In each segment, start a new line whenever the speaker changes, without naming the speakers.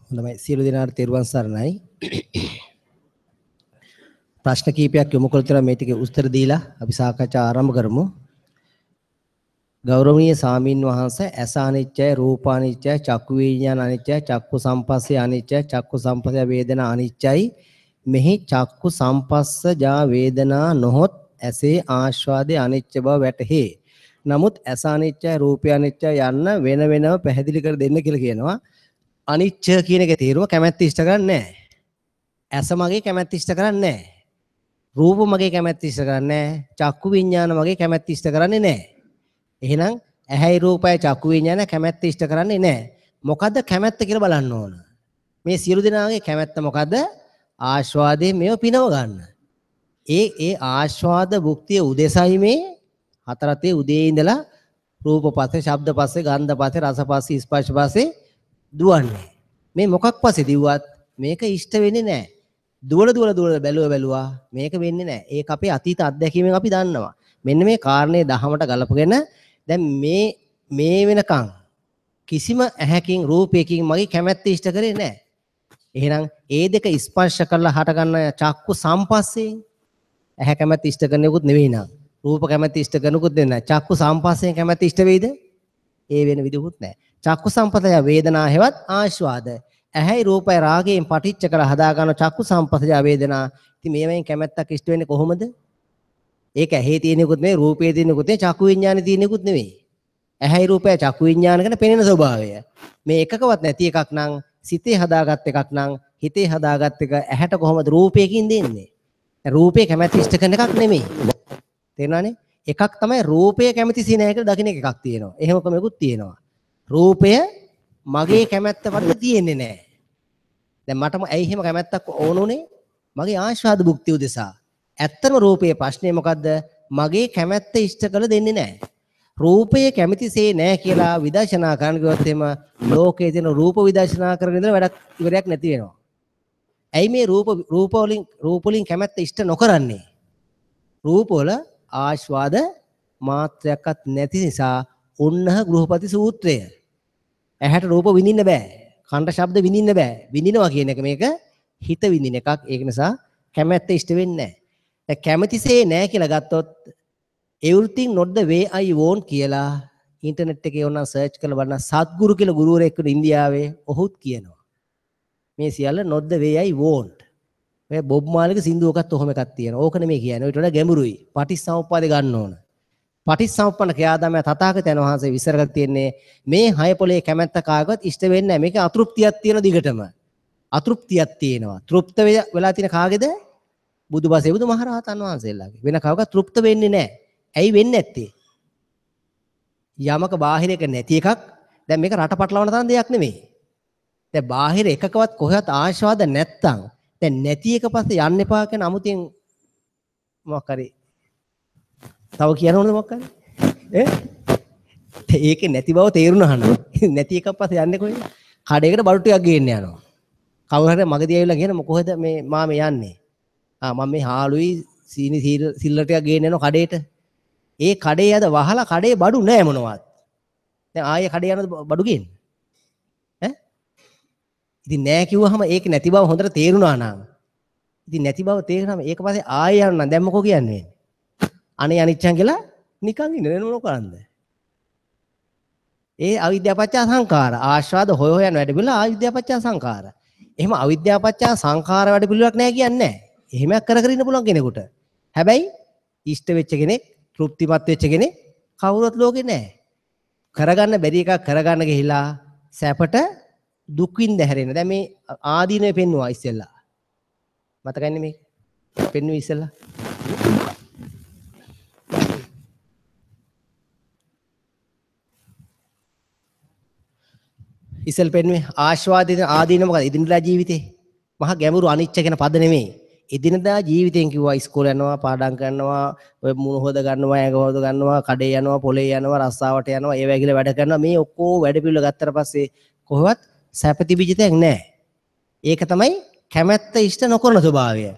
හොඳයි, සියලු දෙනාට තෙරුවන් සරණයි. ප්‍රශ්න කීපයක් යොමු කළ තුර මේ ටිකේ උත්තර දීලා අපි සාකච්ඡා ආරම්භ කරමු. ගෞරවනීය සාමීන් වහන්සේ, ඇස අනිත්‍යයි, රූප අනිත්‍යයි, චක්කු විඥාන අනිත්‍යයි, චක්කු සම්පස්සේ අනිත්‍යයි, චක්කු සම්පස්සේ වේදනා අනිත්‍යයි. මෙහි චක්කු සම්පස්ස ජා වේදනා නොහොත් ඇසේ ආස්වාදයේ අනිත්‍ය බව වැටහේ. නමුත් ඇස අනිත්‍යයි, රූපය අනිත්‍යයි යන්න වෙන වෙනම පැහැදිලි කර දෙන්න කියලා කියනවා. අනිච්ච කියන එකේ තේරුම කැමැත්ත ඉෂ්ට කරන්නේ නැහැ. ඇස මගේ කැමැත්ත ඉෂ්ට කරන්නේ නැහැ. රූප මගේ කැමැත්ත ඉෂ්ට කරන්නේ නැහැ. චක්කු විඥාන මගේ කැමැත්ත ඉෂ්ට කරන්නේ නැහැ. එහෙනම් ඇහැයි රූපයයි චක්කු විඥාන කැමැත්ත ඉෂ්ට කරන්නේ නැහැ. මොකද්ද කැමැත්ත කියලා බලන්න ඕන. මේ සියලු දෙනාගේ කැමැත්ත මොකද්ද? ආස්වාදයේ මේව පිනව ගන්න. ඒ ඒ ආස්වාද භුක්තිය උදෙසයි මේ හතරතේ උදේ ඉඳලා රූප පස්සේ, ශබ්ද පස්සේ, ගන්ධ පස්සේ, රස පස්සේ, ස්පර්ශ පස්සේ දුවන්නේ. මේ මොකක් පස්සේ දිව්වත් මේක ඉෂ්ට වෙන්නේ නැහැ. දුවල දුවල දුවල බැලුවා බැලුවා මේක වෙන්නේ නැහැ. ඒක අපේ අතීත අත්දැකීමෙන් අපි දන්නවා. මෙන්න මේ කාරණේ දහමට ගලපගෙන දැන් මේ මේ වෙනකන් කිසිම ඇහැකින් රූපයකින් මගේ කැමැත්ත ඉෂ්ට කරේ නැහැ. එහෙනම් ඒ දෙක ස්පර්ශ කරලා හටගන්න චක්කු සම්පස්සේ ඇහැ කැමැත්ත ඉෂ්ට කරන එකකුත් නෙවෙයි නං. රූප කැමැත්ත ඉෂ්ට කරනකුත් නෙවෙයි නං. චක්කු සම්පස්යෙන් කැමැත්ත ඉෂ්ට වෙයිද? ඒ වෙන විදිහකුත් නැහැ. චක්කු සම්පතය වේදනා හෙවත් ආස්වාද. ඇහැයි රූපයි රාගයෙන් පටිච්ච කරලා හදා ගන්න චක්කු සම්පතය වේදනා. ඉතින් මේවෙන් කැමැත්තක් ඉෂ්ට වෙන්නේ කොහොමද? ඒක ඇහි තියෙන එකකුත් නෙවෙයි, රූපේ තියෙන එකකුත් නෙවෙයි, චක්කු විඥානේ තියෙන එකකුත් නෙවෙයි. ඇහැයි රූපය චක්කු විඥාන ගැන පෙනෙන ස්වභාවය. මේ එකකවත් නැති එකක් නම්, සිතේ හදාගත් එකක් නම්, හිතේ හදාගත් එක ඇහැට කොහොමද රූපයකින් දෙන්නේ? රූපේ කැමැත්ත ඉෂ්ට කරන එකක් නෙමෙයි. තේරුණානේ? එකක් තමයි රූපය කැමැති සිනහ කියලා දකින්න එකක් තියෙනවා. එහෙම ක්‍රමයකුත් තියෙනවා. රූපය මගේ කැමැත්ත වලට තියෙන්නේ නැහැ. දැන් මටම ඇයි එහෙම කැමැත්තක් ඕන උනේ? මගේ ආස්වාද භුක්තිය උදෙසා. ඇත්තම රූපයේ ප්‍රශ්නේ මොකද්ද? මගේ කැමැත්ත ඉෂ්ට කළ දෙන්නේ නැහැ. රූපය කැමැතිසේ නැහැ කියලා විදර්ශනා කරන්න ගියොත් එහෙම ලෝකයේ තියෙන රූප විදර්ශනා කරගෙන ඉඳලා වැඩක් ඉවරයක් නැති වෙනවා. ඇයි මේ රූප රූප වලින් කැමැත්ත ඉෂ්ට නොකරන්නේ? රූප වල ආස්වාද මාත්‍රයක්වත් නැති නිසා උන්නහ ගෘහපති සූත්‍රය. ඇහැට රූප විඳින්න බෑ. කනට ශබ්ද විඳින්න බෑ. විඳිනවා කියන එක මේක හිත විඳින එකක්. ඒක නිසා කැමැත්ත ඉෂ්ට වෙන්නේ නැහැ. දැන් කැමැතිසේ නැහැ කියලා ගත්තොත් everything not the way I want කියලා ඉන්ටර්නෙට් එකේ ඕනනම් සර්ච් කරලා බලන්න සත්ගුරු කියලා ගුරුවරයෙක් ඉන්න ඉන්දියාවේ ඔහුත් කියනවා. මේ සියල්ල not the way I want. ඔය බොබ් මාලිගේ සින්දුවකත් ඔහොම එකක් තියෙනවා. ඕක නෙමෙයි කියන්නේ. ඊට වඩා ගැඹුරුයි. පටිච්චසමුප්පාදේ ගන්න ඕන. පටිච්චසමුප්පන්න ක්‍රියාදාමය තථාගතයන් වහන්සේ විස්තර කරලා තියෙන්නේ මේ හය පොලේ කැමැත්ත කාගවත් ඉෂ්ට වෙන්නේ නැහැ. මේක අතෘප්තියක් තියෙන දිගටම. අතෘප්තියක් තියෙනවා. තෘප්ත වෙලා තියෙන කාගේද? බුදුබසේ බුදුමහරහතන් වහන්සේලාගේ. වෙන කවකත් තෘප්ත වෙන්නේ නැහැ. ඇයි වෙන්නේ නැත්තේ? යමක බාහිර එක නැති එකක්. දැන් මේක රට පටලවන තරම් දෙයක් නෙමෙයි. දැන් බාහිර එකකවත් කොහෙවත් ආශාද නැත්තම් දැන් නැති එක පස්සේ යන්න එපා කියන අමුතින් මොකක් හරි තව කියන්න ඕනද මොකක් හරි? ඈ ඒකේ නැති බව තේරුණා නම් නැති එකක් පස්සේ යන්නේ කොහෙද? කඩේකට බඩු ටිකක් ගේන්න යනවා. කවුරු හරි මගදී ඇවිල්ලා කියන කොහෙද මේ මාමේ යන්නේ? ආ මම මේ හාලුයි සීනි සිල්ලර ටිකක් ගේන්න යනවා කඩේට. ඒ කඩේ යද වහලා කඩේ බඩු නෑ මොනවත්. දැන් ආයේ කඩේ යනද බඩු ගේන්න? ඈ ඉතින් නෑ කිව්වහම ඒක නැති බව හොඳට තේරුණා නම් ඉතින් නැති බව තේරුණාම ඒක පස්සේ ආයේ යනවා නම් දැන් මොකෝ කියන්නේ? අනේ අනිච්චං කියලා නිකන් ඉන්න වෙන මොන කරන්ද? ඒ අවිද්‍යාව පත්‍ය සංඛාර ආස්වාද හොය හොය යන වැඩ පිළිවෙල අවිද්‍යාව පත්‍ය සංඛාර. එහෙම අවිද්‍යාව පත්‍ය සංඛාර වැඩ පිළිවෙලක් නෑ කියන්නේ නෑ. එහෙමයක් කර කර ඉන්න පුළුවන් කෙනෙකුට. හැබැයි ඉෂ්ට වෙච්ච කෙනෙක්, තෘප්තිමත් වෙච්ච කෙනෙක් කවුරුවත් ලෝකේ නෑ. කරගන්න බැරි එකක් කරගන්න ගිහිලා සැපට දුක් විඳ හැරෙන. දැන් මේ ආදීනවේ පෙන්නුවා ඉස්සෙල්ලා. මතකයිනේ මේක? පෙන්නුවේ ඉස්සෙල්ලා. ඉස්සෙල් පෙන්නුවේ ආස්වාදයේ ආදීන මොකද? එදිනදා ජීවිතේ. මහා ගැඹුරු අනිච්ච කියන පද නෙමෙයි. එදිනදා ජීවිතෙන් කිව්වා ඉස්කෝලේ යනවා, පාඩම් කරනවා, ඔය මුණ හොද ගන්නවා, ඇඟ හොද ගන්නවා, කඩේ යනවා, පොලේ යනවා, රස්සාවට යනවා, ඒ වගේ වැඩ කරනවා. මේ ඔක්කොම වැඩ පිළිවෙල ගත්තට පස්සේ කොහොමවත් සැප තිබිච්ච දෙයක් නෑ. ඒක තමයි කැමැත්ත ඉෂ්ට නොකරන ස්වභාවය.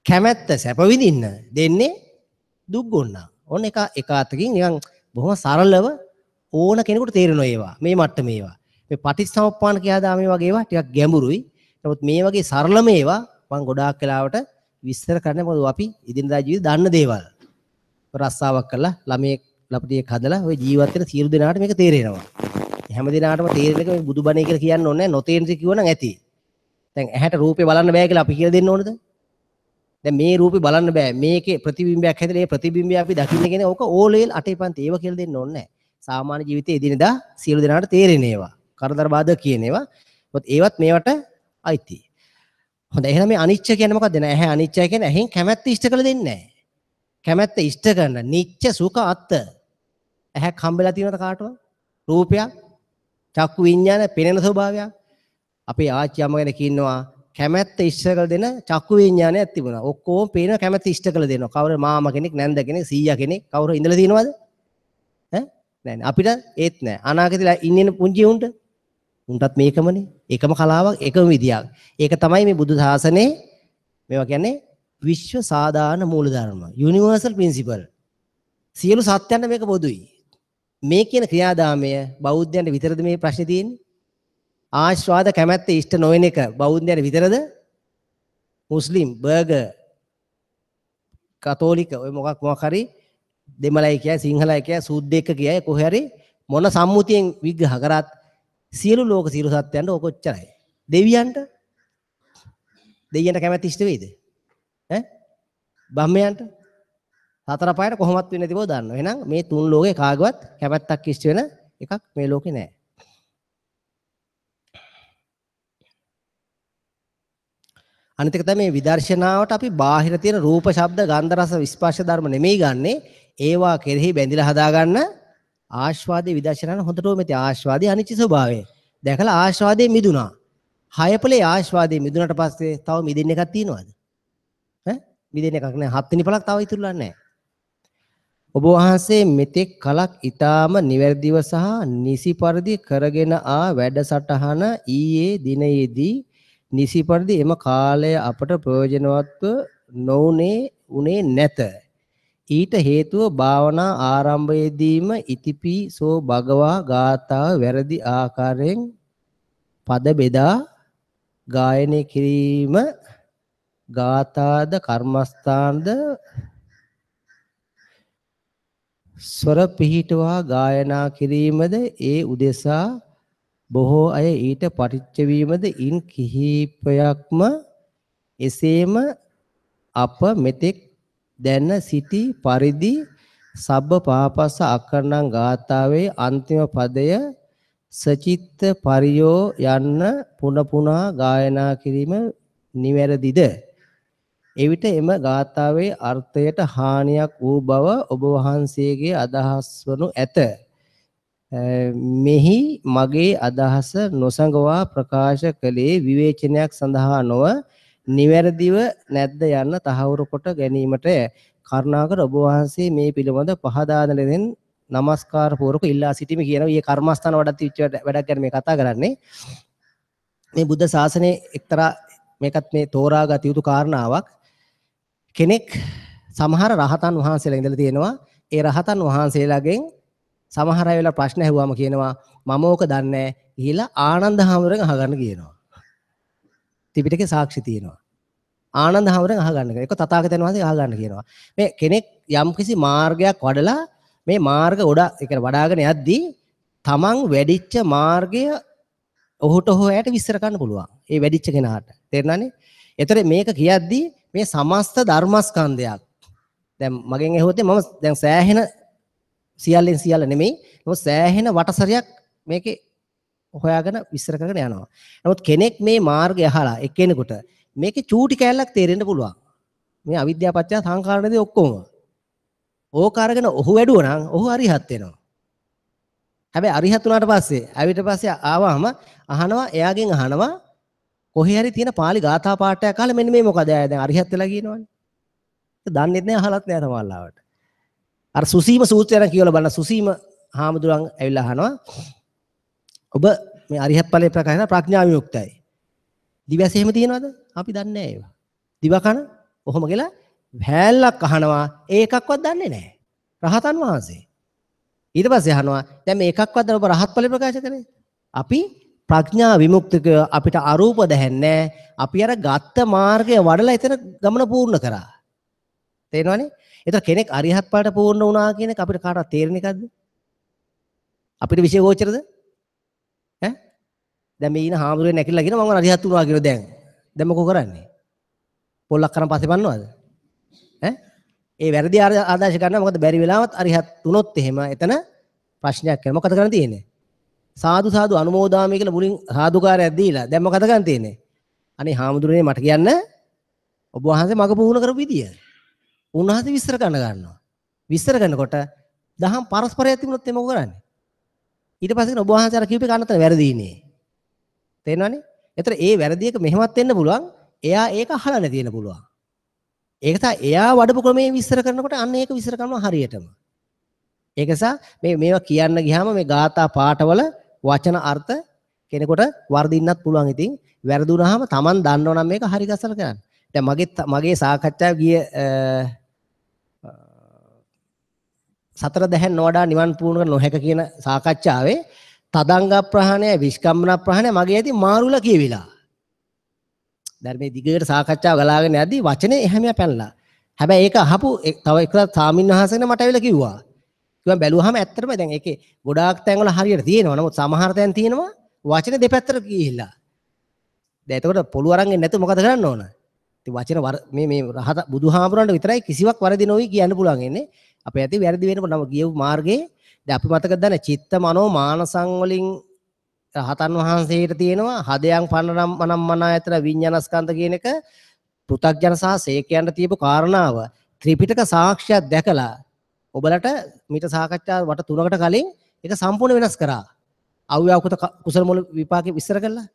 කැමැත්ත සැප විඳින්න දෙන්නේ දුක් ගොන්නා. ඔන්න එක එක අතකින් නිකන් බොහොම සරලව ඕන කෙනෙකුට තේරෙනවා ඒවා. මේ මට්ටමේ ඒවා. මේ පටිච්චසමුප්පාද ක්‍රියාදාමයේ වගේ ඒවා ටිකක් ගැඹුරුයි. නමුත් මේ වගේ සරලම ඒවා මම ගොඩාක් වෙලාවට විස්තර කරන්නේ, මොකද අපි එදිනදා ජීවිතේ දන්න දේවල්. රස්සාවක් කරලා ළමයෙක් ලපටියෙක් හදලා ඔය ජීවත් වෙන සියලු දෙනාට මේක තේරෙනවා. හැම දිනාටම තේරෙන එක මේ බුදුබණේ කියලා කියන්න ඕනේ නැහැ. නොතේරෙන දේ කිව්වනම් ඇති. දැන් ඇහැට රූපේ බලන්න බෑ කියලා අපි කියලා දෙන්න ඕනද? දැන් මේ රූපේ බලන්න බෑ. මේකේ ප්‍රතිබිම්බයක් හැදලා ඒ ප්‍රතිබිම්බය අපි දකින්න කියන ඕක ඕලෙල් අටේ පන්ති ඒව කියලා දෙන්න ඕනේ නැහැ. සාමාන්‍ය ජීවිතයේ එදිනෙදා සියලු දෙනාට තේරෙන ඒවා. කරදර බාධක කියන ඒවා. මොකද ඒවත් මේවට අයිති. හොඳයි, එහෙනම් මේ අනිච්ච කියන්නේ මොකද්ද? නෑ, ඇහැ අනිච්චයි කියන්නේ ඇහෙන් කැමැත්ත ඉෂ්ට කළ දෙන්නේ නෑ. කැමැත්ත ඉෂ්ට කරන නිච්ච සුඛ අත්ත. ඇහැක් හම්බෙලා තියෙනවද කාටවත්? රූපයක්, චක්කු විඤ්ඤාණ පෙනෙන ස්වභාවයක්. අපේ ආච්චි අම්මා ගැන කියනවා කැමැත්ත ඉෂ්ට කළ දෙන චක්කු විඤ්ඤාණයක් තිබුණා. ඔක්කොම පේන කැමැත්ත ඉෂ්ට කළ දෙනවා. කවුරු මාමා කෙනෙක්, නැන්ද කෙනෙක්, සීයා කෙනෙක් කවුරු ඉඳලා තියෙනවද? ඈ නෑ නෑ, අපිට ඒත් නෑ. අනාගතේ ඉන්නේ පුංචි උන්ට උන්ටත් මේකමනේ. එකම කලාවක්, එකම විදියක්. ඒක තමයි මේ බුදු සාසනේ මේවා කියන්නේ විශ්ව සාධාරණ මූලධර්ම, යුනිවර්සල් ප්‍රින්සිපල්. සියලු සත්‍යයන්ට මේක පොදුයි. මේ කියන ක්‍රියාදාමය බෞද්ධයන්ට විතරද මේ ප්‍රශ්නේ තියෙන්නේ? ආස්වාද කැමැත්ත ඉෂ්ට නොවන එක බෞද්ධයන්ට විතරද? මුස්ලිම්, බර්ගර්, කතෝලික ඔය මොකක් මොකක් හරි දෙමළයි කියයි, සිංහලයි කියයි, සුද්දෙක් කියයි, කොහේ හරි මොන සම්මුතියෙන් විග්‍රහ කරත් සියලු ලෝක සියලු සත්‍යයන්ට ඔක ඔච්චරයි. දෙවියන්ට දෙවියන්ට කැමැත්ත ඉෂ්ට වෙයිද? ඈ බ්‍රහ්මයන්ට හතර පායට කොහොමත් වෙන්නේ නැති බව දන්නවා. එහෙනම් මේ තුන් ලෝකේ කාගවත් කැමැත්තක් ඉෂ්ට වෙන එකක් මේ ලෝකේ නෑ. අනිත් එක තමයි මේ විදර්ශනාවට අපි බාහිර තියෙන රූප, ශබ්ද, ගන්ධ, රස, ස්පර්ශ ධර්ම නෙමෙයි ගන්නෙ. ඒවා කෙරෙහි බැඳිලා හදාගන්න ආස්වාදයේ විදර්ශනාන හොඳටම මේ ආස්වාදයේ අනිච්ච ස්වභාවය දැකලා ආස්වාදයේ මිදුණා. හයපලේ ආස්වාදයේ මිදුණාට පස්සේ තව මිදෙන්න එකක් තියෙනවද? ඈ මිදෙන්න එකක් නෑ. හත්වෙනි පළක් තව ඉතුරුලා නෑ. ඔබ වහන්සේ මෙතෙක් කලක් ඊටාම නිවැරදිව සහ නිසි පරිදි කරගෙන ආ වැඩසටහන ඊයේ දිනයේදී නිසි පරිදි එම කාලය අපට ප්‍රයෝජනවත්ව නොඋනේ උනේ නැත. ඊට හේතුව භාවනා ආරම්භයේදීම ඉතිපි සෝ භගවා ගාථාව වැරදි ආකාරයෙන් පද බෙදා ගායනය කිරීම, ගාථාද කර්මස්ථානද ස්වර පිහිටුවා ගායනා කිරීමද ඒ උදෙසා බොහෝ අය ඊට පටිච්ච වීමද ඉන් කිහිපයක්ම එසේම අප මෙතෙක් දැන සිටි පරිදි සබ්බ පාපස්ස අකරණං ගාථාවේ අන්තිම පදය සචිත්ත පරියෝ යන්න පුන පුනා ගායනා කිරීම නිවැරදිද? එවිට එම ගාථාවේ අර්ථයට හානියක් වූ බව ඔබ වහන්සේගේ අදහස් වනු ඇත. මෙහි මගේ අදහස නොසඟවා ප්‍රකාශ කළේ විවේචනයක් සඳහා නොව නිවැරදිව නැද්ද යන්න තහවුරු කොට ගැනීමට කරුණාකර ඔබ වහන්සේ මේ පිළිබඳ පහදා දෙන ලෙසින් නමස්කාර පූර්වක ඉල්ලා සිටිමි කියනවා. ඊයේ කර්මස්ථාන වඩත් විච්ච වැඩක් ගැන මේ කතා කරන්නේ. මේ බුද්ධ ශාසනයේ එක්තරා මේකත් මේ තෝරාගත යුතු කාරණාවක්. කෙනෙක් සමහර රහතන් වහන්සේලා ඉඳලා තියෙනවා. ඒ රහතන් වහන්සේලාගෙන් සමහර අය වෙලා ප්‍රශ්න ඇහුවාම කියනවා මම ඕක දන්නේ නැහැ ගිහිලා ආනන්ද හාමුදුරගෙන් අහගන්න කියනවා. ත්‍රිපිටකේ සාක්ෂි තියෙනවා. ආනන්ද හාමුදුරගෙන් අහගන්න කියනවා. ඒක තථාගතයන් වහන්සේ අහගන්න කියනවා. මේ කෙනෙක් යම්කිසි මාර්ගයක් වඩලා මේ මාර්ග ගොඩ ඒ කියන්නේ වඩාගෙන යද්දී තමන් වැඩිච්ච මාර්ගය ඔහුට හෝ ඇයට විස්තර කරන්න පුළුවන්. ඒ වැඩිච්ච කෙනාට. තේරුණානේ? ඒතර මේක කියද්දී මේ සමස්ත ධර්මස්කන්ධයක්. දැන් මගෙන් ඇහුවොත් මම දැන් සෑහෙන සියල්ලෙන් සියල්ල නෙමෙයි. නමුත් සෑහෙන වටසරයක් මේකේ හොයාගෙන විස්තර කරගෙන යනවා. නමුත් කෙනෙක් මේ මාර්ගය අහලා එක්කෙනෙකුට මේකේ චූටි කෑල්ලක් තේරෙන්න පුළුවන්. මේ අවිද්‍යාව පත්‍ය සංඛාරණදී ඔක්කොම. ඕක අරගෙන ඔහු වැඩුවා නම් ඔහු අරිහත් වෙනවා. හැබැයි අරිහත් වුණාට පස්සේ ආවිත පස්සේ ආවම අහනවා, එයාගෙන් අහනවා කොහේ හරි තියෙන පාලි ගාථා පාඨයක් අහලා මෙන්න මේ මොකද එයා දැන් අරිහත් වෙලා කියනවනේ. ඒක දන්නෙත් නෑ අහලත් නෑ සමහරවිට. අර සුසීම සූත්‍රය නම් කියවලා බලන්න. සුසීම හාමුදුරන් ඇවිල්ලා අහනවා ඔබ මේ අරිහත් ඵලයේ ප්‍රකාශ කරන ප්‍රඥා විමුක්තයි. දිවැස එහෙම තියෙනවද? අපි දන්නේ නෑ ඒවා. දිවකන ඔහොම කියලා හැල්ලක් අහනවා, ඒකක්වත් දන්නේ නෑ. රහතන් වහන්සේ. ඊට පස්සේ අහනවා දැන් මේ එකක්වත් ඔබ රහත් ඵලයේ ප්‍රකාශ කරේ? අපි ප්‍රඥා විමුක්තික අපිට අරූප දැහැන්නේ අපි අර ගත්ත මාර්ගය වඩලා එතන ගමන පූර්ණ කරා. තේරෙනවනේ? ඒතර කෙනෙක් අරිහත් ඵලයට පූර්ණ වුණා කියන එක අපිට කාටවත් තේරෙන එකක්ද? අපිට විෂය ගෝචරද? ඈ? දැන් මේ ඉන හාමුදුරුවෝ නැකිලා කියන මම අරිහත් වුණා කියලා දැන්. දැන් මොකෝ කරන්නේ? පොල්ලක් කරන් පස්සේ පන්නවද? ඈ? ඒ වැරදි ආදර්ශ ගන්නවා. මොකද බැරි වෙලාවත් අරිහත් වුණොත් එහෙම එතන ප්‍රශ්නයක් වෙනවා. මොකද කරන්න තියෙන්නේ? සාදු සාදු අනුමෝදාමි කියලා මුලින් සාදුකාරයක් දීලා දැන් මොකද කරන්න තියෙන්නේ? අනේ හාමුදුරනේ මට කියන්න ඔබ වහන්සේ මග පුහුණු කරපු විදිය. උන්වහන්සේ විස්තර කරන්න ගන්නවා. විස්තර කරනකොට දහම් පරස්පරයක් තිබුණොත් එimhe මොකද කරන්නේ? ඊට පස්සේ කියන ඔබ වහන්සේ අර කියපු එක අනතන වැරදීනේ. තේරෙනවනේ? ඒතර ඒ වැරදි එක මෙහෙමත් වෙන්න පුළුවන්. එයා ඒක අහලා නැති වෙන්න පුළුවන්. ඒක තමයි එයා වඩපු ක්‍රමයෙන් විස්තර කරනකොට අන්න ඒක විස්තර කරනවා හරියටම. ඒක නිසා මේ මේවා කියන්න ගියාම මේ ගාථා පාඨවල වචන අර්ථ කෙනෙකුට වර්ධින්නත් පුළුවන්. ඉතින් වැරදුනහම Taman දන්නව නම් මේක හරි ගසලා කරන්න. දැන් මගේ සාකච්ඡාව ගිය සතර දැහැන් නොවඩා නිවන් පුහුණු කර නොහැක කියන සාකච්ඡාවේ තදංග ප්‍රහාණය විස්කම්මන ප්‍රහාණය මගේ ඇති මාරුලා කියවිලා. දැන් මේ දිගට සාකච්ඡාව ගලාගෙන යද්දී වචනේ එහෙම පැනලා. හැබැයි ඒක අහපු තව එක සාමින් වහන්සේ මට ඇවිල්ලා කිව්වා. කිව්වා බැලුවාම ඇත්තටම දැන් ඒකේ ගොඩාක් තැන්වල හරියට තියෙනවා. නමුත් සමහර තැන් තියෙනවා වචන දෙපැත්තට ගිහිල්ලා. දැන් එතකොට පොළු අරන් එන්නේ නැතුව මොකද කරන්න ඕන? ඉතින් වචන මේ මේ රහත බුදුහාමුදුරන්ට විතරයි කිසිවක් වැරදි නොවි කියන්න පුළුවන් ඉන්නේ. අපේ ඇති වැරදි වෙනකොට නම ගියපු මාර්ගයේ දැන් අපි මතකද දන්නේ චිත්ත මනෝ මානසං වලින් රහතන් වහන්සේට තියෙනවා හදයන් පන්නනම් මනම් මනායතන විඥානස්කන්ධ කියන එක පෘථග්ජන සහ සේකයන්ට තියපු කාරණාව ත්‍රිපිටක සාක්ෂියක් දැකලා ඔබලට මීට සාකච්ඡා වට තුනකට කලින් ඒක සම්පූර්ණ වෙනස් කරා. අව්‍යාකෘත කුසල මුල විපාකේ විස්තර කළා.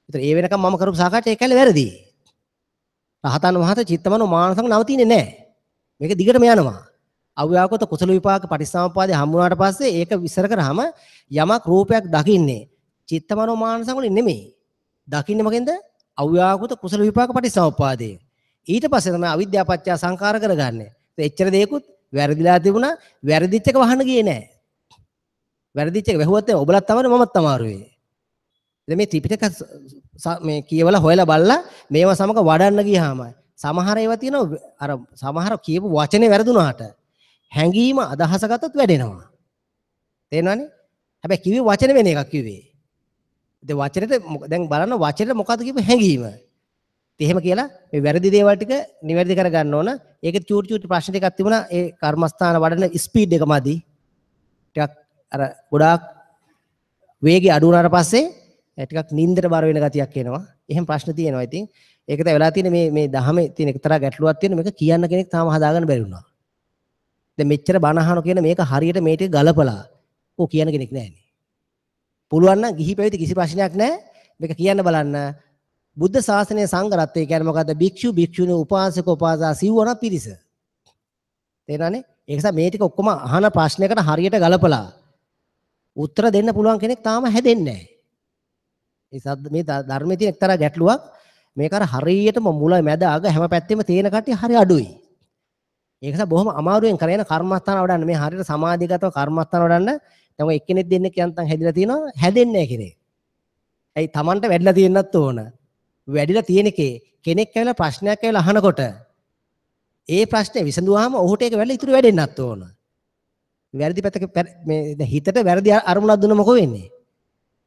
ඒතර ඒ වෙනකම් මම කරපු සාකච්ඡා ඒ කැලේ වැරදි. රහතන් වහන්සේ චිත්තමනෝ මානසං නවතින්නේ නැහැ. මේක දිගටම යනවා. අව්‍යාකෘත කුසල විපාක පටිච්චසමුප්පාදේ හම්බ වුණාට පස්සේ ඒක විස්තර කරාම යමක් රූපයක් දකින්නේ චිත්තමනෝ මානසං වලින් නෙමෙයි. දකින්නේ මොකෙන්ද? අව්‍යාකෘත කුසල විපාක පටිච්චසමුප්පාදේ. ඊට පස්සේ තමයි අවිද්‍යාව පත්‍ය සංඛාර කරගන්නේ. එච්චර දෙයක්වත් වැරදිලා තිබුණා. වැරදිච්ච එක වහන්න ගියේ නෑ. වැරදිච්ච එක වැහුවත් ඔබලත් තමයි මමත් අමාරුවේ. දැන් මේ ත්‍රිපිටක මේ කියවලා හොයලා බලලා මේවා සමග වඩන්න ගියාම සමහර ඒවා තියෙනවා අර සමහර කියපු වචනේ වැරදුනාට හැංගීම අදහස ගත්තොත් වැඩෙනවා. තේරෙනවනේ? හැබැයි කිව්වේ වචන වෙන එකක් කිව්වේ. ඉතින් වචනෙට දැන් බලන්න වචනෙට මොකද්ද කියපු හැංගීම. ඉතින් එහෙම කියලා මේ වැරදි දේවල් ටික නිවැරදි කරගන්න ඕන. ඒකේ චූටි චූටි ප්‍රශ්න ටිකක් තිබුණා. ඒ කර්මස්ථාන වඩන ස්පීඩ් එක මදි. ටිකක් අර ගොඩාක් වේගය අඩු වුණාට පස්සේ ටිකක් නින්දට බර වෙන ගතියක් එනවා. එහෙම ප්‍රශ්න තියෙනවා. ඉතින් ඒක තමයි වෙලා තියෙන්නේ මේ මේ දහමේ තියෙන එක්තරා ගැටලුවක් තියෙන මේක කියන්න කෙනෙක් තාම හදාගන්න බැරි වුණා. දැන් මෙච්චර බණ අහන කියන මේක හරියට මේ ටික ගලපලා ඔව් කියන කෙනෙක් නෑනේ. පුළුවන් නම් ගිහි පැවිදි කිසි ප්‍රශ්නයක් නෑ. මේක කියන්න බලන්න. බුද්ධ ශාසනයේ සංඝ රත්නය කියන්නේ මොකද්ද? භික්ෂු භික්ෂුණී උපාසක උපාසා සිව්වන පිරිස. තේරෙනවනේ? ඒක නිසා මේ ටික ඔක්කොම අහන ප්‍රශ්නයකට හරියට ගලපලා උත්තර දෙන්න පුළුවන් කෙනෙක් තාම හැදෙන්නේ නෑ. ඒ සද්ද මේ ධර්මයේ තියෙන එක්තරා ගැටලුවක්. මේක අර හරියටම මුල මැද අග හැම පැත්තෙම තියෙන කට්ටිය හරි අඩුයි. ඒක නිසා බොහොම අමාරුවෙන් කරගෙන කර්මස්ථාන වඩන්න මේ හරියට සමාධිගතව කර්මස්ථාන වඩන්න දැන් ඔය එක්කෙනෙක් දෙන්නෙක් යන්තම් හැදිලා තියෙනවා හැදෙන්නේ නැහැ කෙනෙක්. ඇයි Tamanට වැඩිලා තියෙන්නත් ඕන. වැඩිලා තියෙන එකේ කෙනෙක් ඇවිල්ලා ප්‍රශ්නයක් ඇවිල්ලා අහනකොට ඒ ප්‍රශ්නේ විසඳුවාම ඔහුට ඒක වැඩිලා ඉතුරු වැඩෙන්නත් ඕන. වැරදි පැත්තක මේ දැන් හිතට වැරදි අරමුණක් දුන්න මොකෝ වෙන්නේ?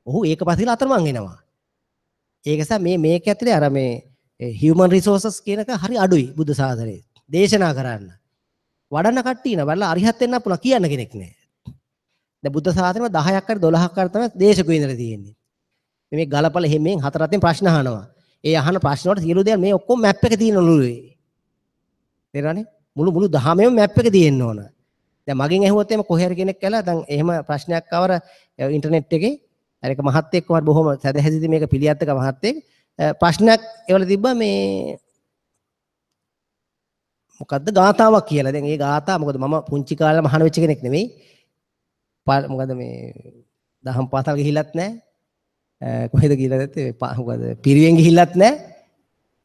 ඔහු ඒක පස්සේ අතරමං වෙනවා. ඒක නිසා මේ මේක ඇතුලේ අර මේ හියුමන් රිසෝසස් කියන එක හරි අඩුයි බුද්ධ ශාසනයේ. දේශනා කරන්න. වඩන කට්ටිය ඉන්න බලලා අරිහත් වෙන්න පුළුවන් කියන්න කෙනෙක් නෑ. දැන් බුද්ධ ශාසනයම 10ක් හරි 12ක් හරි තමයි දේශකයෝ ඉඳලා තියෙන්නේ. මේ ගලපල හැමෙන් හතර අතින් ප්‍රශ්න අහනවා. ඒ අහන ප්‍රශ්න වලට සියලු දේවල් මේ ඔක්කොම මැප් එක තියෙන ඔළුවේ. තේරෙනවනේ? මුළු මුළු දහමෙම මැප් එක තියෙන්න ඕන. දැන් මගෙන් ඇහුවොත් එහෙම කොහේ හරි කෙනෙක් කළා දැන් එහෙම ප්‍රශ්නයක් ආවර ඉන්ටර්නෙට් එකේ අර එක මහත්තයෙක් කොහොමද බොහොම සැදැහැසිතී මේක පිළියත්තක මහත්තයෙක් ප්‍රශ්නයක් ඒවල තිබ්බා මේ මොකද්ද ගාතාවක් කියලා. දැන් ඒ ගාථා මොකද මම පුංචි කාලේ මහාන වෙච්ච කෙනෙක් නෙමෙයි. මොකද මේ දහම් පාසල් ගිහිල්ලත් නැහැ. කොහෙද ගිහිල්ලා නැත්තේ මොකද පිරිවෙන් ගිහිල්ලත් නැහැ.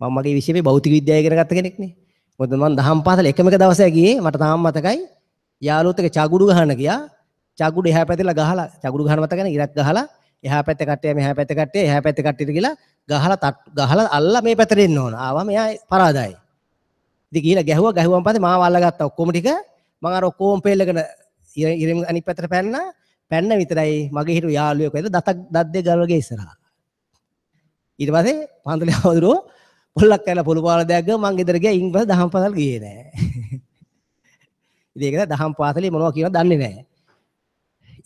මම මගේ විෂය මේ භෞතික විද්‍යාව ඉගෙන ගත්ත කෙනෙක් නේ. මොකද මම දහම් පාසල එකම එක දවසයි ගියේ. මට තාම මතකයි. යාළුවොත් එක්ක චගුඩු ගහන්න ගියා. චගුඩු එහා පැත්තට ගහලා චගුඩු ගහන මතකනේ ඉරක් ගහලා එහා පැත්තේ කට්ටිය මෙහා පැත්තේ කට්ටිය එහා පැත්තේ කට්ටියට ගිහලා ගහලා ගහලා අල්ලලා මේ පැත්තට එන්න ඕන. ආවම එයා පරාදයි. ඉතින් ගිහලා ගැහුවා. ගැහුවම පස්සේ මාව අල්ලගත්තා ඔක්කොම ටික. මං අර ඔක්කොම පෙල්ලගෙන ඉරෙන් අනිත් පැත්තට පැන්නා. පැන්න විතරයි මගේ හිටු යාළුවෙක් වෙද දතක් දත් දෙක ගලවගේ ඉස්සරහා. ඊට පස්සේ පන්සලේ හවුදුරෝ පොල්ලක් කරලා පොළු පාල දෙයක් ගම මං ගෙදර ගියා. ඉන් පස්සේ දහම් පාසල් ගියේ නෑ. ඉතින් ඒක දහම් පාසලේ මොනවා කියනවද දන්නේ නෑ.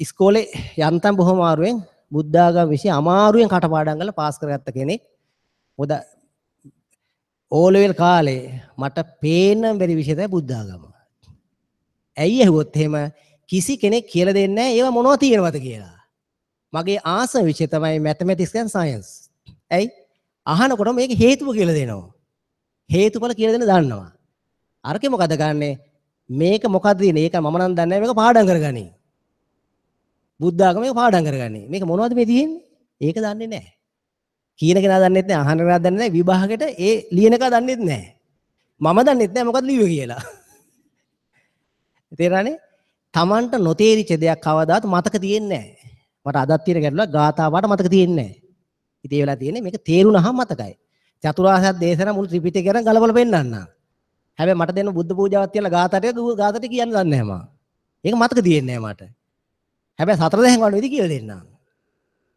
ඉස්කෝලේ යන්තම් බොහොම අමාරුවෙන් බුද්ධාගම විෂය අමාරුවෙන් කටපාඩම් කරලා පාස් කරගත්ත කෙනෙක්. මොකද ඕ ලෙවල් කාලේ මට පේන්න බැරි විෂය තමයි බුද්ධාගම. ඇයි ඇහුවොත් එහෙම කිසි කෙනෙක් කියලා දෙන්නේ නැහැ ඒවා මොනවද තියෙනවද කියලා. මගේ ආසම විෂය තමයි මැතමැටික්ස් ඇන්ඩ් සයන්ස්. ඇයි? අහනකොට මේක හේතුව කියලා දෙනවා. හේතුඵල කියලා දෙන්න දන්නවා. අරකේ මොකද ගන්නෙ? මේක මොකද්ද තියෙන්නේ? ඒක මම නම් දන්නේ නැහැ. මේක පාඩම් කරගනි. බුද්ධාගම මේක පාඩම් කරගනි. මේක මොනවද මේ තියෙන්නේ? ඒක දන්නේ නැහැ. කියන කෙනා දන්නෙත් නැහැ, අහන කෙනා දන්නේ නැහැ, විභාගෙට ඒ ලියන එක දන්නෙත් නැහැ. මම දන්නෙත් නැහැ මොකද්ද ලිව්වේ කියලා. තේරෙනවනේ? Tamanට නොතේරිච්ච දෙයක් කවදාවත් මතක තියෙන්නේ නැහැ. මට අදත් තියෙන ගැටලුවක් ගාථා පාට මතක තියෙන්නේ නැහැ. ඉතින් ඒ වෙලාව තියෙන්නේ මේක තේරුණාම මතකයි. චතුරාර්ය සත්‍ය දේශනා මුළු ත්‍රිපිටකය ගැන ගලපලා පෙන්නන්න. හැබැයි මට දෙන්න බුද්ධ පූජාවක් තියලා ගාථා ටික ගාථා ටික කියන්න දන්නේ නැහැ මම. ඒක මතක තියෙන්නේ නැහැ මට. හැබැයි සතර දහම් වඩන විදි කියලා දෙන්නම්.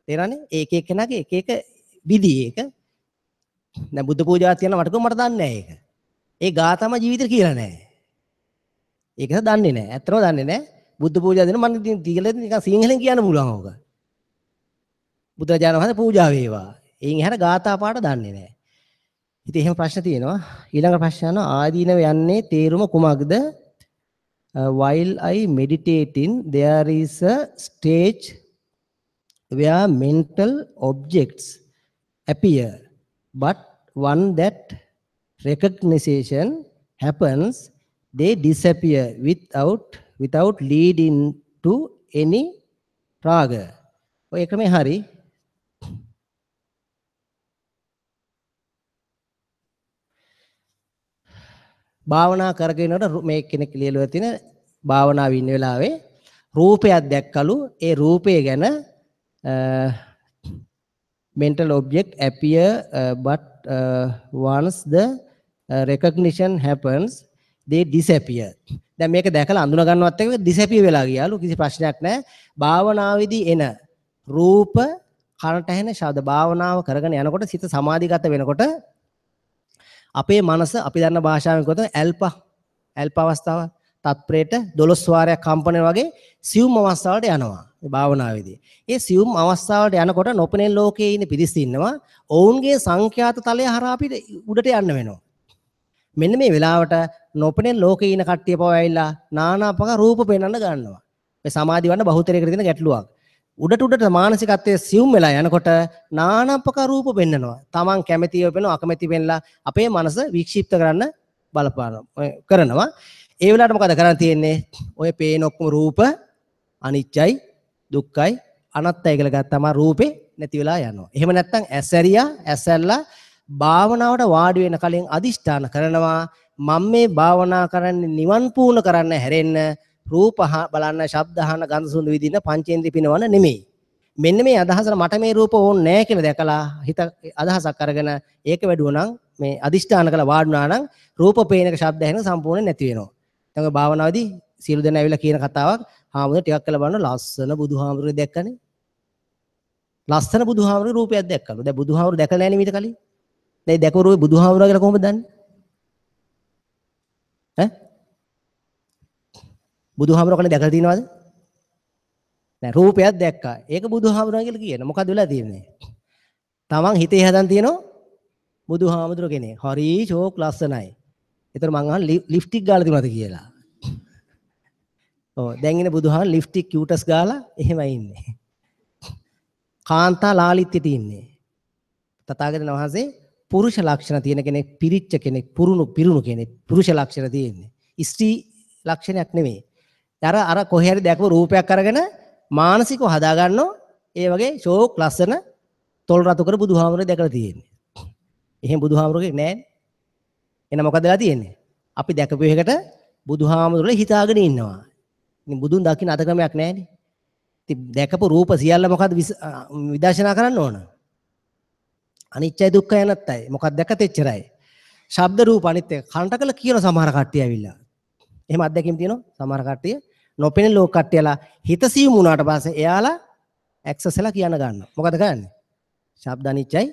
තේරෙනවනේ? ඒක එක්කෙනාගේ එක එක විදි ඒක. දැන් බුද්ධ පූජාවක් තියලා මට කිව්ව මට දන්නේ නැහැ ඒක. ඒ ගාථාම ජීවිතේ කියලා නැහැ. ඒක දන්නේ නැහැ. ඇත්තටම දන්නේ නැහැ. බුද්ධ පූජා දෙන මම ඉතින් කියලා නිකන් සිංහලෙන් කියන්න පුළුවන් ඕක. බුදුරජාණන් වහන්සේ පූජා වේවා. එයින් එහාට ගාථා පාට දන්නේ නැහැ. ඉතින් එහෙම ප්‍රශ්න තියෙනවා. ඊළඟ ප්‍රශ්න අහනවා ආදීනව යන්නේ තේරුම කුමක්ද? While I meditating there is a stage where mental objects appear, but one that recognition happens, they disappear without leading to any raga. ඔය ක්‍රමේ හරි. භාවනා කරගෙන යනකොට මේ කෙනෙක් ලියලා තියෙන භාවනාවේ ඉන්න වෙලාවේ රූපයක් දැක්කලු. ඒ රූපය ගැන mental object appear but once the recognition happens they disappear. දැන් මේක දැකලා අඳුන ගන්නවත් එක්ක disappear වෙලා ගියාලු. කිසි ප්‍රශ්නයක් නැහැ. භාවනාවේදී එන රූප කනට ඇහෙන ශබ්ද භාවනාව කරගෙන යනකොට සිත සමාධිගත වෙනකොට අපේ මනස අපි දන්න භාෂාවෙන් කියොත් ඇල්පා ඇල්පා අවස්ථාව තත්පරේට 12 වාරයක් කම්පන වගේ සියුම් අවස්ථාවලට යනවා මේ භාවනාවේදී. ඒ සියුම් අවස්ථාවලට යනකොට නොපෙනෙන ලෝකයේ ඉන්න පිරිස් ඉන්නවා. ඔවුන්ගේ සංඛ්‍යාත තලය හරහා අපිට උඩට යන්න වෙනවා. මෙන්න මේ වෙලාවට නොපෙනෙන ලෝකයේ ඉන්න කට්ටිය පව ඇවිල්ලා නානා ප්‍රකාර රූප පෙන්වන්න ගන්නවා. මේ සමාධි වන්න බහුතරයකට තියෙන ගැටලුවක්. උඩට උඩට මානසිකත්වයේ සියුම් වෙලා යනකොට නානා ප්‍රකාර රූප පෙන්නනවා. Taman කැමැතිව පෙන්නනවා, අකමැති පෙන්නලා අපේ මනස වික්ෂිප්ත කරන්න බලපානවා කරනවා. ඒ වෙලාවට මොකද කරන්න තියෙන්නේ? ඔය පේන ඔක්කොම රූප අනිත්‍යයි, දුක්ඛයි, අනාත්තයි කියලා ගත්තම රූපේ නැති වෙලා යනවා. එහෙම නැත්නම් ඇස් ඇරියා, ඇස් ඇරලා භාවනාවට වාඩි වෙන කලින් අදිෂ්ඨාන කරනවා මම මේ භාවනා කරන්නේ නිවන් පූර්ණ කරන්න හැරෙන්න රූප බලන්න, ශබ්ද අහන්න, ගන්ධ සුවඳ විඳින්න, පංචේන්ද්‍රිය පිනවන්න නෙමෙයි. මෙන්න මේ අදහසට මට මේ රූප ඕනේ නෑ කියලා දැකලා හිත අදහසක් අරගෙන ඒක වැඩුවා නම් මේ අදිෂ්ඨාන කළා වාඩි වුණා නම් රූප පේන එක ශබ්ද ඇහෙන සම්පූර්ණ නැති වෙනවා. දැන් ඔය භාවනාවේදී සියලු දෙනා ඇවිල්ලා කියන කතාවක් හාමුදුරුවෝ ටිකක් කළා බලන ලස්සන බුදුහාමුදුරුවෝ දැක්කනේ. ලස්සන බුදුහාමුදුරුවෝ රූපයක් දැක්කලු. දැන් බුදුහාමුදුරුවෝ දැකලා නෑනේ මීට කලින්. දැන් දැකපු රූපේ බුදුහාමුදුරුවෝ කියලා කොහොමද දන්නේ? ඈ? බුදුහාමුදුරුවෝ කලින් දැකලා තියෙනවද? නෑ, රූපයක් දැක්කා. ඒක බුදුහාමුදුරුවෝ කියලා කියන. මොකද වෙලා තියෙන්නේ? තමන් හිතේ හදන් තියෙනවා බුදුහාමුදුරුවෝ කෙනෙක්. හරි ෂෝක් ලස්සනයි. ඒතර මං අහන ලිප්ස්ටික් ගාලා තිබුණාද කියලා. ඔව් දැන් ඉන්නේ බුදුහාම ලිප්ස්ටික් කියුටස් ගාලා එහෙමයි ඉන්නේ. කාන්තා ලාලිත්‍යෙට ඉන්නේ. තථාගතයන් වහන්සේ පුරුෂ ලක්ෂණ තියෙන කෙනෙක්, පිරිච්ච කෙනෙක්, පිරුණු කෙනෙක්, පුරුෂ ලක්ෂණ තියෙන්නේ. ස්ත්‍රී ලක්ෂණයක් නෙමෙයි. අර අර කොහේ හරි දැකපු රූපයක් අරගෙන මානසිකව හදා ගන්නෝ ඒ වගේ ෂෝක් ලස්සන තොල් රතු කර බුදුහාමුදුරුවෝ දැකලා තියෙන්නේ. එහෙම බුදුහාමුදුරුවෝ කෙනෙක් නෑනේ. එහෙනම් මොකද වෙලා තියෙන්නේ? අපි දැකපු එකට බුදුහාමුදුරුවෝ හිතාගෙන ඉන්නවා. ඉතින් බුදුන් දකින්න අද ක්‍රමයක් නෑනේ. ඉතින් දැකපු රූප සියල්ල මොකද්ද විදර්ශනා කරන්න ඕන? අනිත්‍යයි දුක්ඛයි අනාත්තයි. මොකක්ද දැකත් එච්චරයි. ශබ්ද රූප අනිත් එක කනට කළ කියන සමහර කට්ටිය ඇවිල්ලා. එහෙම අත්දැකීම් තියෙනවා සමහර කට්ටිය. නොපෙනෙන ලෝක කට්ටියලා හිත සියුම් වුණාට පස්සේ එයාලා ඇක්සස් වෙලා කියන ගන්නවා. මොකද කරන්නේ? ශබ්ද අනිත්‍යයි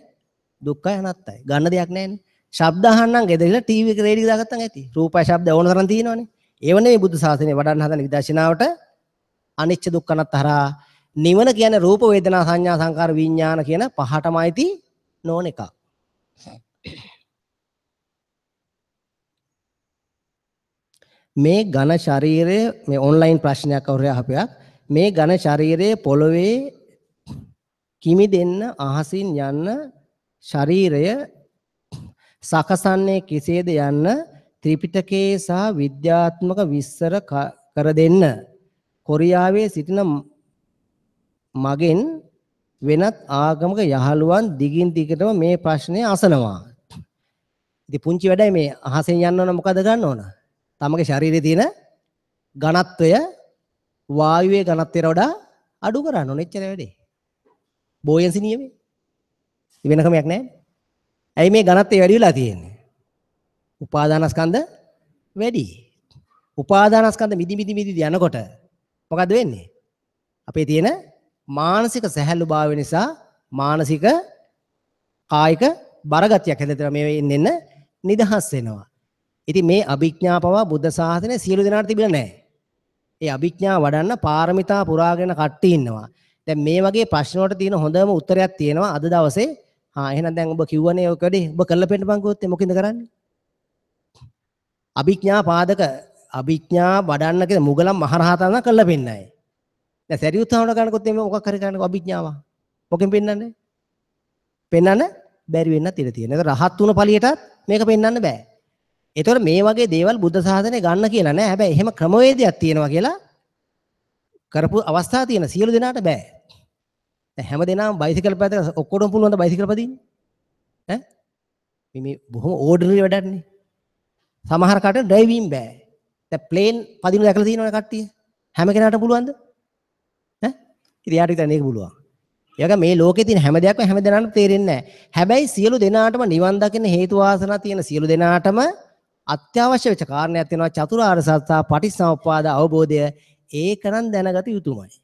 දුක්ඛයි අනාත්තයි. ගන්න දෙයක් නැහැනේ. ශබ්ද අහන්නම් ගෙදර ඉඳලා ටීවී එක රේඩියෝ දාගත්තන් ඇති. රූපයි ශබ්ද ඕන තරම් තියෙනවනේ. ඒව නෙවෙයි බුද්ධ ශාසනය වඩන්න හදන විදර්ශනාවට අනිච්ච දුක්ඛ අනාත්ත හරහා නිවන කියන්නේ රූප වේදනා සංඥා සංකාර විඥාන කියන පහටම අයිති නොවන එකක්. මේ ඝන ශරීරය, මේ ඔන්ලයින් ප්‍රශ්නයක් කවුරු අහපයක්, මේ ඝන ශරීරය පොළවේ කිමිදෙන්න අහසින් යන්න ශරීරය සකසන්නේ කෙසේද යන්න ත්‍රිපිටකයේ සහ විද්‍යාත්මක විස්තර කර දෙන්න. කොරියාවේ සිටින මගෙන් වෙනත් ආගමක යහළුවන් දිගින් දිගටම මේ ප්‍රශ්නය අසනවා. ඉතින් පුංචි වැඩයි මේ අහසෙන් යන්න ඕන මොකද ගන්න ඕන? තමගේ ශරීරයේ තියෙන ඝනත්වය වායුවේ ඝනත්වයට වඩා අඩු කරන්න ඕන. එච්චර වැඩේ. බෝයන්සි නියමේ. වෙන ක්‍රමයක් නෑ. ඇයි මේ ඝනත්වය වැඩි වෙලා තියෙන්නේ? උපාදානස්කන්ධ වැඩි. උපාදානස්කන්ධ මිදි මිදි මිදි යනකොට මොකද වෙන්නේ? අපේ තියෙන මානසික සැහැල්ලු භාවය නිසා මානසික කායික බරගතියක් හැදෙනවා. මේ එන්න නිදහස් වෙනවා. ඉතින් මේ අභිඥා පවා බුද්ධ ශාසනය සියලු දෙනාට තිබිලා නැහැ. ඒ අභිඥා වඩන්න පාරමිතා පුරාගෙන කට්ටිය ඉන්නවා. දැන් මේ වගේ ප්‍රශ්න වලට තියෙන හොඳම උත්තරයක් තියෙනවා අද දවසේ. හා එහෙනම් දැන් ඔබ කිව්වනේ ඔය වැඩේ ඔබ කරලා පෙන්නපන් කිව්වොත් මොකෙන්ද කරන්නේ? අභිඥා පාදක අභිඥා වඩන්න කියන මුගලන් මහරහතන් නම් කරලා පෙන්නයි. දැන් සරියුත් හාමුදුරුවෝ ගන්නකොත් එimhe මොකක් හරි කරන්නකෝ අභිඥාව. මොකෙන් පෙන්නන්නේ? පෙන්නන්න බැරි වෙන්නත් ඉඩ තියෙනවා. ඒක රහත් වුණ ඵලියටත් මේක පෙන්නන්න බෑ. ඒතකොට මේ වගේ දේවල් බුද්ධ ශාසනය ගන්න කියලා නෑ. හැබැයි එහෙම ක්‍රමවේදයක් තියෙනවා කියලා කරපු අවස්ථා තියෙන සියලු දෙනාට බෑ. දැන් හැම දෙනාම බයිසිකල් පැදලා ඔක්කොටම පුළුවන් ද බයිසිකල් පදින්න? ඈ මේ බොහොම ඕඩිනරි වැඩක් නේ. සමහර කට ඩ්‍රයිවිං බෑ. දැන් ප්ලේන් පදින දැකලා තියෙනවනේ කට්ටිය. හැම කෙනාටම පුළුවන්ද? ඈ ඉතින් යාට විතරයි මේක පුළුවන්. ඒ වගේ මේ ලෝකේ තියෙන හැම දෙයක්ම හැම දෙනාටම තේරෙන්නේ නෑ. හැබැයි සියලු දෙනාටම නිවන් දකින්න හේතු වාසනා තියෙන සියලු දෙනාටම අත්‍යවශ්‍ය වෙච්ච කාරණයක් තියෙනවා චතුරාර්ය සත්‍ය පටිච්චසමුප්පාද අවබෝධය. ඒක නම් දැනගත යුතුමයි.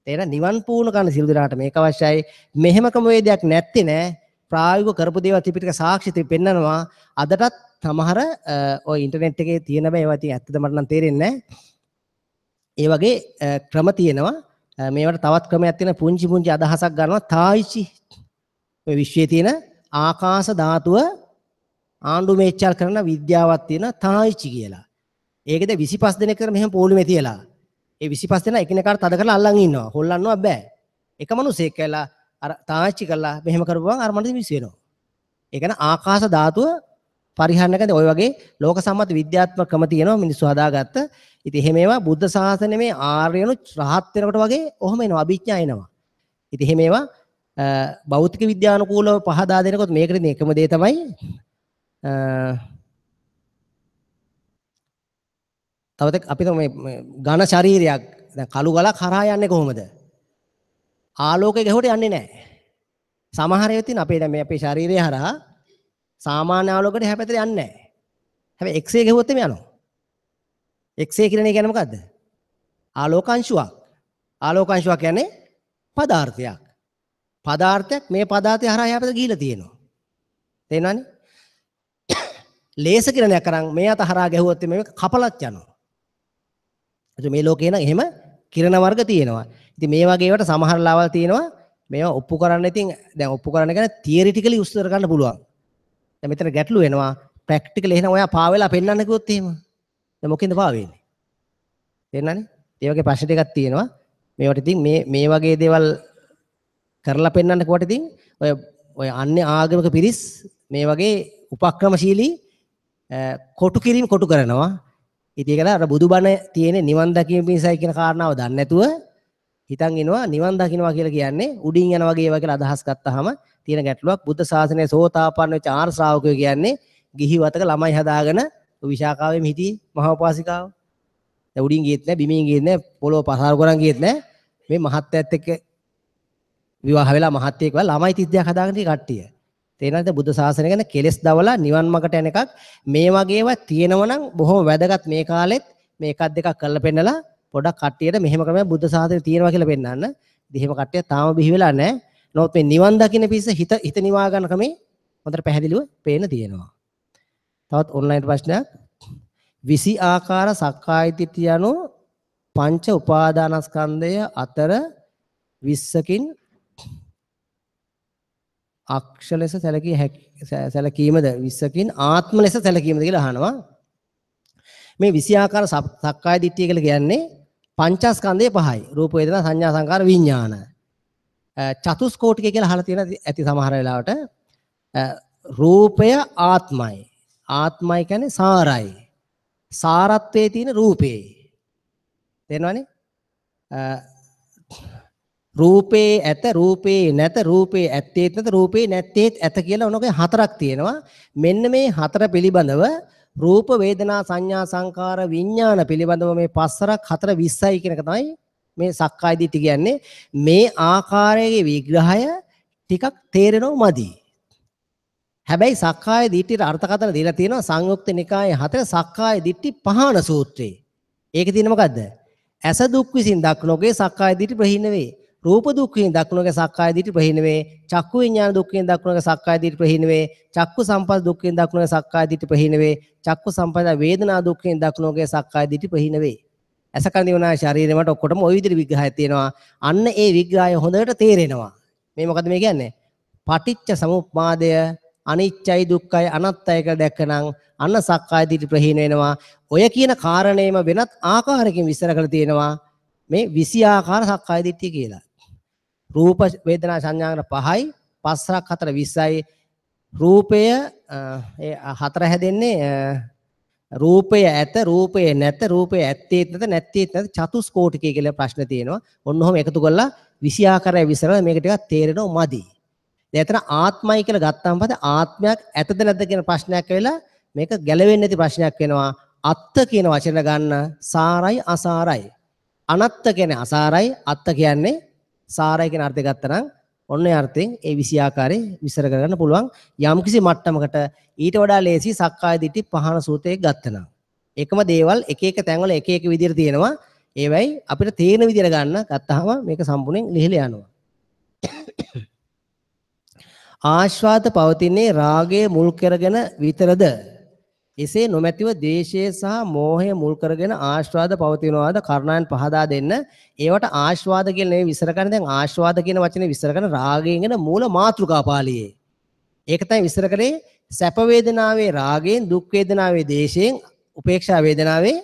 තේරෙන නිවන් පූර්ණ කරන සියලු දෙනාට මේක අවශ්‍යයි. මෙහෙම ක්‍රමවේදයක් නැත්තේ නෑ. ප්‍රායෝගිකව කරපු දේවල් ත්‍රිපිටක සාක්ෂි පෙන්නනවා. අදටත් සමහර ඔය ඉන්ටර්නෙට් එකේ තියෙන බෑ ඒවා ඉතින් ඇත්තද මට නම් තේරෙන්නේ නෑ. ඒ වගේ ක්‍රම තියෙනවා. මේවට තවත් ක්‍රමයක් තියෙන පුංචි පුංචි අදහසක් ගන්නවා තායිචි. ඔය විශ්වයේ තියෙන ආකාශ ධාතුව ආණ්ඩු මේචල් කරන විද්‍යාවක් තියෙන තායිචි කියලා. ඒකද 25 දෙනෙක් කර මෙහෙම පොලිමේ තියලා. ඒ 25 දෙනා එකිනෙකාට තද කරලා අල්ලන් ඉන්නවා. හොල්ලන්නවත් බෑ. එක මිනිහෙක් කියලා අර තායිචි කරලා මෙහෙම කරපුවම අර මනුස්සය මිස් වෙනවා. ඒ කියන්නේ ආකාශ ධාතුව පරිහරණය කරන ඔය වගේ ලෝක සම්මත විද්‍යාත්මක ක්‍රම තියෙනවා මිනිස්සු හදාගත්ත. ඉතින් එහෙම ඒවා බුද්ධ ශාසනයේ මේ ආර්යනු රහත් වෙනකොට වගේ ඔහොම එනවා අභිඥා එනවා. ඉතින් එහෙම ඒවා භෞතික විද්‍යානුකූලව පහදා දෙනකොට මේකට ඉතින් එකම දේ තමයි තව අපි මේ ඝන ශරීරයක් දැන් කළු ගලක් හරහා යන්නේ කොහොමද? ආලෝකය ගැහුවට යන්නේ නැහැ. සමහර ඒවා තියෙන අපේ දැන් මේ අපේ ශරීරය හරහා සාමාන්‍ය ආලෝකයට එහා පැත්තට යන්නේ නැහැ. හැබැයි එක්ස්රේ ගැහුවොත් එimhe යනවා. එක්ස්රේ කියන එක කියන්නේ මොකද්ද? ආලෝක අංශුවක්. ආලෝක අංශුවක් කියන්නේ පදාර්ථයක්. පදාර්ථයක් මේ පදාර්ථය හරහා එහා පැත්තට ගිහිලා තියෙනවා. තේරෙනවනේ? ලේසර් කිරණයක් අරන් මේ අත හරහා ගැහුවොත් මේක කපලත් යනවා. එතකොට මේ ලෝකේ නම් එහෙම කිරණ වර්ග තියෙනවා. ඉතින් මේ වගේ ඒවාට සමහර ලාවල් තියෙනවා. මේවා ඔප්පු කරන්න ඉතින් දැන් ඔප්පු කරන්න කියන්නේ තියරිටිකලි උත්තර ගන්න පුළුවන්. දැන් මෙතන ගැටලු වෙනවා. ප්‍රැක්ටිකලි එහෙනම් ඔයා පා වෙලා පෙන්වන්න කිව්වොත් එහෙම. දැන් මොකෙන්ද පා වෙන්නේ? තේරෙනවනේ? ඒ වගේ ප්‍රශ්න ටිකක් තියෙනවා. මේවට ඉතින් මේ මේ වගේ දේවල් කරලා පෙන්වන්න කිව්වට ඉතින් ඔය ඔය අන්‍ය ආගමික පිරිස් මේ වගේ උපක්‍රමශීලී කොටු කිරීම කොටු කරනවා. ඉතින් ඒක අර බුදුබණ තියෙන නිවන් දකීම පිණිසයි කියන කාරණාව දන්නේ නැතුව හිතන් ඉනවා නිවන් දකින්නවා කියලා කියන්නේ උඩින් යන වගේ ඒවා කියලා අදහස් ගත්තාම තියෙන ගැටලුවක්. බුද්ධ ශාසනයේ සෝතාපන්න වෙච්ච ආර්ය ශ්‍රාවකයෝ කියන්නේ ගිහි වතක ළමයි හදාගෙන විශාඛාවෙම හිටියේ මහා උපාසිකාව. දැන් උඩින් ගියෙත් නෑ, බිමින් ගියෙත් නෑ, පොළොව පසාරු කරන් ගියෙත් නෑ. මේ මහත්තයත් එක්ක විවාහ වෙලා මහත්තයෙක් වෙලා ළමයි 32ක් හදාගෙන තියෙන කට්ටිය. තේරෙනවද? බුද්ධ ශාසනය ගැන කෙලෙස් දවලා නිවන් මාර්ගට යන එකක්. මේ වගේ ඒවා තියෙනවා නම් බොහොම වැදගත් මේ කාලෙත් මේ එකක් දෙකක් කරලා පෙන්නලා පොඩක් කට්ටියට මෙහෙම ක්‍රමයක් බුද්ධ ශාසනය තියෙනවා කියලා පෙන්නන්න. ඉතින් එහෙම කට්ටිය තාම බිහි වෙලා නැහැ. නමුත් මේ නිවන් දකින්න පිස්ස හිත හිත නිවා ගන්න ක්‍රමේ හොඳට පැහැදිලිව පේන තියෙනවා. තවත් ඔන්ලයින් ප්‍රශ්නයක්. 20 ආකාර සක්කාය දිට්ඨිය යනු පංච උපාදානස්කන්ධය අතර 20කින් අක්ෂ ලෙස සැලකිය හැකි සැලකීමද 20කින් ආත්ම ලෙස සැලකීමද කියලා අහනවා. මේ 20 ආකාර සක්කාය දිට්ඨිය කියලා කියන්නේ පංචස්කන්ධයේ පහයි. රූප වේදනා සංඥා සංකාර විඥාන. චතුස්කෝටිකය කියලා අහලා තියෙන ඇති සමහර වෙලාවට. රූපය ආත්මයි. ආත්මයි කියන්නේ සාරයි. සාරත්වයේ තියෙන රූපේ. තේරෙනවනේ? රූපේ ඇත රූපේ නැත රූපේ ඇත්තේත් නැත රූපේ නැත්තේත් ඇත කියලා ඔනෝගේ හතරක් තියෙනවා. මෙන්න මේ හතර පිළිබඳව රූප වේදනා සංඥා සංකාර විඥාන පිළිබඳව මේ පස්සරක් හතර 20යි කියන එක තමයි මේ සක්කාය දිට්ඨිය කියන්නේ. මේ ආකාරයේ විග්‍රහය ටිකක් තේරෙනව මදි. හැබැයි සක්කාය දිට්ඨියට අර්ථකථන දීලා තියෙනවා සංයුක්ත නිකායේ හතර සක්කාය දිට්ඨි පහන සූත්‍රයේ. ඒකේ තියෙන මොකද්ද? ඇස දුක් විසින් දක්නෝගේ සක්කාය දිට්ඨි ප්‍රහීන වේ. රූප දුක් විසින් දක්නෝගේ සක්කාය දිට්ඨි ප්‍රහීන වේ. චක්කු විඥාන දුක් විසින් දක්නෝගේ සක්කාය දිට්ඨි ප්‍රහීන වේ. චක්කු සම්පස්ස දුක් විසින් දක්නෝගේ සක්කාය දිට්ඨි ප්‍රහීන වේ. චක්කු සම්පස්ස වේදනා දුක් විසින් දක්නෝගේ සක්කාය දිට්ඨි ප්‍රහීන වේ. ඇස කන දිව නාය ශරීරය මට ඔක්කොටම ওই විදිහට විග්‍රහයක් තියෙනවා. අන්න ඒ විග්‍රහය හොඳට තේරෙනවා. මේ මොකද මේ කියන්නේ? පටිච්ච සමුප්පාදය අනිච්චයි දුක්ඛයි අනාත්තයි කියලා දැක්කනම් අන්න සක්කාය දිට්ඨි ප්‍රහීන වෙනවා. ඔය කියන කාරණේම වෙනත් ආකාරයකින් විස්තර කරලා තියෙනවා මේ 20 ආකාර සක්කාය දිට්ඨිය කියලා. රූප වේදනා සංඥා පහයි, පස්සක් හතර 20යි. රූපය ඒ හතර හැදෙන්නේ රූපය ඇත රූපය නැත රූපය ඇත්තේත් නැත නැත්තේත් නැත චතුස්කෝටිකය කියලා ප්‍රශ්න තියෙනවා. ඔන්න ඔහොම එකතු කරලා 20 ආකාරය විස්තර කරලා මේක ටිකක් තේරෙනව මදි. දැන් එතන ආත්මයි කියලා ගත්තාම පස්සේ ආත්මයක් ඇතද නැද්ද කියන ප්‍රශ්නයක් වෙලා මේක ගැලවෙන්නේ නැති ප්‍රශ්නයක් වෙනවා. අත්ත කියන වචන ගන්න සාරයි අසාරයි. අනත්ත කියන්නේ අසාරයි, අත්ත කියන්නේ සාරයි කියන අර්ථය ගත්තා නම් ඔන්න ඒ අර්ථයෙන් ඒ 20 ආකාරයේ විස්තර කරගන්න පුළුවන්. යම්කිසි මට්ටමකට ඊට වඩා ලේසි සක්කාය දිට්ඨි පහන සූත්‍රයේ ගත්තා නම්. ඒකම දේවල් එක එක තැන්වල එක එක විදිහට තියෙනවා. ඒවයි අපිට තේරෙන විදිහට ගන්න ගත්තාම මේක සම්පූර්ණයෙන් ලිහිලා යනවා. ආස්වාද පවතින්නේ රාගය මුල් කරගෙන විතරද? එසේ නොමැතිව ද්වේෂය සහ මෝහය මුල් කරගෙන ආස්වාද පවතිනවාද? කරුණාවෙන් පහදා දෙන්න. ඒවට ආස්වාද කියලා නෙවෙයි විස්තර කරන්නේ. දැන් ආස්වාද කියන වචනේ විස්තර කරන රාගයෙන් එන මූල මාතෘකා පාළියේ. ඒක තමයි විස්තර කරේ සැප වේදනාවේ රාගයෙන්, දුක් වේදනාවේ ද්වේෂයෙන්, උපේක්ෂා වේදනාවේ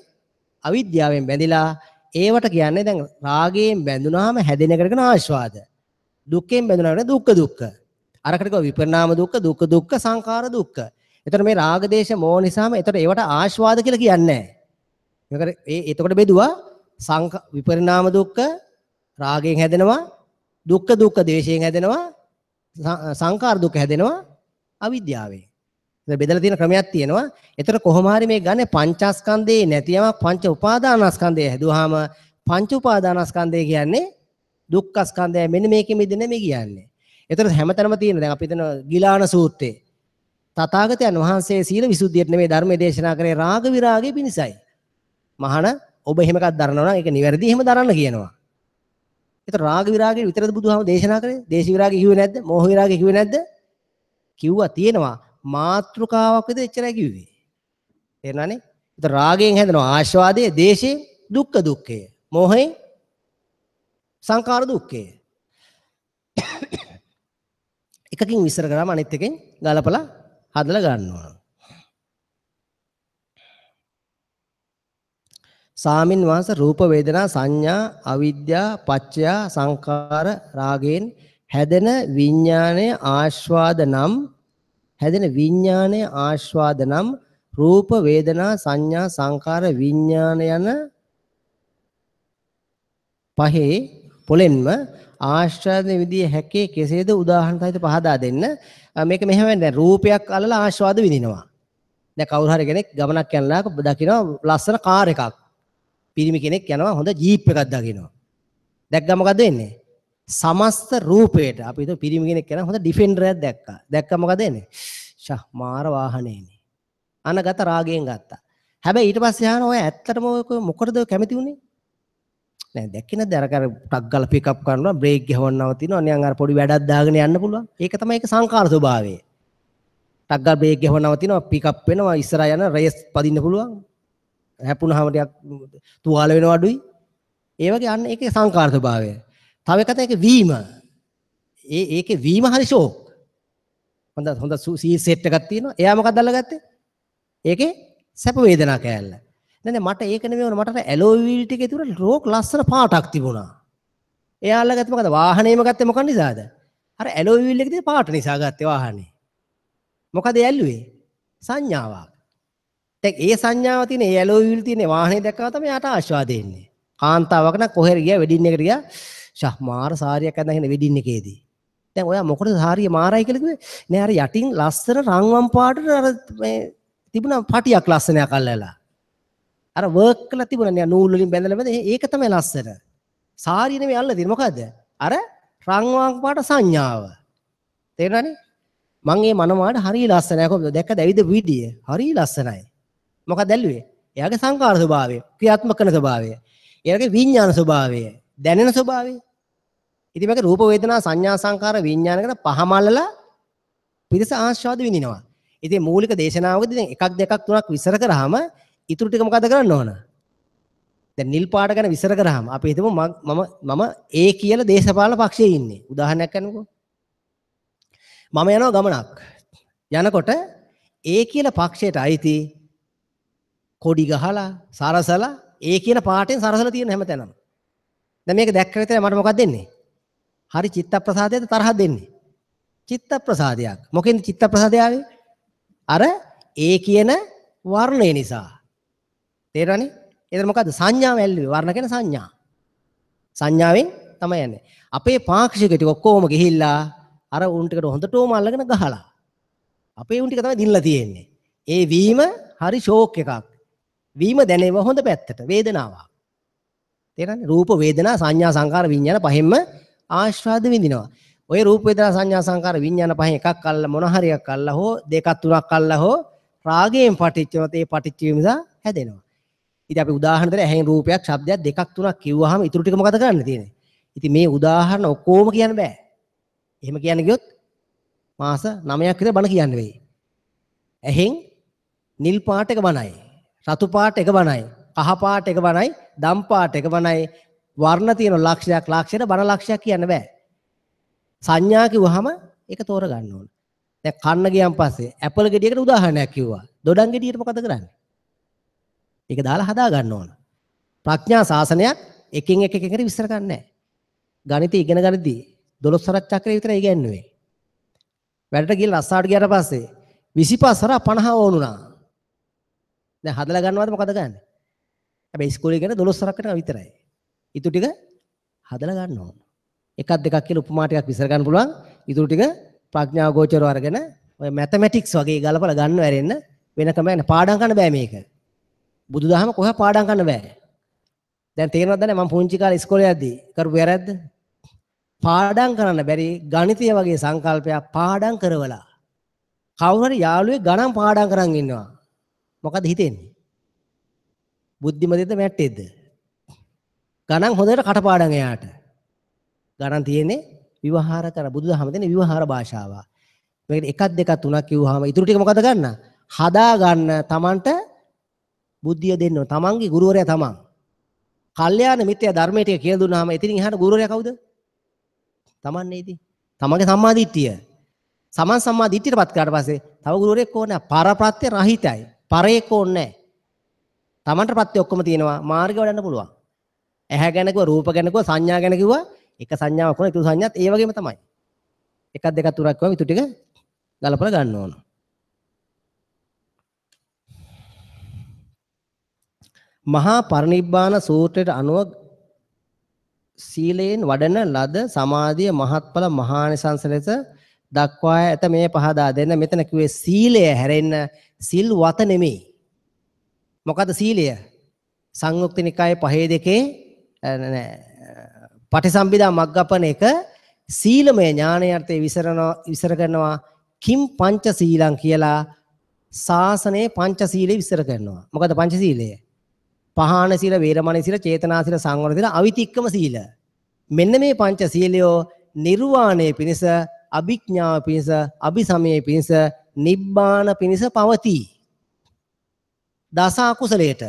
අවිද්‍යාවෙන් බැඳිලා ඒවට කියන්නේ දැන් රාගයෙන් බැඳුනාම හැදෙන එකට කියන ආස්වාද. දුක්ඛයෙන් බැඳුනාම දුක්ඛ දුක්ඛ. අරකට කිව්වා විපරිණාම දුක්ඛ, දුක්ඛ දුක්ඛ, සංඛාර දුක්ඛ. එතකොට මේ රාග දේශ මොහ නිසාම එතකොට ඒවට ආස්වාද කියලා කියන්නේ නැහැ. මේකට ඒ එතකොට බෙදුවා විපරිණාම දුක්ඛ රාගයෙන් හැදෙනවා, දුක්ඛ දුක්ඛ දේශයෙන් හැදෙනවා, සංඛාර දුක්ඛ හැදෙනවා අවිද්‍යාවෙන්. එතන බෙදලා තියෙන ක්‍රමයක් තියෙනවා. එතකොට කොහොම හරි මේ ගන්නේ පංචස්කන්ධේ නැති යමක් පංච උපාදානස්කන්ධය හැදුවාම පංච උපාදානස්කන්ධය කියන්නේ දුක්ඛස්කන්ධය. මෙන්න මේකෙ මිදෙන්නේ මේ කියන්නේ. එතකොට හැමතැනම තියෙන දැන් අපි හිතන ගිලාන සූත්‍රයේ තථාගතයන් වහන්සේ සීල විසුද්ධියට නෙමෙයි ධර්මයේ දේශනා කරේ රාග විරාගය පිණිසයි. මහාන ඔබ එහෙම එකක් දරනවා නම් ඒක නිවැරදි එහෙම දරන්න කියනවා. එතකොට රාග විරාගය විතරද බුදුහාම දේශනා කරේ? දේශ විරාගය කිව්වේ නැද්ද? මෝහ විරාගය කිව්වේ නැද්ද? කිව්වා තියෙනවා. මාත්‍රිකාවක් විතර එච්චරයි කිව්වේ. තේරුණානේ? එතකොට රාගයෙන් හැදෙනවා ආස්වාදයේ, දේශයෙන් දුක්ඛ දුක්ඛය, මෝහයෙන් සංඛාර දුක්ඛය. එකකින් විස්තර කරාම අනිත් එකෙන් ගලපලා හදලා ගන්න ඕන. සාමින් වහන්සේ රූප වේදනා සංඥා අවිද්‍යා පච්චය සංඛාර රාගයෙන් හැදෙන විඥානයේ ආස්වාද නම් හැදෙන විඥානයේ ආස්වාද නම් රූප වේදනා සංඥා සංඛාර විඥාන යන පහේ පොලෙන්ම ආස්වාද විදිය හැකේ කෙසේද උදාහරණ සහිත පහදා දෙන්න. මේක මෙහෙම වෙන්නේ. දැන් රූපයක් අල්ලලා ආස්වාද විඳිනවා. දැන් කවුරු හරි කෙනෙක් ගමනක් යනලා දකිනවා ලස්සන කාර් එකක්. පිරිමි කෙනෙක් යනවා හොඳ ජීප් එකක් දකිනවා. දැක්කම මොකද වෙන්නේ? සමස්ත රූපයට අපි හිතුව පිරිමි කෙනෙක් කරා හොඳ ඩිෆෙන්ඩර් එකක් දැක්කා. දැක්කම මොකද වෙන්නේ? ෂා මාර වාහනේනේ. අනගත රාගයෙන් ගත්තා. හැබැයි ඊට පස්සේ අහන ඔය ඇත්තටම ඔය මොකටද කැමති වුනේ? නෑ දැක්කේ නැද්ද අර අර ටක් ගාලා පික් අප් කරනවා බ්‍රේක් ගහවන්න නවතිනවා නිකන් අර පොඩි වැඩක් දාගෙන යන්න පුළුවන්. ඒක තමයි ඒක සංකාර ස්වභාවය. ටක් ගාලා බ්‍රේක් ගහවන්න නවතිනවා පික් අප් වෙනවා ඉස්සරහා යන රේස් පදින්න පුළුවන්. හැපුණාම ටිකක් තුවාල වෙනවා අඩුයි. ඒ වගේ අන්න ඒකේ සංකාර ස්වභාවය. තව එකක් තමයි ඒකේ වීම. ඒකේ වීම හරි ෂෝක්. හොඳ හොඳ සී සෙට් එකක් තියෙනවා. එයා මොකක්ද අල්ලගත්තේ? ඒකේ සැප වේදනා කෑල්ල. නෑ නෑ මට ඒක නෙමෙයි ඕන. මට අර ඇලෝයි වීල් ටිකේ තිබුණ රෝක් ලස්සන පාටක් තිබුණා. එයා අල්ලගත්තේ මොකද? වාහනේම ගත්තේ මොකක් නිසාද? අර ඇලෝයි වීල් එකේ තියෙන පාට නිසා ගත්තේ වාහනේ. මොකද ඒ ඇල්ලුවේ? සංඥාවක්. දැන් ඒ සංඥාව තියෙන ඒ ඇලෝයි වීල් තියෙන වාහනේ දැක්කම තමයි යාට ආස්වාද එන්නේ. කාන්තාවක් නම් කොහෙර ගියා වෙඩින් එකට ගියා. ෂා මාර සාරියක් අඳන් ඉන්න වෙඩින් එකේදී. දැන් ඔයා මොකටද සාරිය මාරයි කියලා කිව්වේ? නෑ අර යටින් ලස්සන රන්වන් පාටට අර මේ තිබුණා පටියක් ලස්සනයක් අල්ලලා. අර වර්ක් කරලා තිබුණා නේ නූල් වලින් බැඳලා බැඳලා ඒක තමයි ලස්සන. සාරිය නෙමෙයි අල්ලලා තියෙන්නේ මොකද්ද? අර රන්වන් පාට සංඥාව. තේරුණානේ? මං මේ මනමාට හරිය ලස්සනයි. කොහොමද දැක්කද ඇවිද විදිය? හරිය ලස්සනයි. මොකක්ද ඇල්ලුවේ? එයාගේ සංකාර ස්වභාවය, ක්‍රියාත්මක කරන ස්වභාවය, එයාගේ විඥාන ස්වභාවය, දැනෙන ස්වභාවය. ඉතින් මේක රූප වේදනා සංඥා සංකාර විඥාන කියන පහම අල්ලලා පිරිස ආස්වාද විඳිනවා. ඉතින් මූලික දේශනාවකදී දැන් එකක් දෙකක් තුනක් විස්තර කරාම ඉතුරු ටික මොකද කරන්න ඕන? දැන් නිල් පාට ගැන විස්තර කරාම අපි හිතමු මම ඒ කියලා දේශපාලන පක්ෂයේ ඉන්නේ. උදාහරණයක් ගන්නකෝ. මම යනවා ගමනක්. යනකොට ඒ කියලා පක්ෂයට අයිති කොඩි ගහලා සරසලා ඒ කියන පාටෙන් සරසලා තියෙන හැමතැනම. දැන් මේක දැක්ක විතරයි මට මොකක්ද දෙන්නේ? හරි චිත්ත ප්‍රසාදයක්ද තරහක් දෙන්නේ? චිත්ත ප්‍රසාදයක්. මොකෙන්ද චිත්ත ප්‍රසාදය ආවේ? අර ඒ කියන වර්ණය නිසා. තේරෙනවනේ? එතන මොකද්ද? සංඥාව ඇල්ලුවේ. වර්ණ කියන සංඥා. සංඥාවෙන් තමයි යන්නේ. අපේ පාක්ෂික ටික ඔක්කොම ගිහිල්ලා අර උන් ටිකට හොඳටම අල්ලගෙන ගහලා. අපේ උන් ටික තමයි දිනලා තියෙන්නේ. ඒ වීම හරි ෂෝක් එකක්. වීම දැනෙව හොඳ පැත්තට වේදනාවක්. තේරෙනවනේ? රූප වේදනා සංඥා සංකාර විඥාන පහෙන්ම ආස්වාද විඳිනවා. ඔය රූප වේදනා සංඥා සංකාර විඥාන පහෙන් එකක් අල්ල මොන හරි එකක් අල්ල හෝ දෙකක් තුනක් අල්ල හෝ රාගයෙන් පටිච්ච ඒ පටිච්ච වීම නිසා හැදෙනවා. ඉතින් අපි උදාහරණ දෙන්න ඇහෙන් රූපයක් ශබ්දයක් දෙකක් තුනක් කිව්වහම ඊටු ටික මොකද කරන්න තියෙන්නේ? ඉතින් මේ උදාහරණ ඔක්කොම කියන්න බෑ. එහෙම කියන්න ගියොත් මාස 9ක් විතර බණ කියන්න වෙයි. ඇහෙන් නිල් පාට එක බණයි, රතු පාට එක බණයි, කහ පාට එක බණයි, දම් පාට එක බණයි, වර්ණ තියෙන ලක්ෂයක් ලක්ෂයට බණ ලක්ෂයක් කියන්න බෑ. සංඥා කිව්වහම ඒක තෝර ගන්න ඕන. දැන් කන්න ගියන් පස්සේ ඇපල් ගෙඩියකට උදාහරණයක් කිව්වා. දොඩම් ගෙඩියට මොකද කරන්නේ? ඒක දාලා හදා ගන්න ඕන. ප්‍රඥා ශාසනයක් එකින් එක එක එකට විස්තර කරන්නේ නැහැ. ගණිතය ඉගෙන ගනිද්දී 12 සරක් චක්‍රය විතරයි ඉගෙනුවේ. වැඩට ගිහලා රස්සාවට ගියාට පස්සේ 25 සරක් 50 ඕනුණා. දැන් හදලා ගන්නවද මොකද ගන්නෙ? හැබැයි ඉස්කෝලේ ඉගෙන 12 සරක් වෙනකන් විතරයි. ඊටු ටික හදලා ගන්න ඕන. එකක් දෙකක් කියලා උපමා ටිකක් විස්තර ගන්න පුළුවන්. ඊටු ටික ප්‍රඥා ගෝචරව අරගෙන ඔය මැතමැටික්ස් වගේ ගලපලා ගන්න වැරෙන්න වෙන ක්‍රමයක් නෑ. පාඩම් කරන්න බෑ මේක. බුදුදහම කොහේ පාඩම් කරන්න බෑ. දැන් තේරෙනවද නැ මම පුංචි කාලේ ඉස්කෝලේ යද්දී කරපු වැරද්ද? පාඩම් කරන්න බැරි ගණිතය වගේ සංකල්පයක් පාඩම් කරවලා කවුරු හරි යාළුවෙක් ගණන් පාඩම් කරන් ඉන්නවා. මොකද හිතෙන්නේ? බුද්ධිමතෙද්ද මැට්ටෙද්ද? ගණන් හොඳට කටපාඩම් එයාට. ගණන් තියෙන්නේ විවහාර කර බුදුදහම දෙන විවහාර භාෂාව. මේකට එකක් දෙකක් තුනක් කිව්වහම ඊටු ටික මොකද ගන්න? හදා ගන්න Tamanට බුද්ධිය දෙන්න ඕන. Tamanගේ ගුරුවරයා තමන්. කල්යාණ මිත්‍යා ධර්මයේ ටික කියලා දුන්නාම එතනින් එහාට ගුරුවරයා කවුද? තමන් නේ ඉතින්. තමන්ගේ සම්මා දිට්ඨිය. සමන් සම්මා දිට්ඨියටපත් කරාට පස්සේ තව ගුරුවරයෙක් ඕනේ නැහැ. පරප්‍රත්‍ය රහිතයි. පරයෙක් ඕනේ නැහැ. තමන්ට ප්‍රත්‍ය ඔක්කොම තියෙනවා. මාර්ගය වඩන්න පුළුවන්. ඇහැ ගැන කිව්වා, රූප ගැන කිව්වා, සංඥා ගැන කිව්වා. එක සංඥාවක් වුණා, ඊටු සංඥාත් ඒ වගේම තමයි. එකක් දෙකක් තුනක් කිව්වම ඊටු ටික ගලපලා ගන්න ඕන. මහා පරිනිබ්බාන සූත්‍රයට අනුව සීලයෙන් වඩන ලද සමාධිය මහත්ඵල මහානිසංස ලෙස දක්වා ඇත. මේ පහදා දෙන්න. මෙතන කිව්වේ සීලය හැරෙන්න සිල් වත නෙමෙයි. මොකද සීලය? සංයුක්ත නිකායේ 5 2 නෑ පටිසම්භිදා මග්ගපන එක සීලමය ඥානය අර්ථයේ විසර කරනවා. කිම් පංච සීලං කියලා ශාසනයේ පංච සීලය විස්තර කරනවා. මොකද පංච සීලය? පහාන සීල, වේරමණී සීල, චේතනා සීල, සංවර සීල, අවිතික්කම සීල. මෙන්න මේ පංච සීලයෝ නිර්වාණය පිණිස, අභිඥාව පිණිස, අභිසමය පිණිස, නිබ්බාන පිණිස පවතී. දස අකුසලයට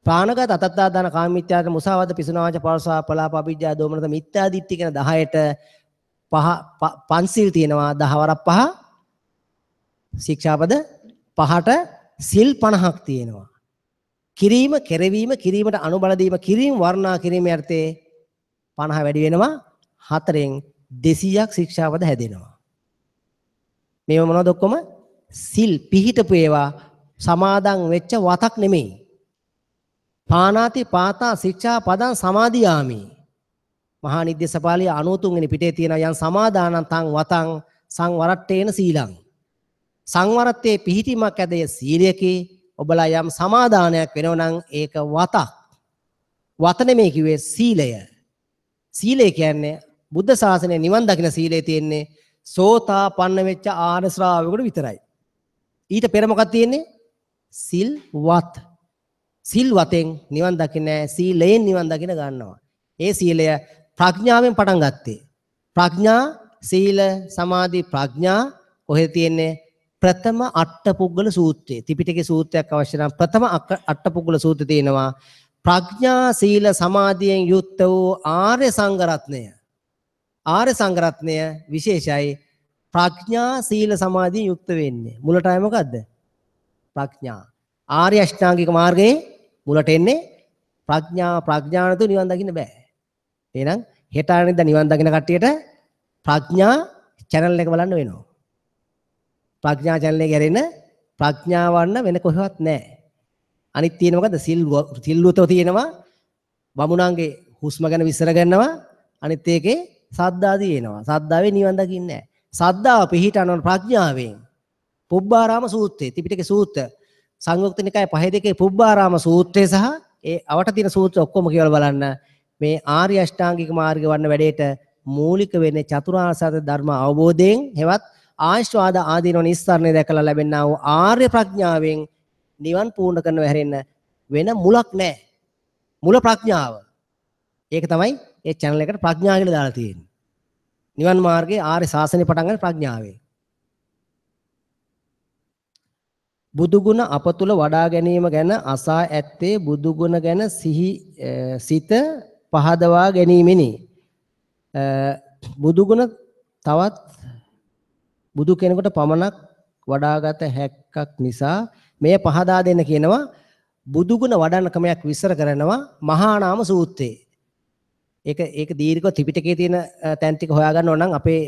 ප්‍රාණඝාත, අතත්තාදාන, කාමමිත්‍යාචාර, මුසාවාද, පිසුනාවාච, පරසා, පලාප, අවිජ්ජා, දෝමනස, මිත්‍යා දිට්ඨි කියන 10ට පහ පන්සිල් තියෙනවා. 10 වරක් පහ ශික්ෂාපද පහට සිල් 50ක් තියෙනවා. කිරීම, කෙරවීම, කිරීමට අනුබල දීම, කිරීම වර්ණනා කිරීම යටතේ 50 වැඩි වෙනවා. 4න් 200ක් ශික්ෂාපද හැදෙනවා. මේව මොනවද ඔක්කොම? සිල් පිහිටපු ඒවා, සමාදන් වෙච්ච වතක් නෙමෙයි. පානාති පාතා ශික්ෂා පදං සමාදියාමි. මහා නිද්දේශපාලිය 93 වෙනි පිටේ තියෙන යම් සමාදානං තං වතං සංවරට්ඨේන සීලං. සංවරත්තේ පිහිටීමක් ඇදය සීලයකේ. ඔබලා යම් සමාදානයක් වෙනව නම් ඒක වතක්. වත නෙමෙයි කිව්වේ සීලය. සීලය කියන්නේ බුද්ධ ශාසනය නිවන් දකින සීලය තියෙන්නේ සෝතාපන්න වෙච්ච ආර්ය ශ්‍රාවකෙකුට විතරයි. ඊට පෙර මොකක්ද තියෙන්නේ? සිල් වත්. සිල් වතෙන් නිවන් දකින්නේ, සීලයෙන් නිවන් දකින ගන්නවා. ඒ සීලය ප්‍රඥාවෙන් පටන් ගත්තේ. ප්‍රඥා, සීල, සමාධි, ප්‍රඥා කොහෙද තියෙන්නේ? ප්‍රථම අට්ඨපුග්ගල සූත්‍රයේ. ත්‍රිපිටකයේ සූත්‍රයක් අවශ්‍ය නම් ප්‍රථම අට්ඨපුග්ගල සූත්‍රය තියෙනවා. ප්‍රඥා, සීල, සමාධියෙන් යුක්ත වූ ආර්ය සංඝ රත්නය. ආර්ය සංඝ රත්නය විශේෂයි. ප්‍රඥා, සීල, සමාධියෙන් යුක්ත වෙන්නේ. මුලට ආයේ මොකද්ද? ප්‍රඥා. ආර්ය අෂ්ටාංගික මාර්ගයේ මුලට එන්නේ ප්‍රඥා. ප්‍රඥා නැතුව නිවන් දකින්න බෑ. එහෙනම් හෙට අනිද්දා නිවන් දකින්න කට්ටියට ප්‍රඥා චැනල් එක බලන්න වෙනවා. ප්‍රඥා චැනල් එක ඇරෙන්න ප්‍රඥාව වන්න වෙන කොහෙවත් නෑ. අනිත් තියෙන මොකද්ද? සිල්වතෝ තියෙනවා. බමුණන්ගේ හුස්ම ගැන විස්තර කරනවා. අනිත් ඒකේ සද්දා තියෙනවා. සද්දාවේ නිවන් දකින්නේ නෑ. සද්දාව පිහිටනවන ප්‍රඥාවෙන්. පුබ්බාරාම සූත්‍රයේ ත්‍රිපිටක සූත්‍ර සංයුක්ත නිකාය 5 2 පුබ්බාරාම සූත්‍රය සහ ඒ අවට තියෙන සූත්‍ර ඔක්කොම කියවලා බලන්න. මේ ආර්ය අෂ්ටාංගික මාර්ගය වඩන වැඩේට මූලික වෙන්නේ චතුරාර්ය සත්‍ය ධර්ම අවබෝධයෙන්, හෙවත් ආශ්වාද ආදීනව නිස්සාරණය දැකලා ලැබෙනා වූ ආර්ය ප්‍රඥාවෙන් නිවන් පූර්ණ කරනව හැරෙන්න වෙන මුලක් නැහැ. මුල ප්‍රඥාව. ඒක තමයි ඒ චැනල් එකට ප්‍රඥා කියලා දාලා තියෙන්නේ. නිවන් මාර්ගයේ ආර්ය ශාසනය පටන් ගන්න ප්‍රඥාවෙන්. බුදුගුණ අප තුල වඩා ගැනීම ගැන අසා ඇත්තේ බුදුගුණ ගැන සිත පහදවා ගැනීමෙනි. බුදුගුණ තවත් බුදු කෙනෙකුට පමණක් වඩාගත හැක්කක් නිසා මෙය පහදා දෙන්න කියනවා. බුදුගුණ වඩන ක්‍රමයක් විස්තර කරනවා මහා නාම සූත්‍රයේ. ඒක දීර්ඝව ත්‍රිපිටකයේ තියෙන තැන් ටික හොයාගන්න ඕන නම් අපේ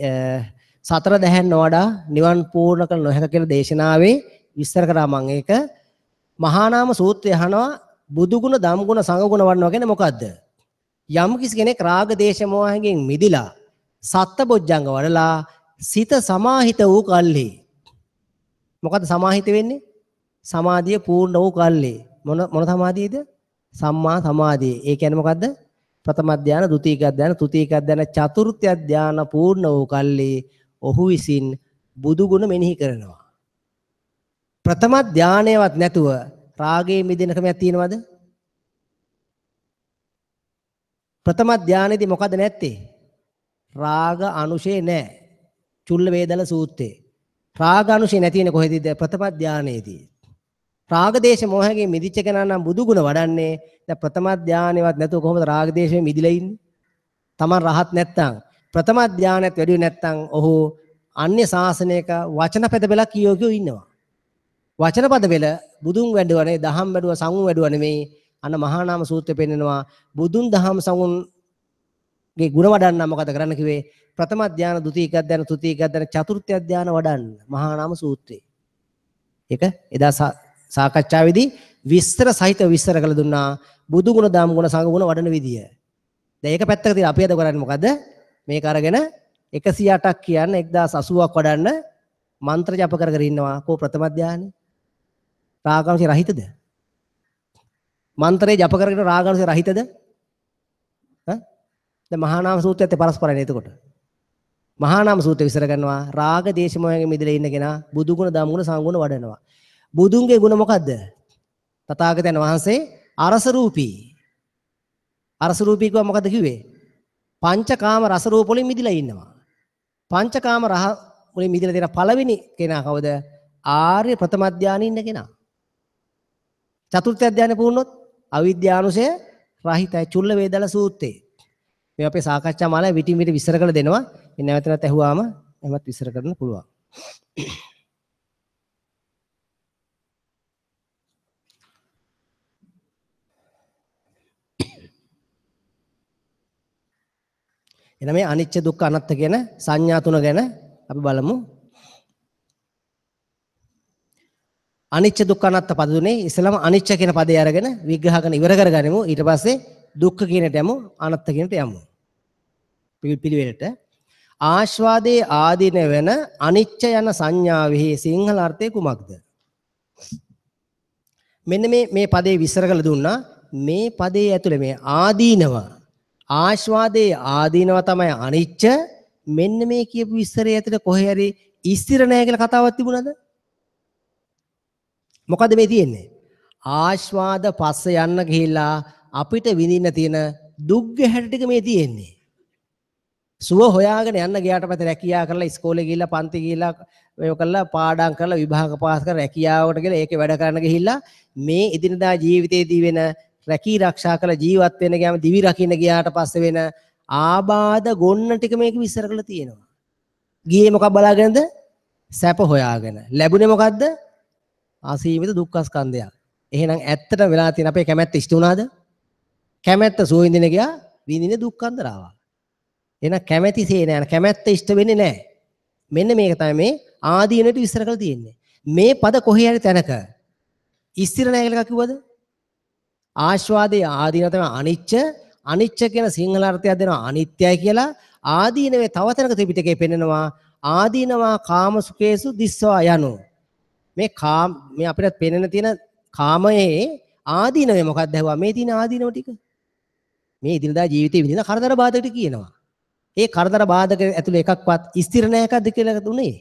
සතර දැහැන් නොවඩා නිවන් පූර්ණ කළ නොහැක කියලා දේශනාවේ විස්තර කරා මම ඒක. මහා නාම සූත්‍රය අහනවා බුදුගුණ, ධම්ගුණ, සංඝගුණ වඩනවා කියන්නේ මොකද්ද? යම් කිසි කෙනෙක් රාග දේශ මොහයෙන් මිදිලා සත්බොජ්ජංග වඩලා සිත සමාහිත වූ කල්හි. මොකද්ද සමාහිත වෙන්නේ? සමාධිය පූර්ණ වූ කල්හි. මොන මොන සමාධියද? සම්මා සමාධිය. ඒ කියන්නේ මොකද්ද? ප්‍රථම ධ්‍යාන, ද්විතීක ධ්‍යාන, තෘතීක ධ්‍යාන, චතුර්ථ ධ්‍යාන පූර්ණ වූ කල්හි ඔහු විසින් බුදුගුණ මෙනෙහි කරනවා. ප්‍රථම ධ්‍යානයවත් නැතුව රාගයේ මිදෙන ක්‍රමයක් තියෙනවද? ප්‍රථම ධ්‍යානෙදී මොකද නැත්තේ? රාග අනුශේ නැහැ. චුල්ල වේදල සූත්‍රයේ. රාග අනුශේ නැති වෙන්නේ කොහෙදද? ප්‍රථම ධ්‍යානයේදී. රාග දේශ මොහයෙන් මිදිච්ච කෙනා නම් බුදුගුණ වඩන්නේ. දැන් ප්‍රථම ධ්‍යානෙවත් නැතුව කොහොමද රාග දේශයෙන් මිදිලා ඉන්නේ? Taman රහත් නැත්තම්, ප්‍රථම ධ්‍යානයත් වැඩි නැත්තම් ඔහු අන්‍ය ශාසනයක වචන පද පෙළක් කියෝ කියෝ ඉන්නවා. වචන පද පෙළ බුදුන් වැඩුවා නෙවෙයි, දහම් වැඩුවා, සංඝුන් වැඩුවා නෙවෙයි. අන්න මහා නාම සූත්‍රය පෙන්නනවා බුදුන් දහම් සංඝුන්ගේ ගුණ වඩන්න මොකද කරන්න කිව්වේ? ප්‍රථම ධ්‍යාන, ද්විතීක ධ්‍යාන, තෘතීක ධ්‍යාන, චතුර්ථ ධ්‍යාන වඩන්න මහා නාම සූත්‍රය. ඒක එදා සාකච්ඡාවේදී විස්තර සහිතව විස්තර කළ දුන්නා බුදු ගුණ, දහම් ගුණ, සංඝ ගුණ වඩන විදිය. දැන් ඒක පැත්තක තියලා අපි අද කරන්නේ මොකද? මේක අරගෙන 108ක් කියන්න 1080ක් වඩන්න මන්ත්‍ර ජප කර කර ඉන්නවා. කෝ ප්‍රථම ධ්‍යානෙ? රාගාංශ රහිතද? මන්ත්‍රේ ජප කරගෙන රාගාංශ රහිතද? ඈ? දැන් මහා නාම සූත්‍රයත් පරස්පරයි එතකොට. මහා නාම සූත්‍රය විස්තර කරනවා රාග දේශ මොහයෙන් මිදලා ඉන්න කෙනා බුදු ගුණ ධම්ම ගුණ සංඝ ගුණ වඩනවා. බුදුන්ගේ ගුණ මොකද්ද? තථාගතයන් වහන්සේ අරස රූපී. අරස රූපී කිව්වා මොකද්ද කිව්වේ? පංචකාම රස රූප වලින් මිදලා ඉන්නවා. පංචකාම රහ වලින් මිදලා තියෙන පළවෙනි කෙනා කවුද? ආර්ය ප්‍රථම ධානයේ ඉන්න කෙනා. චතුර්ථ ධානය පුරුණොත් අවිද්‍යානුසය රහිතයි. චුල්ල වේදල සූත්‍රේ. මේ අපේ සාකච්ඡා මාලාවේ විටින් විට විස්තර කරලා දෙනවා. මේ නැවත නැවත ඇහුවාම එහෙමත් විස්තර කරන්න පුළුවන්. එහෙනම් මේ අනිච්ච දුක්ඛ අනාත්ම කියන සංඥා තුන ගැන අපි බලමු. අනිච්ච දුක්ඛ අනාත්ම පද තුනේ ඉස්සෙල්ලාම අනිච්ච කියන පදේ අරගෙන විග්‍රහ කරන ඉවර කරගනිමු. ඊට පස්සේ දුක්ඛ කියනට යමු, අනාත්ම කියනට යමු. පිළිවෙලට ආස්වාදයේ ආදීන වෙන අනිච්ච යන සංඥාවෙහි සිංහල අර්ථය කුමක්ද? මෙන්න මේ මේ පදේ විස්තර කරලා දුන්නා. මේ පදේ ඇතුලේ මේ ආදීනව, ආස්වාදයේ ආදීනව තමයි අනිච්ච. මෙන්න මේ කියපු විස්තරය ඇතුලේ කොහේ හරි ස්ථිර නැහැ කියලා කතාවක් තිබුණාද? මොකද මේ තියෙන්නේ? ආස්වාද පස්ස යන්න ගිහිල්ලා අපිට විඳින්න තියෙන දුක් ගැහැට ටික මේ තියෙන්නේ. සුව හොයාගෙන යන්න ගියාට පස්සේ රැකියා කරලා ඉස්කෝලේ ගිහිල්ලා පන්ති ගිහිල්ලා මේව කරලා පාඩම් කරලා විභාග පාස් කරලා රැකියාවට ගිහලා ඒකේ වැඩ කරන්න ගිහිල්ලා මේ එදිනදා ජීවිතේදී වෙන රැකී රක්ෂා කරලා ජීවත් වෙන ගියාම දිවි රකින්න ගියාට පස්සේ වෙන ආබාධ ගොන්න ටික මේක විස්තර කරලා තියෙනවා. ගියේ මොකක් බලාගෙනද? සැප හොයාගෙන. ලැබුණේ මොකද්ද? අසීමිත දුක්ඛ ස්කන්ධයක්. එහෙනම් ඇත්තටම වෙලා තියෙන අපේ කැමැත්ත ඉෂ්ට වුණාද? කැමැත්ත සුව විඳින ගියා, විඳින දුක්ඛන්දරාවක්. එහෙනම් කැමැතිසේ නෑ, කැමැත්ත ඉෂ්ට වෙන්නේ නෑ. මෙන්න මේක තමයි මේ ආදීනට විස්තර කරලා තියෙන්නේ. මේ පද කොහේ හරි තැනක ස්ථිර නෑ කියලා එකක් කිව්වද? ආස්වාදයේ ආදීන තමයි අනිච්ච. අනිච්ච කියන සිංහල අර්ථයක් දෙනවා අනිත්‍යයි කියලා. ආදීනවේ තව තැනක ත්‍රිපිටකේ පෙන්නනවා ආදීනවා කාම සුඛේසු දිස්වා යනු. මේ කාම මේ අපිට පෙනෙන තියෙන කාමයේ ආදීනවේ මොකක්ද ඇහුවා? මේ තියෙන ආදීනව ටික. මේ එදිනදා ජීවිතේ විඳින කරදර බාධක ටික කියනවා. ඒ කරදර බාධක ඇතුලේ එකක්වත් ස්ථිර නෑ එකක්ද කියලා දුන්නේ.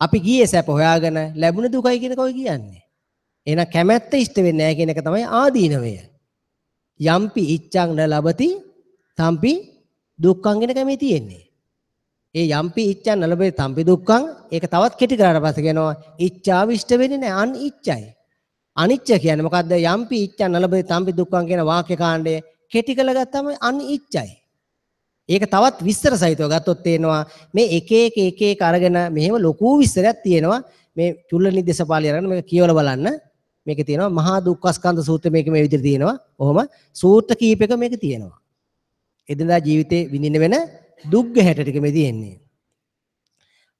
අපි ගියේ සැප හොයාගෙන ලැබුණ දුකයි කියන එක ඔය කියන්නේ. එහෙනම් කැමැත්ත ඉෂ්ට වෙන්නේ නෑ කියන එක තමයි ආදීනවය. යම්පි ඉච්ඡං න ලබති තම්පි දුක්ඛං කියන එක මේ තියෙන්නේ. ඒ යම්පි ඉච්ඡං න ලබති තම්පි දුක්ඛං ඒක තවත් කෙටි කරාට පස්සේ කියනවා ඉච්ඡාව ඉෂ්ට වෙන්නේ නෑ, අනිච්චයි. අනිච්ච කියන්නේ මොකද්ද? යම්පි ඉච්ඡං න ලබති තම්පි දුක්ඛං කියන වාක්‍ය කාණ්ඩය කෙටි කරලා ගත්තම අනිච්චයි. ඒක තවත් විස්තර සහිතව ගත්තොත් තේනවා මේ එක එක එක එක අරගෙන මෙහෙම ලොකු විස්තරයක් තියෙනවා. මේ චුල්ලනිද්දේශ පාළිය අරගෙන මේක කියවලා බලන්න. මේකේ තියෙනවා මහා දුක්ඛස්කන්ධ සූත්‍රය, මේක මේ විදිහට තියෙනවා. ඔහොම සූත්‍ර කීපයක මේක තියෙනවා. එදිනදා ජීවිතේ විඳින්න වෙන දුක් ගැහැට ටික මේ තියෙන්නේ.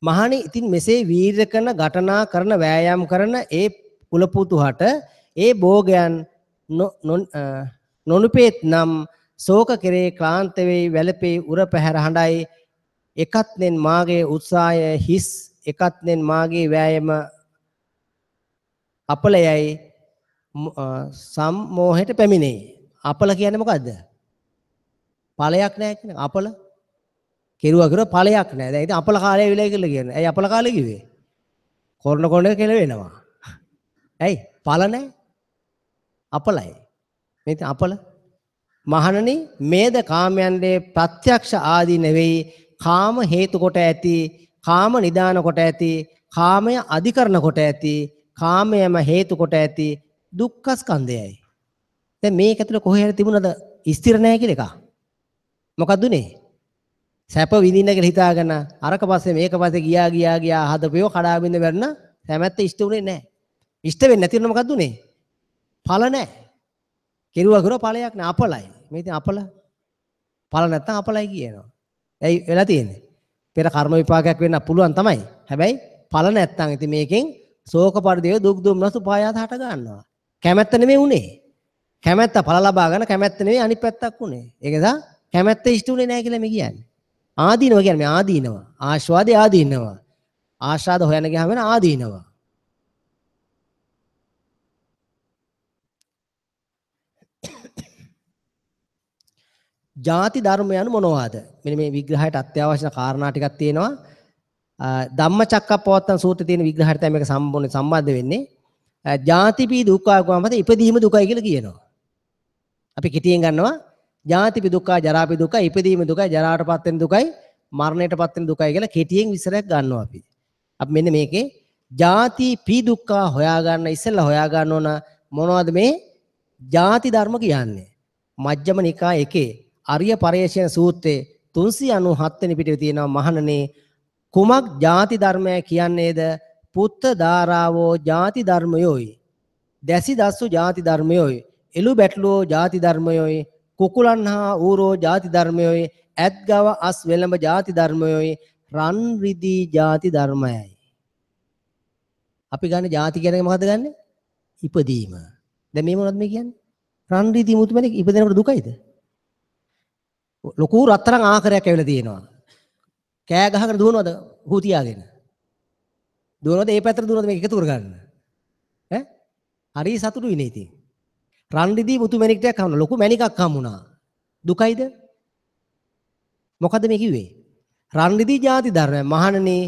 මහණෙනි, ඉතින් මෙසේ වීර්ය කරන, ඝටනා කරන, වෑයම් කරන ඒ කුලපුතුහට ඒ භෝගයන් නොනුපේත් නම් ශෝක කෙරේ ක්ලාන්ත වෙයි, වැළපේ, උර පැහැර හඬයි. එකත්නෙන් මාගේ උත්සාහය හිස්, එකත්නෙන් මාගේ වෑයම අපලයයි සම්මෝහයට පැමිණේ. අපල කියන්නේ මොකද්ද? ඵලයක් නෑ කියන අපල. කෙරුවා කෙරුවා ඵලයක් නෑ. දැන් ඉතින් අපල කාලය විලයි කියලා කියන්නේ. ඇයි අපල කාලය කිව්වේ? කොරණ කොරණ එක කියලා වෙනවා. ඇයි? ඵල නෑ. අපලයි. මේ ඉතින් අපල. මහණනි, මේද කාමයන්ගේ ප්‍රත්‍යක්ෂ ආදී නෙවෙයි, කාම හේතු කොට ඇති, කාම නිදාන කොට ඇති, කාමය අධිකරණ කොට ඇති, කාමයම හේතු කොට ඇති දුක්ඛ ස්කන්ධයයි. දැන් මේක ඇතුළේ කොහේ හරි තිබුණාද ස්ථිර නැහැ කියලා එකක්? මොකද්ද උනේ? සැප විඳින්න කියලා හිතාගෙන අරක පස්සේ මේක පස්සේ ගියා ගියා ගියා හදපියෝ කඩා බින්ද වැටුණා. කැමැත්ත ඉෂ්ට උනේ නැහැ. ඉෂ්ට වෙන්නේ නැති වුණා මොකද්ද උනේ? ඵල නැහැ. කෙරුවා කෙරුවා ඵලයක් නෑ, අපලයි. මේ ඉතින් අපල ඵල නැත්තම් අපලයි කියනවා. ඇයි වෙලා තියෙන්නේ? පෙර කර්ම විපාකයක් වෙන්න පුළුවන් තමයි. හැබැයි ඵල නැත්තම් ඉතින් මේකෙන් ශෝක පරිදේව දුක් දුම්නස් උපායාස හට ගන්නවා. කැමැත්ත නෙමෙයි උනේ. කැමැත්ත ඵල ලබා ගන්න කැමැත්ත නෙමෙයි අනිත් පැත්තක් උනේ. ඒක නිසා කැමැත්ත ඉෂ්ට උනේ නෑ කියලා මේ කියන්නේ. ආදීනව කියන්නේ මේ ආදීනව. ආස්වාදේ ආදීනව. ආශාද හොයන ගියාම වෙන ආදීනව. ජාති ධර්ම යනු මොනවාද? මෙන්න මේ විග්‍රහයට අත්‍යවශ්‍ය කාරණා ටිකක් තියෙනවා. ධම්මචක්කප්පවත්තන සූත්‍රයේ තියෙන විග්‍රහයට තමයි මේක සම්පූර්ණ සම්බන්ධ වෙන්නේ. ජාතිපි දුක්ඛ කියවම ඉපදීම දුකයි කියලා කියනවා. අපි කෙටියෙන් ගන්නවා ජාතිපි දුක්ඛ, ජරාපි දුක්ඛ, ඉපදීම දුකයි, ජරාවටපත් වෙන දුකයි, මරණයටපත් වෙන දුකයි කියලා කෙටියෙන් විස්තරයක් ගන්නවා අපි. අපි මෙන්න මේකේ ජාති පි දුක්ඛ හොයාගන්න ඉස්සෙල්ලා හොයාගන්න ඕන මොනවද මේ ජාති ධර්ම කියන්නේ. මජ්ක්‍ධිම නිකාය එකේ අරිය පරේෂණ සූත්‍රයේ 397 වෙනි පිටුවේ තියෙනවා මහණනේ කුමක් ජාති ධර්මය කියන්නේද? පුත්ත ධාරාවෝ ජාති ධර්මයෝයි, දැසි දස්සු ජාති ධර්මයෝයි, එළු බැටළුවෝ ජාති ධර්මයෝයි, කුකුලන් හා ඌරෝ ජාති ධර්මයෝයි, ඇත් ගව අස් වෙළඹ ජාති ධර්මයෝයි, රන් රිදී ජාති ධර්මයයි. අපි ගන්න ජාති කියන එක මොකද්ද ගන්නෙ? ඉපදීම. දැන් මේ මොනවද මේ කියන්නේ? රන් රිදී මුතුමැණික් ඉපදෙනකොට දුකයිද? ලොකු රත්තරන් ආකරයක් ඇවිල්ලා තියෙනවා. කෑ ගහගෙන දුවනවද හූ තියාගෙන? දුවනවද ඒ පැත්තට දුවනවද මේක එකතු කරගන්න? ඈ? හරි සතුටුයි නේ ඉතින්. රන් රිදී මුතු මැණික් ටිකක් හම්බුණා. ලොකු මැණිකක් හම්බුණා. දුකයිද? මොකද්ද මේ කිව්වේ? රන් රිදී ජාති ධර්මය. මහණනි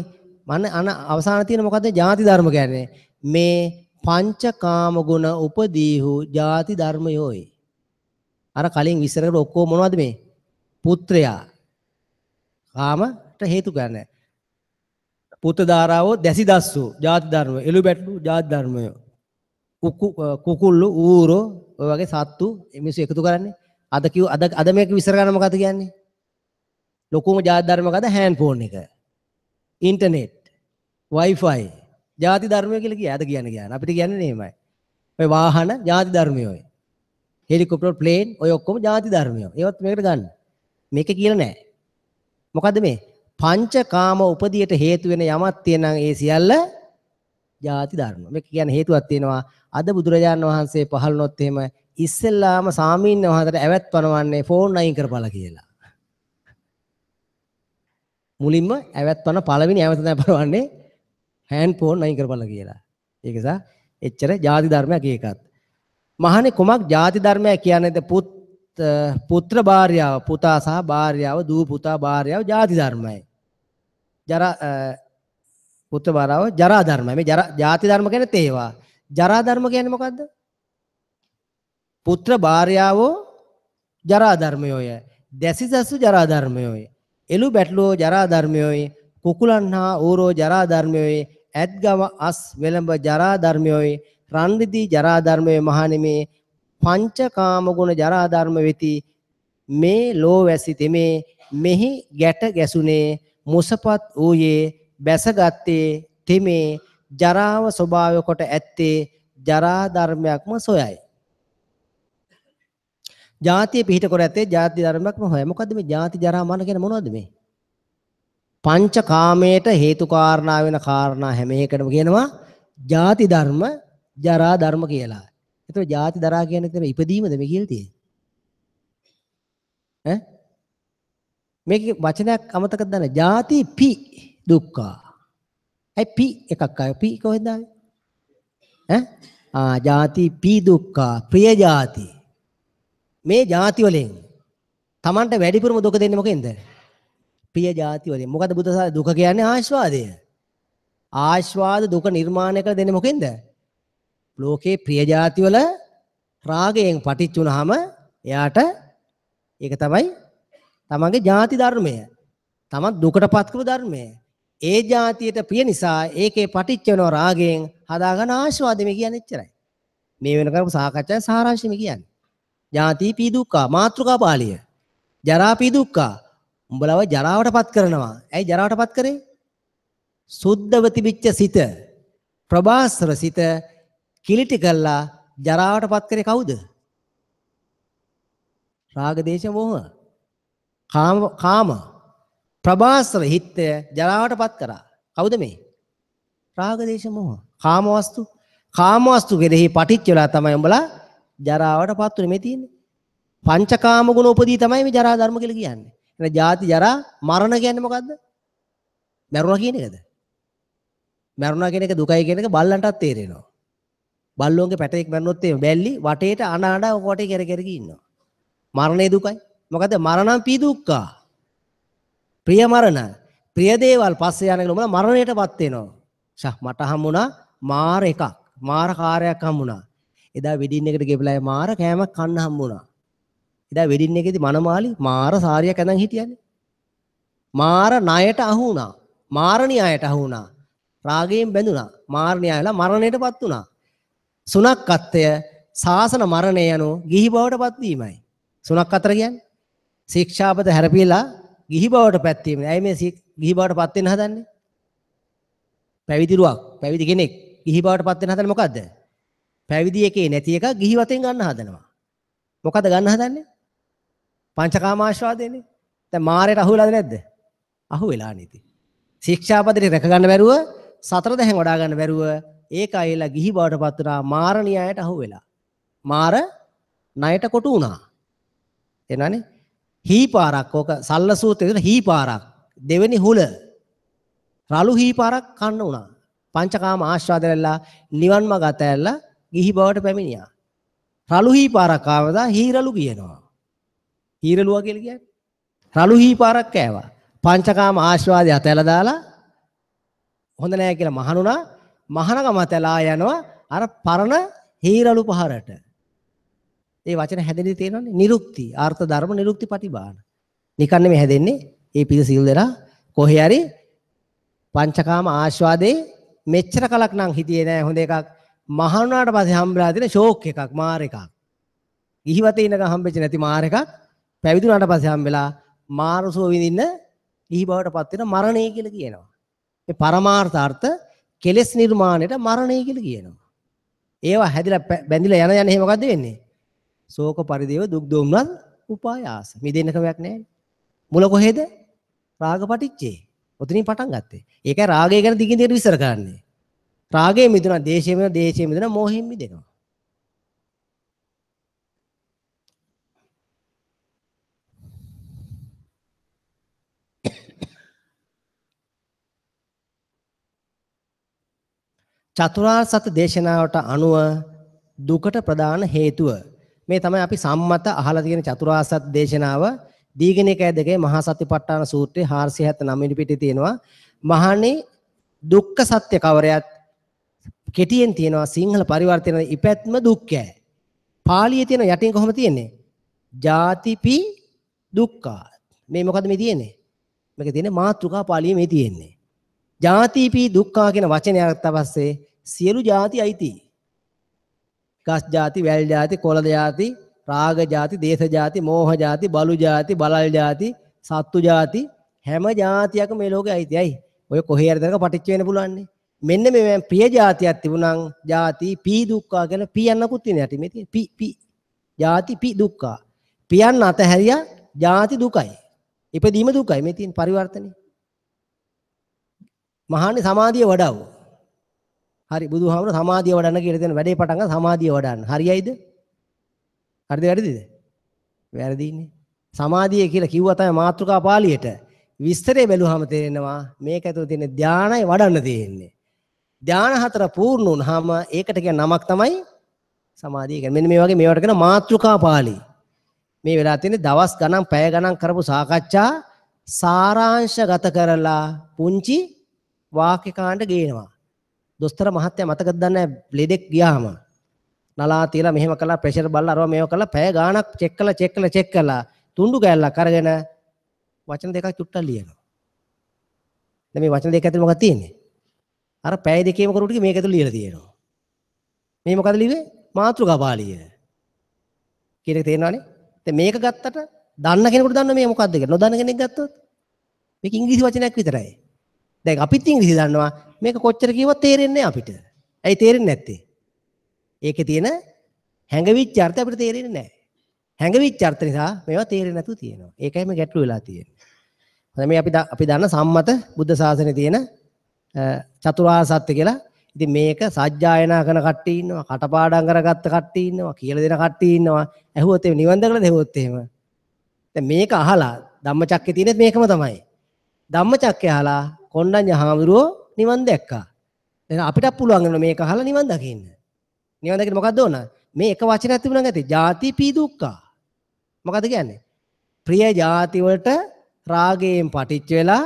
මන අන අවසාන තියෙන මොකද්ද ජාති ධර්ම කියන්නේ? මේ පංචකාම ගුණ උපදීහු ජාති ධර්මයෝයි. අර කලින් විස්තර කරපු ඔක්කොම මොනවද මේ? පුත්‍රයා කාමට හේතු ගන්න. පුත්‍ර ධාරාවෝ දැසි දස්සු ජාති ධර්ම, එළු බැටළු ජාති ධර්මය, කුකුල්ලු ඌරෝ ඔය වගේ සත්තු මිනිස්සු එකතු කරන්නේ. අද කිව් අද අද මේක විස්තර කරන්න මොකද්ද කියන්නේ? ලොකුම ජාති ධර්ම මොකද්ද? හෑන්ඩ් ෆෝන් එක, ඉන්ටර්නෙට්, Wi-Fi ජාති ධර්මය කියලා කිය. අද කියන්නේ කියන්නේ අපිට කියන්නේ නෙමෙයි. ඔය වාහන ජාති ධර්මය, ඔය හෙලිකොප්ටර්, ප්ලේන් ඔය ඔක්කොම ජාති ධර්මය. ඒවත් මේකට ගන්න. මේක කියලා නෑ. මොකද්ද මේ? පංචකාම උපදියට හේතු වෙන යමක් තියෙනම් ඒ සියල්ල ජාති ධර්ම. මේක කියන්නේ හේතුවක් තියෙනවා. අද බුදුරජාණන් වහන්සේ පහළ වුණොත් එහෙම ඉස්සෙල්ලාම සාමීන් වහන්සේට ඇවැත් පනවන්නේ ෆෝන් අයින් කරපලා කියලා. මුලින්ම ඇවැත් පන පළවෙනි ඇවැත තමයි පනවන්නේ හෑන්ඩ් ෆෝන් අයින් කරපලා කියලා. ඒක නිසා එච්චර ජාති ධර්මයක් ඒකත්. මහණේ කුමක් ජාති ධර්මයක් කියන්නේද? පුත්‍ර භාර්යාව, පුතා සහ භාර්යාව, දූ පුතා භාර්යාව ජාති ධර්මයි. ජරා පුත්‍ර භාර්යාව ජරා ධර්මයි. මේ ජරා ජාති ධර්ම කියන්නේ තේවා. ජරා ධර්ම කියන්නේ මොකද්ද? පුත්‍ර භාර්යාවෝ ජරා ධර්මයෝය, දැසිසසු ජරා ධර්මයෝය, එළු බැටළුවෝ ජරා ධර්මයෝය, කුකුලන් හා ඌරෝ ජරා ධර්මයෝය, ඇත් ගව අස් වෙළඹ ජරා ධර්මයෝය, රන් රිදී ජරා ධර්මයෝය. මහණෙනි පංචකාම ගුණ ජරා ධර්ම වෙති. මේ ලෝවැසි තෙමේ මෙහි ගැට ගැසුනේ මුසපත් වූයේ බැසගත්තේ තෙමේ ජරාව ස්වභාවය කොට ඇත්තේ ජරා ධර්මයක්ම සොයයි. ජාතිය පිහිට කර ඇත්තේ ජාති ධර්මයක්ම හොයයි. මොකද්ද මේ ජාති ජරා මරණ කියන්නේ මොනවද මේ? පංචකාමයට හේතු කාරණා වෙන කාරණා හැම එකටම කියනවා ජාති ධර්ම ජරා ධර්ම කියලා. එතකොට ජාති දරා කියන්නේ එතන ඉපදීමද මේ කියලා තියෙන්නේ? ඈ මේකේ වචනයක් අමතකද දන්නේ? ජාති පි දුක්ඛ. ඇයි පි එකක් ආවේ? පි කොහෙන්ද ආවේ? ඈ ආ ජාති පි දුක්ඛ, ප්‍රිය ජාති. මේ ජාති වලින් Tamanට වැඩිපුරම දුක දෙන්නේ මොකෙන්ද? ප්‍රිය ජාති වලින්. මොකද බුද්ධ ශාසනය දුක කියන්නේ ආස්වාදය. ආස්වාද දුක නිර්මාණය කර දෙන්නේ මොකෙන්ද? ලෝකේ ප්‍රිය ජාති වල රාගයෙන් පටිච්ච වුණාම එයාට ඒක තමයි තමන්ගේ ජාති ධර්මය. තමන් දුකටපත් කරපු ධර්මය. ඒ ජාතියට ප්‍රිය නිසා ඒකේ පටිච්ච වෙනව රාගයෙන් හදාගන්න ආස්වාදෙ මේ කියන්නේ එච්චරයි. මේ වෙන කරපු සාකච්ඡාවේ සාරාංශය මේ කියන්නේ. ජාති පී දුක්ඛ මාතෘකා පාළිය. ජරා පී දුක්ඛ උඹලව ජරාවටපත් කරනවා. ඇයි ජරාවටපත් කරේ? සුද්ධව තිබිච්ච සිත, ප්‍රභාස්වර සිත කිලිටි කළා ජරාවටපත් කරේ කවුද? රාග දේශ මොහ කාම කාම ප්‍රභාස්වර හිතය ජරාවටපත් කරා. කවුද මේ? රාග දේශ මොහ කාම වස්තු. කාම වස්තු කෙරෙහි පටිච්ච වෙලා තමයි උඹලා ජරාවටපත් උනේ මේ තියෙන්නේ. පංචකාම ගුණ උපදී තමයි මේ ජරා ධර්ම කියලා කියන්නේ. එහෙනම් ජාති ජරා මරණ කියන්නේ මොකද්ද? මැරුණා කියන එකද? මැරුණා කියන එක දුකයි කියන එක බල්ලන්ටත් තේරෙනවා. බල්ලෝන්ගේ පැටයෙක් මැරුණොත් එහෙම බැල්ලි වටේට අඬ අඬ ඔක වටේ කෙර කෙර ඉන්නවා. මරණේ දුකයි. මොකද මරණං පී දුක්ඛා. ප්‍රිය මරණ. ප්‍රිය දේවල් පස්සේ යන කියලා උඹලා මරණයටපත් වෙනවා. ෂා මට හම්බුණා මාර එකක්. මාර කාර්යයක් හම්බුණා. එදා වෙඩින් එකට ගෙපලා මාර කෑමක් කන්න හම්බුණා. එදා වෙඩින් එකේදී මනමාලි මාර සාරියක් ඇඳන් හිටියනේ. මාර ණයට අහු වුණා. මාරණියායට අහු වුණා. රාගයෙන් බැඳුණා. මාරණියා වෙලා මරණයටපත් වුණා. සුනක්කත්වය සාසන මරණය යනු ගිහි බවට පත්වීමයි. සුනක්කතර කියන්නේ ශික්ෂාපද හැරපිලා ගිහි බවට පත්වීම. ඇයි මේ ගිහි බවට පත් වෙන්න හදන්නේ? පැවිදි රුවක්, පැවිදි කෙනෙක් ගිහි බවට පත් වෙන්න හදන්නේ මොකද්ද? පැවිදි එකේ නැති එක ගිහි වතෙන් ගන්න හදනවා. මොකද්ද ගන්න හදන්නේ? පංචකාම ආශ්වාදයනේ. දැන් මාරයට අහු වෙලාද නැද්ද? අහු වෙලා නේ ඉතින්. ශික්ෂාපදේ රැක ගන්න බැරුව, සතර දැහැන් වඩා ගන්න බැරුව ඒක ඇවිල්ලා ගිහි බවට පත් වුණා. මාර න්‍යායට අහු වෙලා. මාර ණයට කොටු වුණා. එනවනේ හී පාරක්, ඕක සල්ල සූත්‍රයේ තියෙන හී පාරක්, දෙවෙනි හුල රළු හී පාරක් කන්න වුණා. පංචකාම ආස්වාද වෙලා නිවන් මඟ අතෑරලා ගිහි බවට පැමිණියා. රළු හී පාරක් ආවදා හීරළු කියනවා. හීරළුවා කියලා කියන්නේ රළු හී පාරක් කෑවා. පංචකාම ආස්වාදය අතෑරලා දාලා හොඳ නෑ කියලා මහණුණා. මහණකම අතෑරලා යනවා අර පරණ හීරළු පහරට. ඒ වචන හැදෙන්නේ තේරෙනවනේ. නිරුක්ති, අර්ථ ධර්ම නිරුක්ති පටිභාන. නිකන් නෙමෙයි හැදෙන්නේ. ඒ පිළ සිල් දෙනා කොහේ හරි පංචකාම ආස්වාදේ මෙච්චර කලක් නම් හිතියේ නෑ හොඳ එකක්. මහණුනාට පස්සේ හම්බෙලා තියෙන ෂෝක් එකක්, මාර එකක්. ගිහිවතේ ඉන්නකම් හම්බෙච්ච නැති මාර එකක් පැවිදුණාට පස්සේ හම්බෙලා මාරසුව විඳින්න ගිහි බවට පත් වෙන මරණය කියලා කියනවා. මේ පරමාර්ථ අර්ථ කෙලෙස් නිර්මාණයට මරණය කියලා කියනවා. ඒවා හැදිලා බැඳිලා යන යන එහෙම මොකද්ද වෙන්නේ? ශෝක පරිදේව දුක් දොම්නස් උපායාස. මිදෙන්න ක්‍රමයක් නෑ. මුල කොහෙද? රාග පටිච්චේ. ඔතනින් පටන් ගත්තේ. ඒකයි රාගය ගැන දිගින් දිගට විස්තර කරන්නේ. රාගයෙන් මිදුණා, දේශයෙන් මිදුණා, දේශයෙන් මිදුණා, මෝහයෙන් මිදෙනවා. චතුරාර්ය සත්‍ය දේශනාවට අනුව දුකට ප්‍රධාන හේතුව මේ තමයි අපි සම්මත අහලා තියෙන චතුරාර්ය සත්‍ය දේශනාව. දීඝනිකාය දෙකේ මහා සතිපට්ඨාන සූත්‍රයේ 479 වෙනි පිටේ තියෙනවා. මහණේ දුක්ඛ සත්‍ය කවරයත් කෙටියෙන් තියෙනවා. සිංහල පරිවර්තන ඉපැත්ම දුක්ඛය. පාලියේ තියෙන යටින් කොහොම තියෙන්නේ? ජාතිපි දුක්ඛා. මේ මොකද මේ තියෙන්නේ? මේක තියෙන්නේ මාතෘකා පාලියේ මේ තියෙන්නේ. ජාතිපි දුක්ඛා කියන වචනය අරගත්ත පස්සේ සියලු ජාති අයිති. ගස් ජාති, වැල් ජාති, කොළ ජාති, රාග ජාති, දේශ ජාති, මෝහ ජාති, බලු ජාති, බලල් ජාති, සත්තු ජාති, හැම ජාතියක්ම මේ ලෝකේ අයිති. ඇයි? ඔය කොහේ හරි තැනක පටිච්ච වෙන්න පුළුවන් නේ. මෙන්න මේ ප්‍රිය ජාතියක් තිබුණනම් ජාති පී දුක්ඛා කියලා පී යන්නකුත් තියෙන යටි මේ තියෙන පී පී ජාති පී දුක්ඛා. පියන්න අතහැරියා ජාති දුකයි. ඉපදීම දුකයි මේ තියෙන පරිවර්තනේ. මහන්නේ සමාධිය වඩව. හරි, බුදුහාමුදුර සමාධිය වඩන්න කියලා දෙන වැඩේ පටන් ගන්න සමාධිය වඩන්න. හරියයිද? හරිද වැරදිද? වැරදිනේ. සමාධිය කියලා කිව්වා තමයි මාතෘකා පාළියට. විස්තරේ බැලුවාම තේරෙනවා මේක ඇතුළේ තියෙන ධානය වඩන්න තියෙන්නේ. ධාන හතර පූර්ණ වුණාම ඒකට කියන නමක් තමයි සමාධිය කියන්නේ. මෙන්න මේ වගේ මේවට කියන මාතෘකා පාළි. මේ වෙලා තියෙන්නේ දවස් ගණන් පැය ගණන් කරපු සාකච්ඡා සාරාංශගත කරලා පුංචි වාක්‍ය කාණ්ඩ ගේනවා. දොස්තර මහත්තයා මතකද දන්නේ නැහැ ලෙඩෙක් ගියාම නලා තියලා මෙහෙම කළා, ප්‍රෙෂර් බලලා අරවා මේව කළා, පැය ගාණක් චෙක් කළා චෙක් කළා චෙක් කළා, තුන්ඩු කෑල්ලක් අරගෙන වචන දෙකක් චුට්ටක් ලියනවා. දැන් මේ වචන දෙක ඇතුලේ මොකක්ද තියෙන්නේ? අර පැය දෙකේම කරු ටික මේක ඇතුලේ ලියලා තියෙනවා. මේ මොකද ලිව්වේ? මාතෘකා පාළිය. කියන එක තේරෙනවනේ? දැන් මේක ගත්තට දන්න කෙනෙකුට දන්න මේ මොකද්ද කියලා. නොදන්න කෙනෙක් ගත්තොත් මේක ඉංග්‍රීසි වචනයක් විතරයි. දැන් අපිත් ඉංග්‍රීසි දන්නවා. මේක කොච්චර කිව්වත් තේරෙන්නේ නැහැ අපිට. ඇයි තේරෙන්නේ නැත්තේ? ඒකේ තියෙන හැඟවිච්ච අර්ථය අපිට තේරෙන්නේ නැහැ. හැඟවිච්ච අර්ථ නිසා මේවා තේරෙන්නේ නැතුව තියෙනවා. ඒකයි මේ ගැටලු වෙලා තියෙන්නේ. හොඳයි, මේ අපි දන්න සම්මත බුද්ධ ශාසනයේ තියෙන චතුරාර්ය සත්‍ය කියලා. ඉතින් මේක සජ්ජායනා කරන කට්ටිය ඉන්නවා, කටපාඩම් කරගත්ත කට්ටිය ඉන්නවා, කියලා දෙන කට්ටිය ඉන්නවා. ඇහුවොත් එහෙම නිවන් දැකලාද ඇහුවොත් එහෙම. දැන් මේක අහලා ධම්මචක්කේ තියෙනෙත් මේකම තමයි. ධම්මචක්කේ අහලා කොණ්ඩඤ්ඤ හාමුදුරුවෝ නිවන් දැක්කා. දැන් අපිටත් පුළුවන් වෙනවා මේක අහලා නිවන් දකින්න. නිවන් දකින්න මොකද්ද ඕන? මේ එක වචනයක් තිබුණා නම් ඇති. ජාති පී දුක්ඛා. මොකද්ද කියන්නේ? ප්‍රිය ಜಾති වලට රාගයෙන් පටිච්ච වෙලා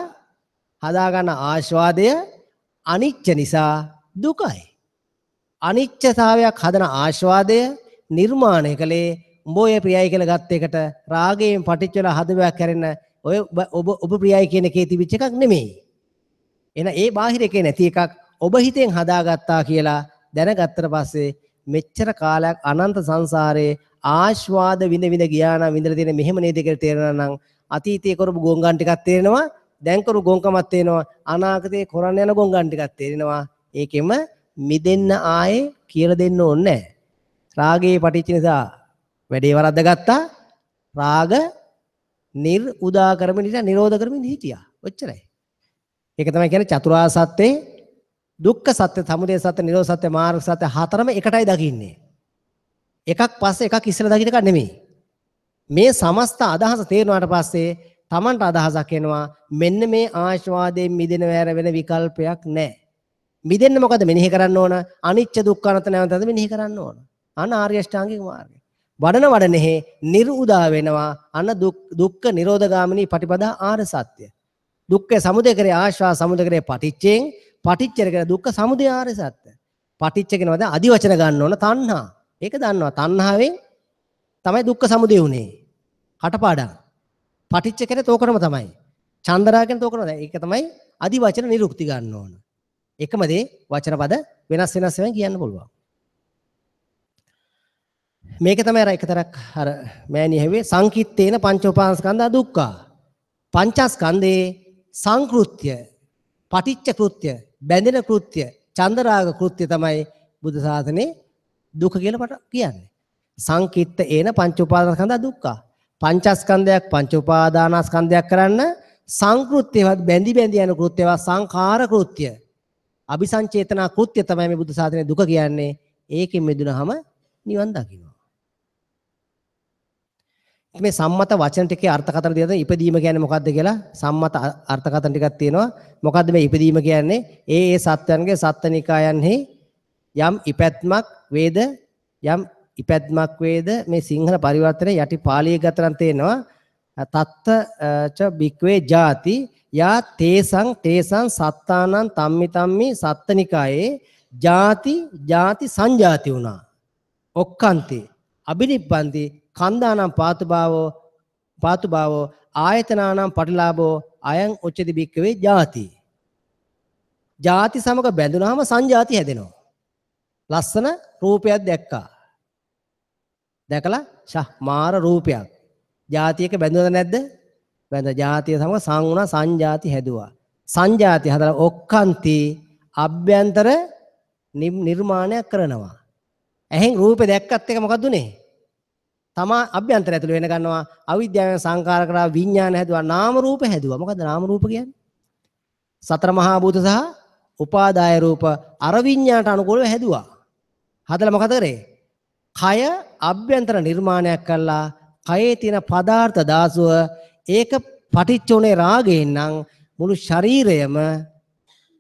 හදාගන්න ආස්වාදය අනිච්ච නිසා දුකයි. අනිච්චතාවයක් හදන ආස්වාදය නිර්මාණය කළේ උඹ ඔය ප්‍රියයි කියලා ගත්ත එකට රාගයෙන් පටිච්ච වෙලා හදවයක් හැරෙන ඔය ඔබ ඔබ ප්‍රියයි කියන එකේ තිබිච්ච එකක් නෙමෙයි. එහෙනම් ඒ බාහිර එකේ නැති එකක් ඔබ හිතෙන් හදාගත්තා කියලා දැනගත්තට පස්සේ මෙච්චර කාලයක් අනන්ත සංසාරේ ආස්වාද විඳ විඳ ගියා නම් විඳලා තියෙන මෙහෙම නේද කියලා තේරෙනවා නම් අතීතයේ කරපු ගොංගන් ටිකක් තේරෙනවා, දැන් කරපු ගොංකමක් තේරෙනවා, අනාගතයේ කරන්න යන ගොංගන් ටිකක් තේරෙනවා. ඒකෙම මිදෙන්න ආයේ කියලා දෙන්න ඕනේ නැහැ. රාගයේ පටිච්ච නිසා වැඩේ වරද්දගත්තා. රාග නිර් උදා කරමින් හිටියා, නිරෝධ කරමින් හිටියා. ඔච්චරයි. ඒක තමයි කියන්නේ චතුරාර්ය සත්‍යේ දුක්ඛ සත්‍ය, සමුදය සත්‍ය, නිරෝධ සත්‍ය, මාර්ග සත්‍ය හතරම එකටයි දකින්නේ. එකක් පස්සේ එකක් ඉස්සෙල්ලා දකින්න එකක් නෙමෙයි. මේ සමස්ත අදහස තේරුණාට පස්සේ Tamanට අදහසක් එනවා මෙන්න මේ ආශාවාදයෙන් මිදෙන වැර වෙන විකල්පයක් නැහැ. මිදෙන්න මොකද මෙනෙහි කරන්න ඕන? අනිච්ච දුක්ඛ අනාත්ම නැවතත් මෙනෙහි කරන්න ඕන. අන්න ආර්ය අෂ්ටාංගික මාර්ගය. වඩන වඩනෙහි නිර්උදා වෙනවා. අන්න දුක්ඛ නිරෝධගාමිනී පටිපදා ආර්ය සත්‍ය. දුක්ඛ සමුදය කරේ ආශ්වාස සමුදය කරේ පටිච්චයෙන්, පටිච්ච කරේ දුක්ඛ සමුදය ආර්ය සත්‍ය. පටිච්ච කියනවා දැන් අදි වචන ගන්න ඕන තණ්හා. ඒක දන්නවා. තණ්හාවෙන් තමයි දුක්ඛ සමුදය උනේ. කටපාඩම්. පටිච්ච කියන්නේ තෝකරම තමයි. චන්දරා කියන්නේ තෝකරම තමයි. ඒක තමයි අදි වචන නිරුක්ති ගන්න ඕන. එකම දේ වචන පද වෙනස් වෙනස් වෙන කියන්න පුළුවන්. මේක තමයි අර එකතරක් අර මෑණිය හැව්වේ සංකිට්තේන පංච උපාදානස්කන්ධා දුක්ඛා. පංචස්කන්ධේ සංකෘත්‍ය, පටිච්ච කෘත්‍ය, බැඳෙන කෘත්‍ය, චන්දරාග කෘත්‍ය තමයි බුදු සාසනේ දුක කියලා පට කියන්නේ. සංකිට්ත ඒන පංච උපාදානස්කන්ධා දුක්ඛා. පංචස්කන්ධයක් පංච උපාදානස්කන්ධයක් කරන්න සංකෘත්‍යවත් බැඳි බැඳි යන කෘත්‍යවත් සංඛාර කෘත්‍ය, අபிසංචේතනා කෘත්‍ය තමයි මේ බුදු සාසනේ දුක කියන්නේ. ඒකෙන් මිදුනහම නිවන් දකින්නවා. මේ සම්මත වචන ටිකේ අර්ථකථන දෙනවා. ඉපදීම කියන්නේ මොකද්ද කියලා සම්මත අර්ථකථන ටිකක් තියෙනවා. මොකද්ද මේ ඉපදීම කියන්නේ? ඒ ඒ සත්වයන්ගේ සත්ත්වනිකායන්හි යම් ඉපැත්මක් වේද, යම් ඉපැත්මක් වේද. මේ සිංහල පරිවර්තනයේ යටි පාලිය ගතරන් තේනවා. තත්ත ච බික්වේ ජාති යා තේසං තේසං සත්තානං තම්මි තම්මි සත්තනිකායේ ජාති ජාති සංජාති වුණා. ඔක්කන්ති අබිනිබ්බන්ති කන්දානම් පාතුභාවෝ පාතුභාවෝ ආයතනානම් පටිලාභෝ අයං උච්චති බික්කවේ ජාති. ජාති සමග බැඳුනහම සංජාති හැදෙනවා. ලස්සන රූපයක් දැක්කා. දැකලා ෂා මාර රූපයක්. ජාතියක බැඳුනද නැද්ද? බැඳ ජාතිය සමග සං වුණා, සංජාති හැදුවා. සංජාති හදලා ඔක්කන්ති අභ්‍යන්තර නිර්මාණයක් කරනවා. ඇහෙන් රූපේ දැක්කත් එක මොකද්ද උනේ? තමා අභ්‍යන්තර ඇතුළේ වෙන ගන්නවා. අවිද්‍යාවෙන් සංකාර කරා විඥාන හැදුවා, නාම රූප හැදුවා. මොකද්ද නාම රූප කියන්නේ? සතර මහා භූත සහ උපාදාය රූප අර විඥානට අනුකූලව හැදුවා. හදලා මොකද කරේ? කය අභ්‍යන්තර නිර්මාණයක් කළා. කයේ තියෙන පදාර්ථ දාසුව ඒක පටිච්ච උනේ රාගයෙන් නම් මුළු ශරීරයම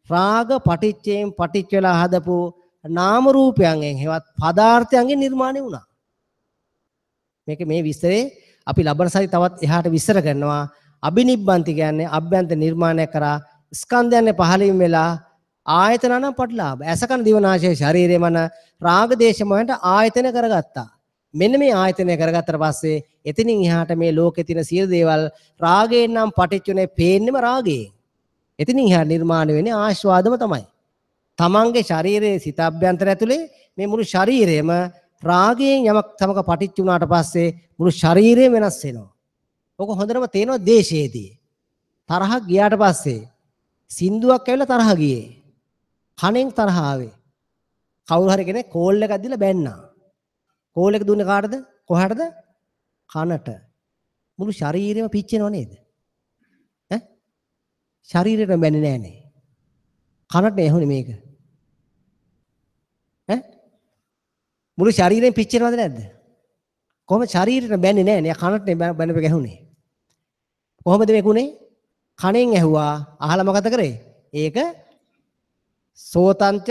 රාග පටිච්චයෙන් පටිච්ච වෙලා හදපු නාම රූපයන්ගෙන් හෙවත් පදාර්ථයන්ගෙන් නිර්මාණය වුණා. මේක මේ විස්තරේ අපි ලබන සති තවත් එහාට විස්තර කරනවා. අබිනිබ්බන්ති කියන්නේ අභ්‍යන්තර නිර්මාණය කරා ස්කන්ධයන් පහළින් වෙලා ආයතන නම් පටලාභ. ඇස කන දිව නාසය ශරීරය මන රාග දේශ මොහොන්ට ආයතන කරගත්තා. මෙන්න මේ ආයතනය කරගත්තට පස්සේ එතනින් එහාට මේ ලෝකේ තියෙන සියලු දේවල් රාගයෙන් නම් පටිච්චුනේ පේන්නෙම රාගයෙන්. එතනින් එහාට නිර්මාණය වෙන්නේ ආස්වාදම තමයි. තමන්ගේ ශරීරයේ සිත අභ්‍යන්තර ඇතුලේ මේ මුළු ශරීරයම රාගයෙන් යමක් සමග පටිච්ච වුණාට පස්සේ මුළු ශරීරයම වෙනස් වෙනවා. ඔක හොඳටම තේනවා දේශයේදී. තරහ ගියාට පස්සේ සින්දුවක් ඇවිල්ලා තරහ ගියේ. කනෙන් තරහ ආවේ. කවුරු හරි කෙනෙක් කෝල් එකක් දීලා බැන්නා. කෝල් එක දුන්නේ කාටද? කොහාටද? කනට. මුළු ශරීරෙම පිච්චෙනව නේද? ඈ? ශරීරෙට බැන්නේ නෑනේ. කනට ඇහුනේ මේක. ඈ? මුළු ශරීරෙම පිච්චෙනවද නැද්ද? කොහොම ශරීරෙට බැන්නේ නෑනේ. කනට බැනපෙක ඇහුනේ. කොහොමද මේක උනේ? කනෙන් ඇහුවා. අහලා මොකද කරේ? ඒක සෝතංච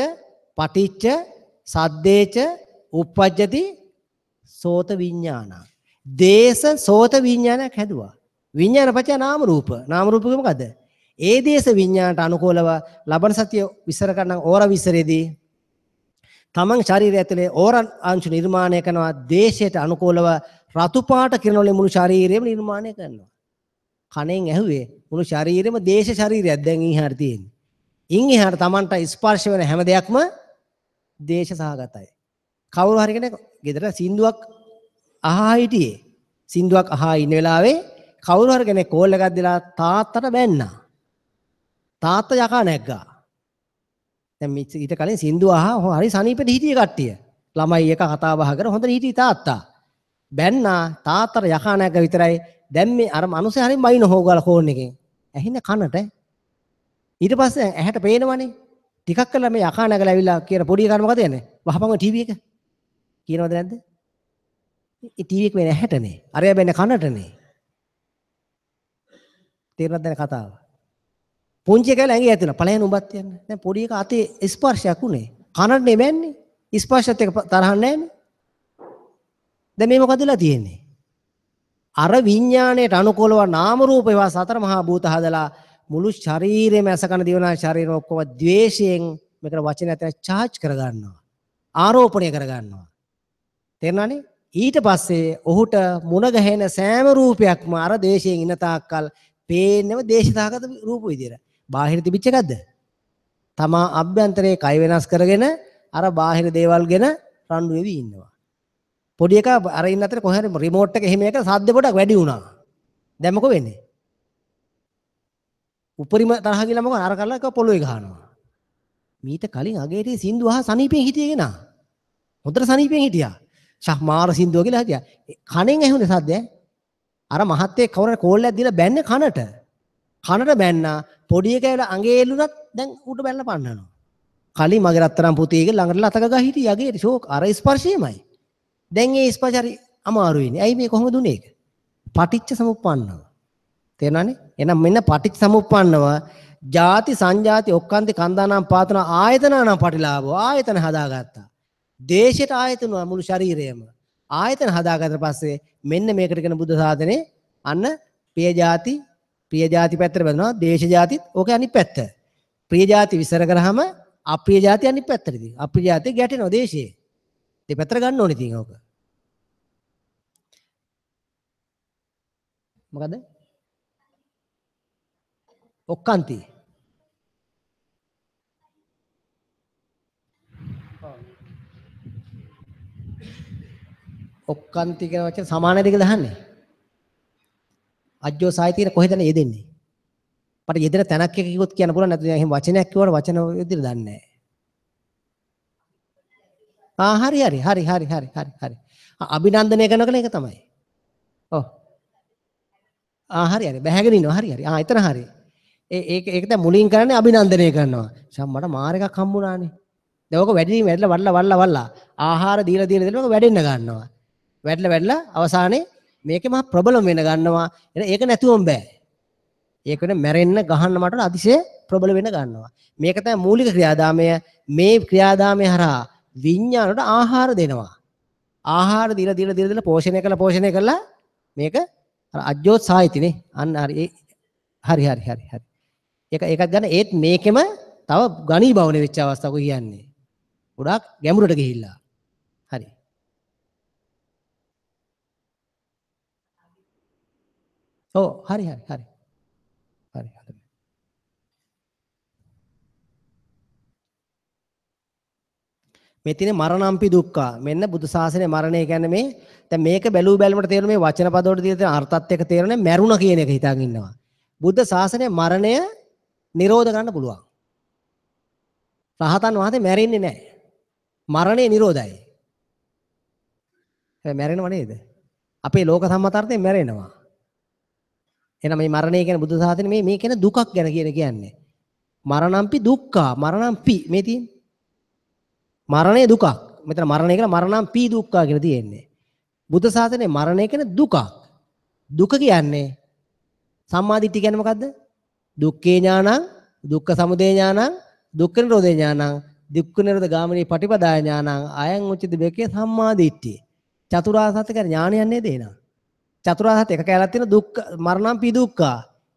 පටිච්ච සද්දේච උප්පජ්ජති සෝත විඥාන. දේශ සෝත විඥානයක් හැදුවා. විඥාන පත්‍ය නාම රූප. නාම රූප මොකද්ද? ඒ දේශ විඥානට අනුකූලව ලබන සතිය විස්තර කරන ඕර විස්තරයේදී තමන් ශරීරය ඇතුලේ ඕර අංශු නිර්මාණය කරනවා. දේශයට අනුකූලව රතු පාට කිරණ වලින් මුළු ශරීරයම නිර්මාණය කරනවා. කනෙන් ඇහුවේ මුළු ශරීරෙම දේශ ශරීරයක් දැන් ඉහාට තියෙන්නේ. ඉන් එහාට තමන්ට ස්පර්ශ වෙන හැම දෙයක්ම දේශ සහගතයි. කවුරු හරි කෙනෙක් ගෙදර සින්දුවක් අහා හිටියේ. සින්දුවක් අහා ඉන්න වෙලාවේ කවුරු හරි කෙනෙක් කෝල් එකක් දීලා තාත්තට බැන්නා. තාත්තා යකා නැග්ගා. දැන් ඊට කලින් සින්දුව අහා හරි සනීපෙට හිටියේ කට්ටිය. ළමයි එක කතා බහ කර හොඳට හිටියේ තාත්තා. බැන්නා තාත්තට යකා නැග්ගා විතරයි. දැන් මේ අර මනුස්සයා හරිය බයින හොගාලා ෆෝන් එකෙන්. ඇහින්නේ කනට. ඊට පස්සේ ඇහැට පේනවනේ. ටිකක් කළා මේ යකා නැගලා ඇවිල්ලා කියන පොඩි එකාට මොකද යන්නේ? වහපන් ඔය ටීවී එක. කියනවද නැද්ද? ඒ ටීවී එක වෙන්නේ ඇහැටනේ. අරයා බැන්නේ කනටනේ. තේරුණාද දැන් කතාව? පුංචි එකා ඇඟේ ඇතුළේ ඵලයන් උඹත් යන්න. දැන් පොඩි එකා අතේ ස්පර්ශයක් උනේ. කනටනේ බැන්නේ. ස්පර්ශයත් එක්ක තරහ නැහැනේ. දැන් මේ මොකද වෙලා තියෙන්නේ? අර විඥාණයට අනුකූලව නාම රූප ඒවා සතර මහා භූත හදලා මුළු ශරීරෙම ඇස කන දිව නාසය ශරීරෙම ඔක්කොම ද්වේෂයෙන් මේකට වචන ඇතන චාර්ජ් කරගන්නවා. ආරෝපණය කරගන්නවා. තේරුණානේ? ඊට පස්සේ ඔහුට මුණ ගැහෙන සෑම රූපයක්ම අර ද්වේෂයෙන් ඉන්න තාක්කල් පේන්නම දේශසහගත රූප විදියට. බාහිර තිබිච්ච එකක්ද? තමා අභ්‍යන්තරයේ කය වෙනස් කරගෙන අර බාහිර දේවල් ගැන රණ්ඩු වෙවි ඉන්නවා. පොඩි එකා අර ඉන්න අතරේ කොහේ හරි රිමෝට් එක එහෙම එක සද්ද පොඩක් වැඩි වුණා. දැන් මොකෝ වෙන්නේ? උපරිම තරහ ගිහලා මොකෝ අර කරලා එක පොළොවේ ගහනවා. මීට කලින් අගේටේ සින්දු අහ සනීපෙන් හිටියේ කෙනා. හොඳට සනීපෙන් හිටියා. ෂා මාර සින්දුව කියලා හිටියා. කනෙන් ඇහුනේ සද්ද ඈ. අර මහත්තයෙක් කවුරු හරි කෝල් එකක් දීලා බැන්නේ කනට. කනට බැන්නා පොඩි එකා ඇවිල්ලා අඟේ එල්ලුණත් දැන් ඌට බැලලා පන්නනවා. කලින් මගේ රත්තරන් පුතේ කියලා ළඟට ලතක ගහ හිටියා අගේට ෂෝක් අර ස්පර්ශයමයි. දැන් ඒ ස්පර්ශ හරි අමාරු වෙන්නේ. ඇයි මේ කොහොමද උනේ ඒක? පටිච්ච සමුප්පන්නව. තේරෙනවනේ? එහෙනම් මෙන්න පටිච්ච සමුප්පන්නව ජාති සංජාති ඔක්කාන්ති කන්දානම් පාතන ආයතනානම් පටිලාභෝ ආයතන හදාගත්තා. දේශයට ආයතන මුළු ශරීරයම ආයතන හදාගත්තට පස්සේ මෙන්න මේකට කියන බුද්ධ සාධනේ අන්න ප්‍රිය ජාති ප්‍රිය ජාති පැත්තට බැලුවා දේශ ජාතිත් ඕකේ අනිත් පැත්ත. ප්‍රිය ජාති විසර කරාම අප්‍රිය ජාති අනිත් පැත්තට ඉතින්. අප්‍රිය ජාති ගැටෙනවා දේශයේ. දෙපැත්තට ගන්න ඕනේ ඉතින් ඕක. මොකද? ඔක්කාන්ති. ඔක්කාන්ති කියන වචන සමාන දෙක දහන්නේ. අජ්ජෝ සායිතින කොහෙද යෙදෙන්නේ? මට යෙදෙන තැනක් එක කිව්වොත් කියන්න පුළුවන් නැත්නම් එහෙම වචනයක් කිව්වට වචන විදිහට දන්නේ නැහැ. ආ හරි හරි හරි හරි හරි හරි හරි. අභිනන්දනය කරන එක තමයි. ඔව්. ආ හරි හරි බැහැගෙන ඉන්නවා හරි හරි. ආ එතන හරි. ඒ ඒක ඒක දැන් මුලින් කරන්නේ අභිනන්දනය කරනවා. ෂම් මට මාර එකක් හම්බුණානේ. දැන් ඔක වැඩි වැඩිලා වඩලා වඩලා වඩලා ආහාර දීලා දීලා දීලා ඔක වැඩෙන්න ගන්නවා. වැඩිලා වැඩිලා අවසානයේ මේකේ මහා ප්‍රබලම වෙන ගන්නවා. එහෙනම් ඒක නැතුවම බෑ. ඒක වෙන මැරෙන්න ගහන්න මට අතිශය ප්‍රබල වෙන ගන්නවා. මේක තමයි මූලික ක්‍රියාදාමය. මේ ක්‍රියාදාමය හරහා විඥානට ආහාර දෙනවා. ආහාර දීලා දීලා දීලා දීලා පෝෂණය කළා පෝෂණය කළා මේක අර අජ්ජෝත් සාහිතිනේ. අන්න හරි ඒ හරි හරි හරි හරි. ඒක ඒකත් ගන්න ඒත් මේකෙම තව ඝනීභවන වෙච්ච අවස්ථාවක කියන්නේ. ගොඩාක් ගැඹුරට ගිහිල්ලා. හරි. ඔව් හරි හරි හරි. හරි හරි. මේ තියෙන මරණම්පි දුක්ඛ. මෙන්න බුදු සාසනයේ මරණය කියන්නේ මේ දැන් මේක බැලූ බැලමට තේරෙන මේ වචන පද වලට තියෙන අර්ථත් එක්ක තේරෙන්නේ මැරුණ කියන එක හිතාගෙන ඉන්නවා. බුද්ධ ශාසනයේ මරණය නිරෝධ කරන්න පුළුවන්. රහතන් වහන්සේ මැරෙන්නේ නැහැ. මරණය නිරෝධයි. හැබැයි මැරෙනව නේද? අපේ ලෝක සම්මතාර්ථයෙන් මැරෙනවා. එහෙනම් මේ මරණය කියන්නේ බුද්ධ ශාසනයේ මේ මේ කියන දුකක් ගැන කියන කියන්නේ. මරණම්පි දුක්ඛ. මරණම්පි මේ තියෙන්නේ. මරණය දුකක්. මෙතන මරණය කියලා මරණම්පි දුක්ඛ කියලා තියෙන්නේ. බුද්ධ ශාසනයේ මරණය කියන්නේ දුකක්. දුක කියන්නේ සම්මා දිට්ඨිය කියන්නේ මොකද්ද? දුක්ඛේ ඥානං, දුක්ඛ සමුදය ඥානං, දුක්ඛ නිරෝධේ ඥානං, දුක්ඛ නිරෝධ ගාමිනී පටිපදාය ඥානං, අයං උච්චති බේකේ සම්මා දිට්ඨිය. චතුරාර්ය සත්‍ය කියන්නේ ඥානයක් නේද එහෙනම්? චතුරාර්ය සත්‍ය එක කැලක් තියෙන දුක්ඛ මරණම් පි දුක්ඛා.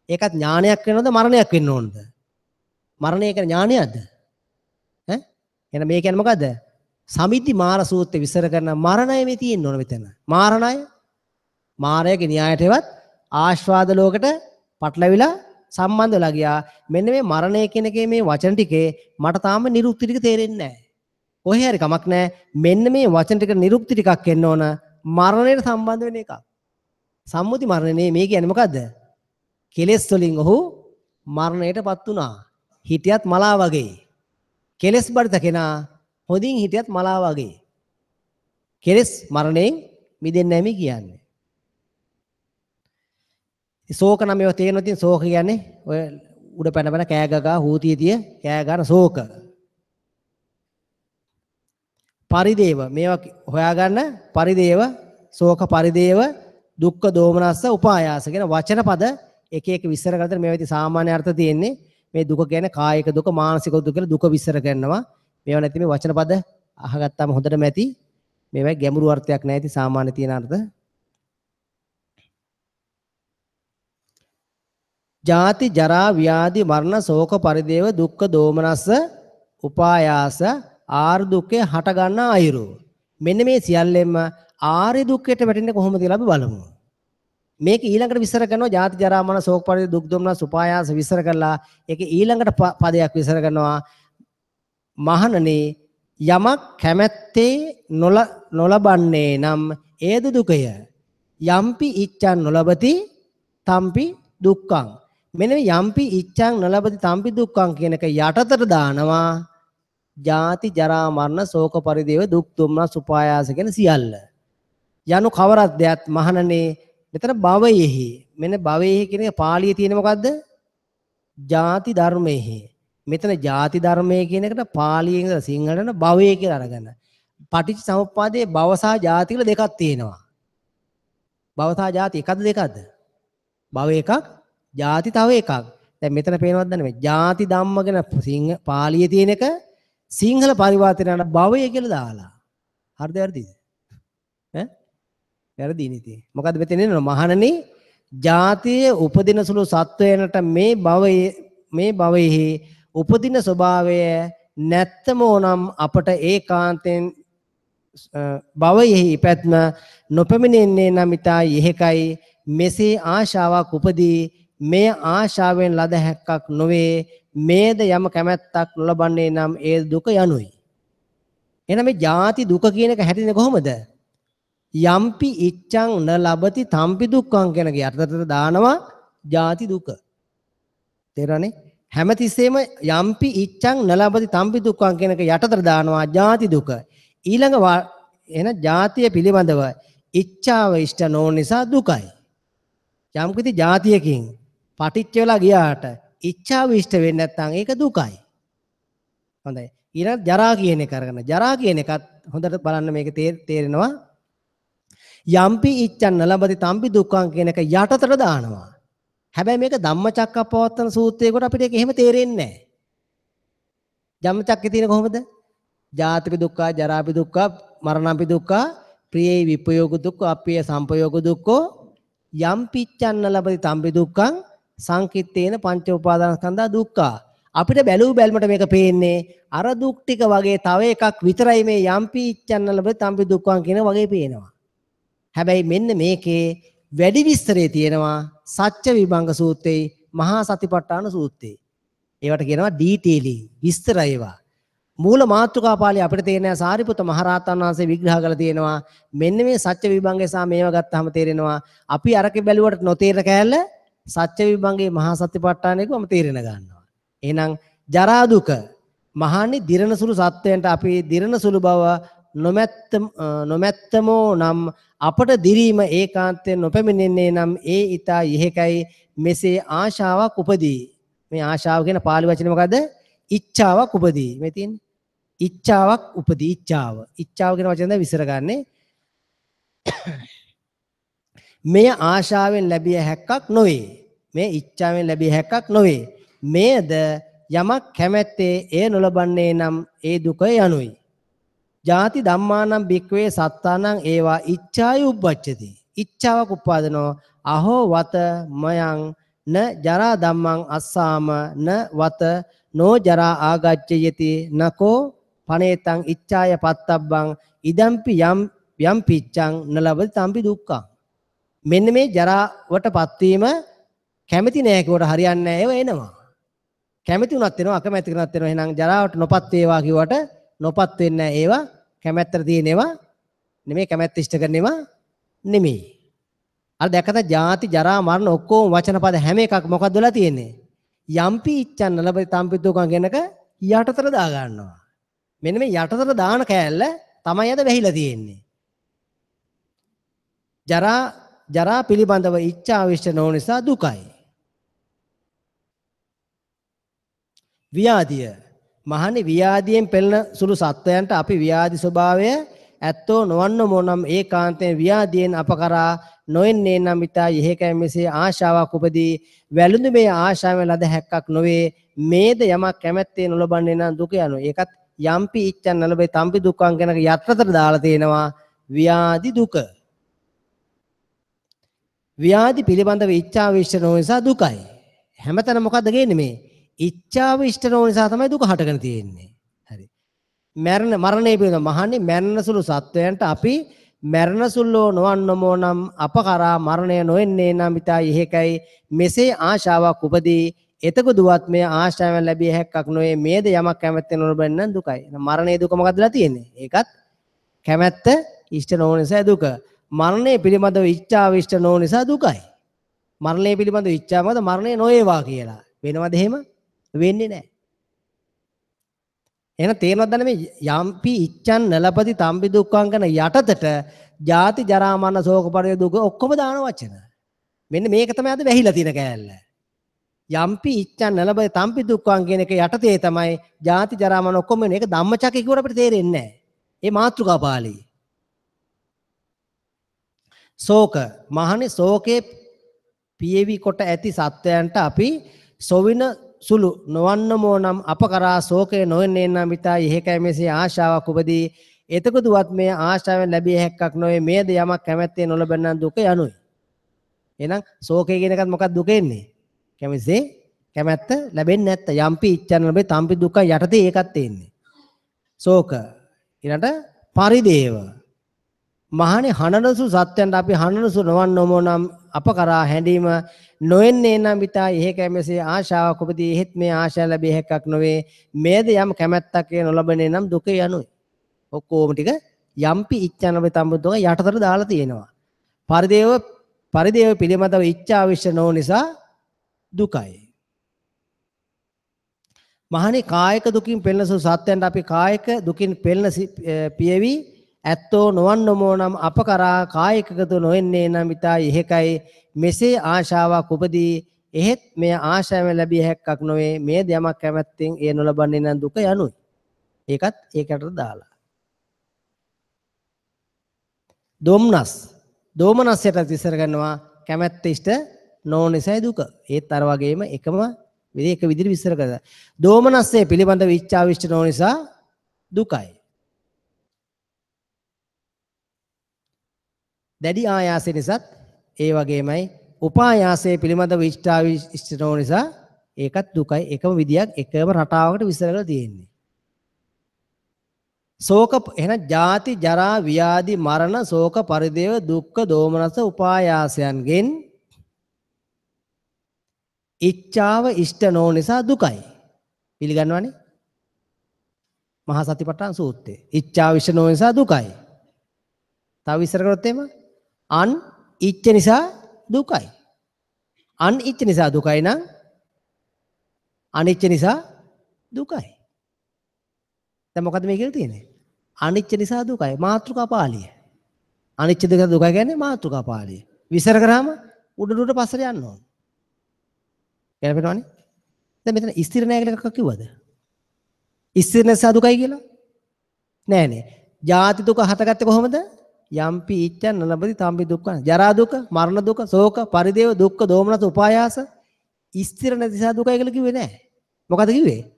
ඒකත් ඥානයක් වෙනවද මරණයක් වෙන්න ඕනද? මරණය කියන්නේ ඥානයක්ද? ඈ එහෙනම් මේ කියන්නේ මොකද්ද? සමිද්ධි මාර සූත්‍රය විස්තර කරන මරණය මේ තියෙන්න ඕන මෙතන. මාරණය මාරයගේ න්‍යායටවත් ආස්වාද ලෝකෙට පටලවිලා සම්බන්ධ වෙලා ගියා. මෙන්න මේ මරණය කියන එකේ මේ වචන ටිකේ මට තාම නිරුක්ති ටික තේරෙන්නේ නැහැ. කොහේ හරි කමක් නැහැ. මෙන්න මේ වචන ටික නිරුක්ති ටිකක් එන්න ඕන මරණයට සම්බන්ධ වෙන එකක්. සම්මුති මරණය නේ මේ කියන්නේ මොකද්ද? කෙලෙස් වලින් ඔහු මරණයටපත් වුණා. හිටියත් මලා වගේ. කෙලෙස් බරිත කෙනා හොඳින් හිටියත් මලා වගේ. කෙලෙස් මරණයෙන් මිදෙන්නේ නැහැ මේ කියන්නේ. ශෝක නම් ඒවා තේරෙනවා. ඉතින් ශෝක කියන්නේ ඔය උඩ පැන පැන කෑ ගගා හූතිය තිය කෑ ගන්න ශෝක. පරිදේව මේවා හොයාගන්න පරිදේව ශෝක පරිදේව දුක්ඛ දෝමනස්ස උපායාස කියන වචන පද එක එක විස්තර කරලා මේවා ඉතින් සාමාන්‍ය අර්ථ තියෙන්නේ. මේ දුක කියන්නේ කායික දුක මානසික දුක කියලා දුක විස්තර කරනවා. මේවා නැති මේ වචන පද අහගත්තාම හොඳටම ඇති. මේවා ගැඹුරු අර්ථයක් නෑ ඉතින් සාමාන්‍ය තියෙන අර්ථ. ජාති ජරා ව්‍යාධි මරණ ශෝක පරිදේව දුක්ඛ දෝමනස්ස උපායාස ආර්ය දුක්ඛේ හට ගන්න අයුරු. මෙන්න මේ සියල්ලෙන්ම ආර්ය දුක්ඛයට වැටෙන්නේ කොහොමද කියලා අපි බලමු. මේක ඊළඟට විස්තර කරනවා ජාති ජරා මරණ ශෝක පරිදේව දුක් දෝමනස්ස උපායාස විස්තර කරලා ඒක ඊළඟට පදයක් විස්තර කරනවා. මහණනි යමක් කැමැත්තේ නොලබන්නේ නම් ඒද දුකය. යම්පි ඉච්ඡං නොලබති තම්පි දුක්ඛං. මෙන්න මේ යම්පි ඉච්ඡං නොලබති තම්පි දුක්ඛං කියන එක යටතට දානවා ජාති ජරා මරණ ශෝක පරිදේව දුක් දුම්නස් උපායාස කියන සියල්ල. යනු කවරක් දෙයක් මහණනි මෙතන භවයෙහි. මෙන්න භවයෙහි කියන එක පාළියේ තියෙන මොකද්ද? ජාති ධර්මයෙහි. මෙතන ජාති ධර්මයේ කියන එකට පාලියෙන් ඉඳලා සිංහලට භවය කියලා අරගන්න. පටිච්ච සමුප්පාදයේ භව සහ ජාති කියලා දෙකක් තියෙනවා. භව සහ ජාති එකක්ද දෙකක්ද? භව එකක්, ජාති තව එකක්. දැන් මෙතන පේනවද නැන්නේ මේ ජාති ධම්ම ගැන සිංහ පාලියේ තියෙන එක සිංහල පරිවර්තනයට භවය කියලා දාලා. හරිද වැරදිද? ඈ? වැරදි නේ ඉතින්. මොකද්ද මෙතන එන්නේ? මහණනි ජාතියේ උපදින සුළු සත්වයනට මේ භවයෙහි උපදින ස්වභාවය නැත්තම ඕනම් අපට ඒකාන්තයෙන් භවයෙහි ඉපැත්ම නොපැමිණෙන්නේ නම් ඊතා යෙහෙකයි. මෙසේ ආශාවක් උපදී මේ ආශාවෙන් ලද හැක්කක් නොවේ. මේද යම කැමැත්තක් නොලබන්නේ නම් ඒ දුක යනුයි. එහෙනම් මේ ජාති දුක කියන එක හැදෙන්නේ කොහොමද? යම්පි ඉච්ඡං න ලබති තම්පි දුක්ඛං කියන එක යටතට දානවා ජාති දුක. තේරෙනවනේ? හැමතිස්සෙම යම්පි ඉච්ඡං න ලබති තම්පි දුක්ඛං කියන එක යටතට දානවා ජාති දුක. ඊළඟ එන ජාතිය පිළිබඳව ඉච්ඡාව ඉෂ්ට නොවන නිසා දුකයි. යම්කිසි ජාතියකින් පටිච්ච වෙලා ගියාට ඉච්ඡාව ඉෂ්ට වෙන්නේ නැත්නම් ඒක දුකයි. හොඳයි. ඊළඟ ජරා කියන එක අරගෙන ජරා කියන එකත් හොඳට බලන්න මේක තේරෙනවා. යම්පි ඉච්ඡං න ලබති තම්පි දුක්ඛං කියන එක යටතට දානවා. හැබැයි මේක ධම්මචක්කප්පවත්තන සූත්‍රයේකට අපිට ඒක එහෙම තේරෙන්නේ නැහැ. ධම්මචක්කේ තියෙන කොහොමද? ජාතිපි දුක්ඛ, ජරාපි දුක්ඛ, මරණම්පි දුක්ඛ, ප්‍රියේ විපයෝග දුක්ඛ, අප්පිය සම්පයෝග දුක්ඛෝ, යම්පි ඉච්ඡං න ලබති තම්පි දුක්ඛං සංකිට්ඨේන පංච උපාදානස්කන්ධා දුක්ඛ. අපිට බැලූ බැල්මට මේක පේන්නේ අර දුක් ටික වගේ තව එකක් විතරයි මේ යම්පි ඉච්ඡං න ලබති තම්පි දුක්ඛං කියන වගේ පේනවා. හැබැයි මෙන්න මේකේ වැඩි විස්තරේ තියෙනවා සත්‍ය විභංග සූත්‍රයේ මහා සතිපට්ඨාන සූත්‍රයේ. ඒවට කියනවා ඩීටේලිං විස්තර ඒවා. මූල මාතෘකා පාළිය අපිට තේරෙනවා සාරිපුත්ත මහරහතන් වහන්සේ විග්‍රහ කරලා තියෙනවා. මෙන්න මේ සත්‍ය විභංගය සහ මේවා ගත්තාම තේරෙනවා අපි අරකේ බැලුවට නොතේරෙන කෑල්ල සත්‍ය විභංගයේ මහා සතිපට්ඨානයකම තේරෙන ගන්නවා. එහෙනම් ජරා දුක මහානි දිරණ සුළු සත්වයන්ට අපි දිරණ සුළු බව නොමැත්තමෝ නම් අපට දිරීම ඒකාන්තයෙන් නොපැමිණෙන්නේ නම් ඒ ඊතා යෙහෙකයි. මෙසේ ආශාවක් උපදී. මේ ආශාව කියන පාලි වචනේ මොකද්ද? ඉච්ඡාවක් උපදී. මේ තියෙන්නේ ඉච්ඡාවක් උපදී. ඉච්ඡාව. ඉච්ඡාව කියන වචනේ දැන් විස්තර ගන්නේ. මේ ආශාවෙන් ලැබිය හැක්කක් නොවේ. මේ ඉච්ඡාවෙන් ලැබිය හැක්කක් නොවේ. මේද යමක් කැමැත්තේ එය නොලබන්නේ නම් ඒ දුක යනුයි. ජාති ධම්මානම් භික්ඛවේ සත්තානම් ඒවා ඉච්ඡාය උබ්බච්ඡති. ඉච්ඡාවක් උපාදනෝ. අහෝ වත මයං න ජරා ධම්මං අස්සාම න වත නෝ ජරා ආගච්ඡයති නකෝ පනේතං ඉච්ඡාය පත්තබ්බං ඉදම්පි යම් යම් පිච්ඡං නලබති තම්පි දුක්ඛං. මෙන්න මේ ජරාවට පත්වීම කැමති නෑ කිව්වට හරියන්නේ නෑ, ඒව එනවා. කැමති වුණත් එනවා, අකමැති වුණත් එනවා. එහෙනම් ජරාවට නොපත් වේවා කිව්වට නොපත් වෙන්නේ නෑ. ඒවා කැමැත්තට තියෙන ඒවා නෙමෙයි, කැමැත්ත ඉෂ්ට කරන ඒවා නෙමෙයි. අර දැක්කද ජාති ජරා මරණ ඔක්කොම වචන පද හැම එකක් මොකද්ද වෙලා තියෙන්නේ? යම්පි ඉච්ඡන් නලබති තම්පි දුක්ඛං කියන එක යටතට දා ගන්නවා. මෙන්න මේ යටතට දාන කෑල්ල තමයි අද වැහිලා තියෙන්නේ. ජරා ජරා පිළිබඳව ඉච්ඡා විශ්ත නොවන නිසා දුකයි. ව්‍යාධිය මහන්නේ ව්‍යාධියෙන් පෙළෙන සුළු සත්වයන්ට අපි ව්‍යාධි ස්වභාවය ඇත්තෝ නොවන්න මොනම් ඒකාන්තයෙන් ව්‍යාධියෙන් අප කරා නොෙන්නේ නම් ඊතා යෙහෙකයි මෙසේ ආශාවක් උපදී. වැළඳු මේ ආශාවෙන් ලද හැක්කක් නොවේ. මේද යමක් කැමැත්තේ නොලබන්නේ නම් දුක යනු. ඒකත් යම්පි ඉච්ඡන් නලබේ තම්පි දුක්ඛං කියන යටතට දාලා තියෙනවා ව්‍යාධි දුක. ව්‍යාධි පිළිබඳව ඉච්ඡාව ඉෂ්ට නොවන නිසා දුකයි. හැමතැනම මොකද්ද ගේන්නේ මේ? ඉච්ඡාව ඉෂ්ට නොවන නිසා තමයි දුක හටගෙන තියෙන්නේ. හරි. මරණ මරණය පිළිබඳව මහන්නේ මරණ සුළු සත්වයන්ට අපි මරණ සුළු නොවන්නමෝ නම් අප කරා මරණය නොෙන්නේ නම් ඊතා යෙහෙකයි මෙසේ ආශාවක් උපදී. එතකොදුවත් මේ ආශාවෙන් ලැබිය හැක්කක් නොවේ. මේද යමක් කැමැත්තෙන් නොලබන්නේ නම් දුකයි. මරණයේ දුක මොකද්දලා තියෙන්නේ? ඒකත් කැමැත්ත ඉෂ්ට නොවන නිසා දුක. මරණය පිළිබඳව ඉච්ඡාව ඉෂ්ට නොවන නිසා දුකයි. මරණය පිළිබඳව ඉච්ඡාව මොකද? මරණය නොවේවා කියලා. වෙනවද එහෙම? වෙන්නේ නැහැ. එහෙනම් තේරෙනවද දැන් මේ යම්පි ඉච්ඡන් නලපති තම්පි දුක්ඛං කරන යටතට ජාති ජරා මරණ ශෝක පරිදේ දුක ඔක්කොම දාන වචන. මෙන්න මේක තමයි අද වැහිලා තියෙන කෑල්ල. යම්පි ඉච්ඡන් නලපති තම්පි දුක්ඛං කියන එක යටතේ තමයි ජාති ජරා මරණ ඔක්කොම වෙන. ඒක ධම්මචක්කේ කිව්වට අපිට තේරෙන්නේ නැහැ. ඒ මාතෘකා පාළි. ශෝක මහන්නේ ශෝකේ පියවි කොට ඇති සත්වයන්ට අපි සොවින සුළු නොවන්නමෝ නම් අප කරා ශෝකය නොවෙන්නේ නම් ඊතා යෙහෙකයි මෙසේ ආශාවක් උපදී. එතකොදුවත් මේ ආශාවෙන් ලැබිය හැක්කක් නොවේ. මේද යමක් කැමැත්තේ නොලබන නම් දුක යනුයි. එහෙනම් ශෝකය කියන එකත් මොකක්ද දුක එන්නේ? කැමැත්තේ කැමැත්ත ලැබෙන්නේ නැත්te. යම්පි ඉච්ඡන් ලැබේ තම්පි දුක යටතේ ඒකත් එන්නේ. ශෝක ඊළඟට පරිදේව මහණේ හනනසු සත්‍යයන්ට අපි හනනසු නොවන්නමෝ නම් අප කරා හැඬීම නොෙන්නේ නම් ඊතා යෙහෙකයි මෙසේ ආශාවක් උපදී. එහෙත් මේ ආශා ලැබිය හැක්කක් නොවේ. මේද යම් කැමැත්තක් නොලබන්නේ නම් දුක යනුයි. ඔක්කොම ටික යම්පි ඉච්ඡන් ලැබේ තම්පි දුක යටතට දාලා තියෙනවා. පරිදේව පරිදේව පිළිබඳව ඉච්ඡා විශ්ව නොවන නිසා දුකයි. මහණේ කායික දුකින් පෙළෙන සු සත්‍යයන්ට අපි කායික දුකින් පෙළෙන පියවි ඇත්තෝ නොවන්නමෝ නම් අප කරා කායිකගත නොෙන්නේ නම් ඊතා යෙහෙකයි මෙසේ ආශාවක් උපදී. එහෙත් මේ ආශාවෙන් ලැබිය හැක්කක් නොවේ. මේ යමක් කැමැත්තෙන් එය නොලබන්නේ නම් දුක යනුයි. ඒකත් ඒකට දාලා. දොම්නස් දෝමනස්යට විස්තර කරනවා කැමැත්ත ඉෂ්ට නොවන නිසායි දුක. ඒත් අර වගේම එකම විදිහ එක විදිහට විස්තර කරලා. දෝමනස්සේ පිළිබඳව ඉච්ඡාව ඉෂ්ට නොවන නිසා දුකයි. දැඩි ආයාසය නිසාත් ඒ වගේමයි. උපායාසය පිළිබඳව ඉෂ්ඨාව ඉෂ්ට නොවන නිසා ඒකත් දුකයි. එකම විදියක් එකම රටාවකට විස්තර කරලා තියෙන්නේ. ශෝක එහෙනම් ජාති ජරා ව්‍යාධි මරණ ශෝක පරිදේව දුක්ඛ දෝමනස උපායාසයන්ගෙන් ඉච්ඡාව ඉෂ්ට නොවන නිසා දුකයි. පිළිගන්නවනේ? මහා සතිපට්ඨාන සූත්‍රය. ඉච්ඡාව ඉෂ්ට නොවන නිසා දුකයි. තව විස්තර කරොත් එහෙම අන් ඉච්ඡ නිසා දුකයි. අන් ඉච්ඡ නිසා දුකයි නම් අනිච්ච නිසා දුකයි. දැන් මොකද්ද මේ කියලා තියෙන්නේ? අනිච්ච නිසා දුකයි. මාතෘකා පාළිය. අනිච්ච දෙක දුකයි කියන්නේ මාතෘකා පාළිය. විස්තර කරාම උඩ උඩ පස්සට යන්න ඕන. ගැලපෙනවනේ? දැන් මෙතන ස්ථිර නෑ කියලා එකක් කිව්වද? ස්ථිර නිසා දුකයි කියලා? නෑ නේ. ජාති දුක හටගත්තේ කොහොමද? යම්පි ඉච්ඡන් නලබති තම්පි දුක්ඛ. ජරා දුක, මරණ දුක, ශෝක, පරිදේව දුක්ඛ, දෝමනස උපායාස ස්ථිර නැති නිසා දුකයි කියලා කිව්වේ නෑ. මොකද කිව්වේ?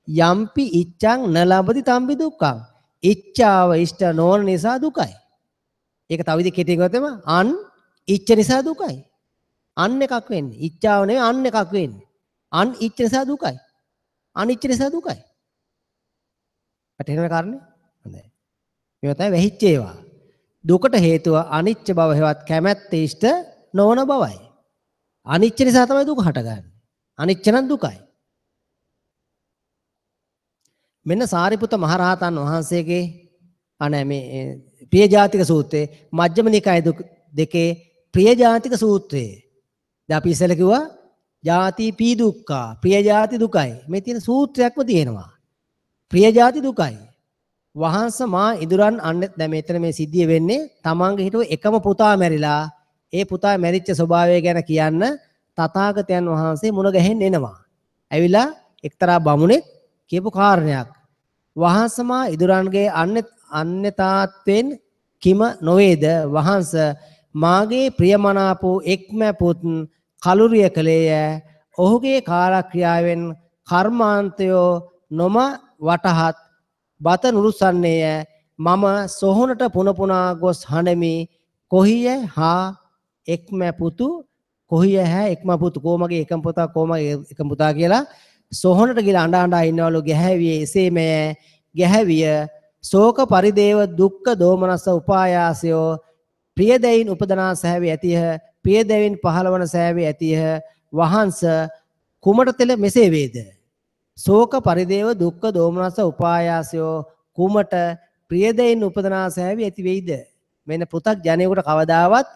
යම්පි ඉච්ඡං නලබති තම්පි දුක්ඛං. ඉච්ඡාව ඉෂ්ට නොවන නිසා දුකයි. ඒක තව විදිහකින් කෙටියෙන් කිව්වොත් එම අන් ඉච්ඡ නිසා දුකයි. අන් එකක් වෙන්නේ. ඉච්ඡාව නෙවෙයි අන් එකක් වෙන්නේ. අන් ඉච්ඡ නිසා දුකයි. අනිච්ච නිසා දුකයි. වැටහෙනවද කාරණේ? හොඳයි. මේවා තමයි වැහිච්ච ඒවා. දුකට හේතුව අනිච්ච බව හෙවත් කැමැත්ත ඉෂ්ට නොවන බවයි. අනිච්ච නිසා තමයි දුක හටගන්නේ. අනිච්ච නම් දුකයි. මෙන්න සාරිපුත්ත මහරහතන් වහන්සේගේ අනේ මේ ප්‍රියජාතික සූත්‍රයේ මජ්ක්‍ධිම නිකාය දෙකේ ප්‍රියජාතික සූත්‍රයේ. දැන් අපි ඉස්සෙල්ලා කිව්වා ජාති පී දුක්ඛා ප්‍රියජාති දුකයි. මේ තියෙන සූත්‍රයක්ම තියෙනවා. ප්‍රියජාති දුකයි. වහන්ස මා ඉදුරන් අන්න දැන් මෙතන මේ සිද්ධිය වෙන්නේ තමන්ගේ හිටුව එකම පුතා මැරිලා ඒ පුතා මැරිච්ච ස්වභාවය ගැන කියන්න තථාගතයන් වහන්සේ මුණ ගැහෙන්න එනවා. ඇවිල්ලා එක්තරා බමුණෙක් කියපු කාරණයක්. වහන්ස මා ඉදුරන්ගේ අන්‍යතාත්වෙන් කිම නොවේද වහන්ස මාගේ ප්‍රියමනාප වූ එක්ම පුත් කලුරිය කළේය. ඔහුගේ කාලක්‍රියාවෙන් කර්මාන්තයෝ නොම වටහත් බත නුරුස්සන්නේය. මම සොහොනට පුන පුනා ගොස් හඬමි. කොහිය හා එක්ම පුතු කොහිය හැ එක්ම පුතු කොමගේ එකම පුතා කොමගේ එකම පුතා කියලා සොහොනට ගිහලා අඬ අඬා ඉන්නවලු. ගැහැවියේ එසේමය. ගැහැවිය ශෝක පරිදේව දුක්ඛ දෝමනස්ස උපායාසයෝ ප්‍රියදැයින් උපදනා සෑවි ඇතිහ. ප්‍රියදැයින් පහළවන සෑවි ඇතිහ. වහන්ස කුමට තෙල මෙසේ වේද? ශෝක පරිදේව දුක්ඛ දෝමනස්ස උපායාසයෝ කුමට ප්‍රියදැයින් උපදනා සෑවි ඇති වෙයිද? මෙන්න පෘථග්ජනයෙකුට කවදාවත්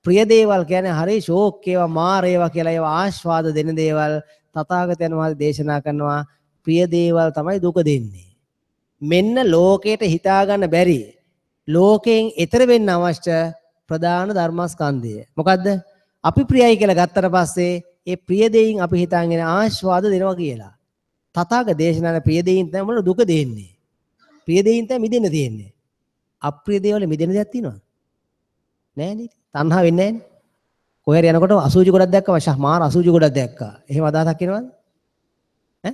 ප්‍රිය දේවල් කියන්නේ හරි ශෝක් ඒවා මාර ඒවා කියලා ඒවා ආස්වාද දෙන දේවල් තථාගතයන් වහන්සේ දේශනා කරනවා ප්‍රිය දේවල් තමයි දුක දෙන්නේ. මෙන්න ලෝකයට හිතා ගන්න බැරි ලෝකයෙන් එතර වෙන්න අවශ්‍ය ප්‍රධාන ධර්මස්කන්ධය. මොකද්ද? අපි ප්‍රියයි කියලා ගත්තට පස්සේ ඒ ප්‍රිය දෙයින් අපි හිතාගෙන ආස්වාද දෙනවා කියලා. තථාගත දේශනාවේ ප්‍රිය දෙයින් තමයි මොන දුක දෙන්නේ. ප්‍රිය දෙයින් තමයි මිදෙන්න තියෙන්නේ. අප්‍රිය දේවල් මිදෙන දෙයක් තියෙනවද? නෑ නේද? තණ්හා වෙන්නේ නෑනේ. කොහේ හරි යනකොට අසුචි ගොඩක් දැක්කම ෂා මාර අසුචි ගොඩක් දැක්කා. එහෙම අදහසක් එනවද? ඈ?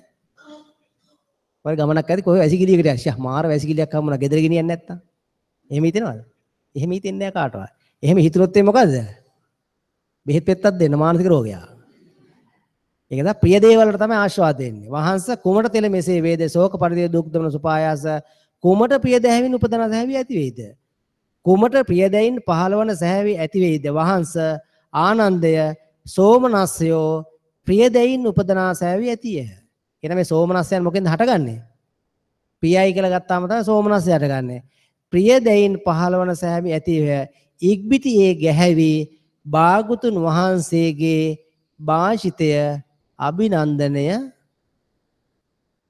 ඔය ගමනක් ඇති කොහේ වැසිකිළියකට යන්න ෂා මාර වැසිකිළියක් හම්බුණා ගෙදර ගෙනියන්නේ නැත්තම්. එහෙම හිතෙනවද? එහෙම හිතෙන්නේ නෑ කාටවත්. එහෙම හිතුනොත් ඒ මොකද්ද? බෙහෙත් පෙත්තක් දෙන්න මානසික රෝගයක්. ඒක තමයි ප්‍රිය දේවල් වලට තමයි ආස්වාද දෙන්නේ. වහන්ස කුමට තෙල මෙසේ වේද? ශෝක පරිදේ දුක් දමන සුපායාස කුමට ප්‍රිය දැහැවින් උපදන සැහැවි ඇති වේද? කුමට ප්‍රිය දැයින් පහළවන සැහැවි ඇති වේද? වහන්ස ආනන්දය සෝමනස්සයෝ ප්‍රිය දැයින් උපදනා සැහැවි ඇතිය. කියන මේ සෝමනස්සයන් මොකෙන්ද හටගන්නේ? ප්‍රියයි කියලා ගත්තාම තමයි සෝමනස්සය හටගන්නේ. ප්‍රිය දැයින් පහළවන සැහැවි ඇතිය. ඉක්බිති ඒ ගැහැවි භාගතුන් වහන්සේගේ භාෂිතය අභිනන්දනය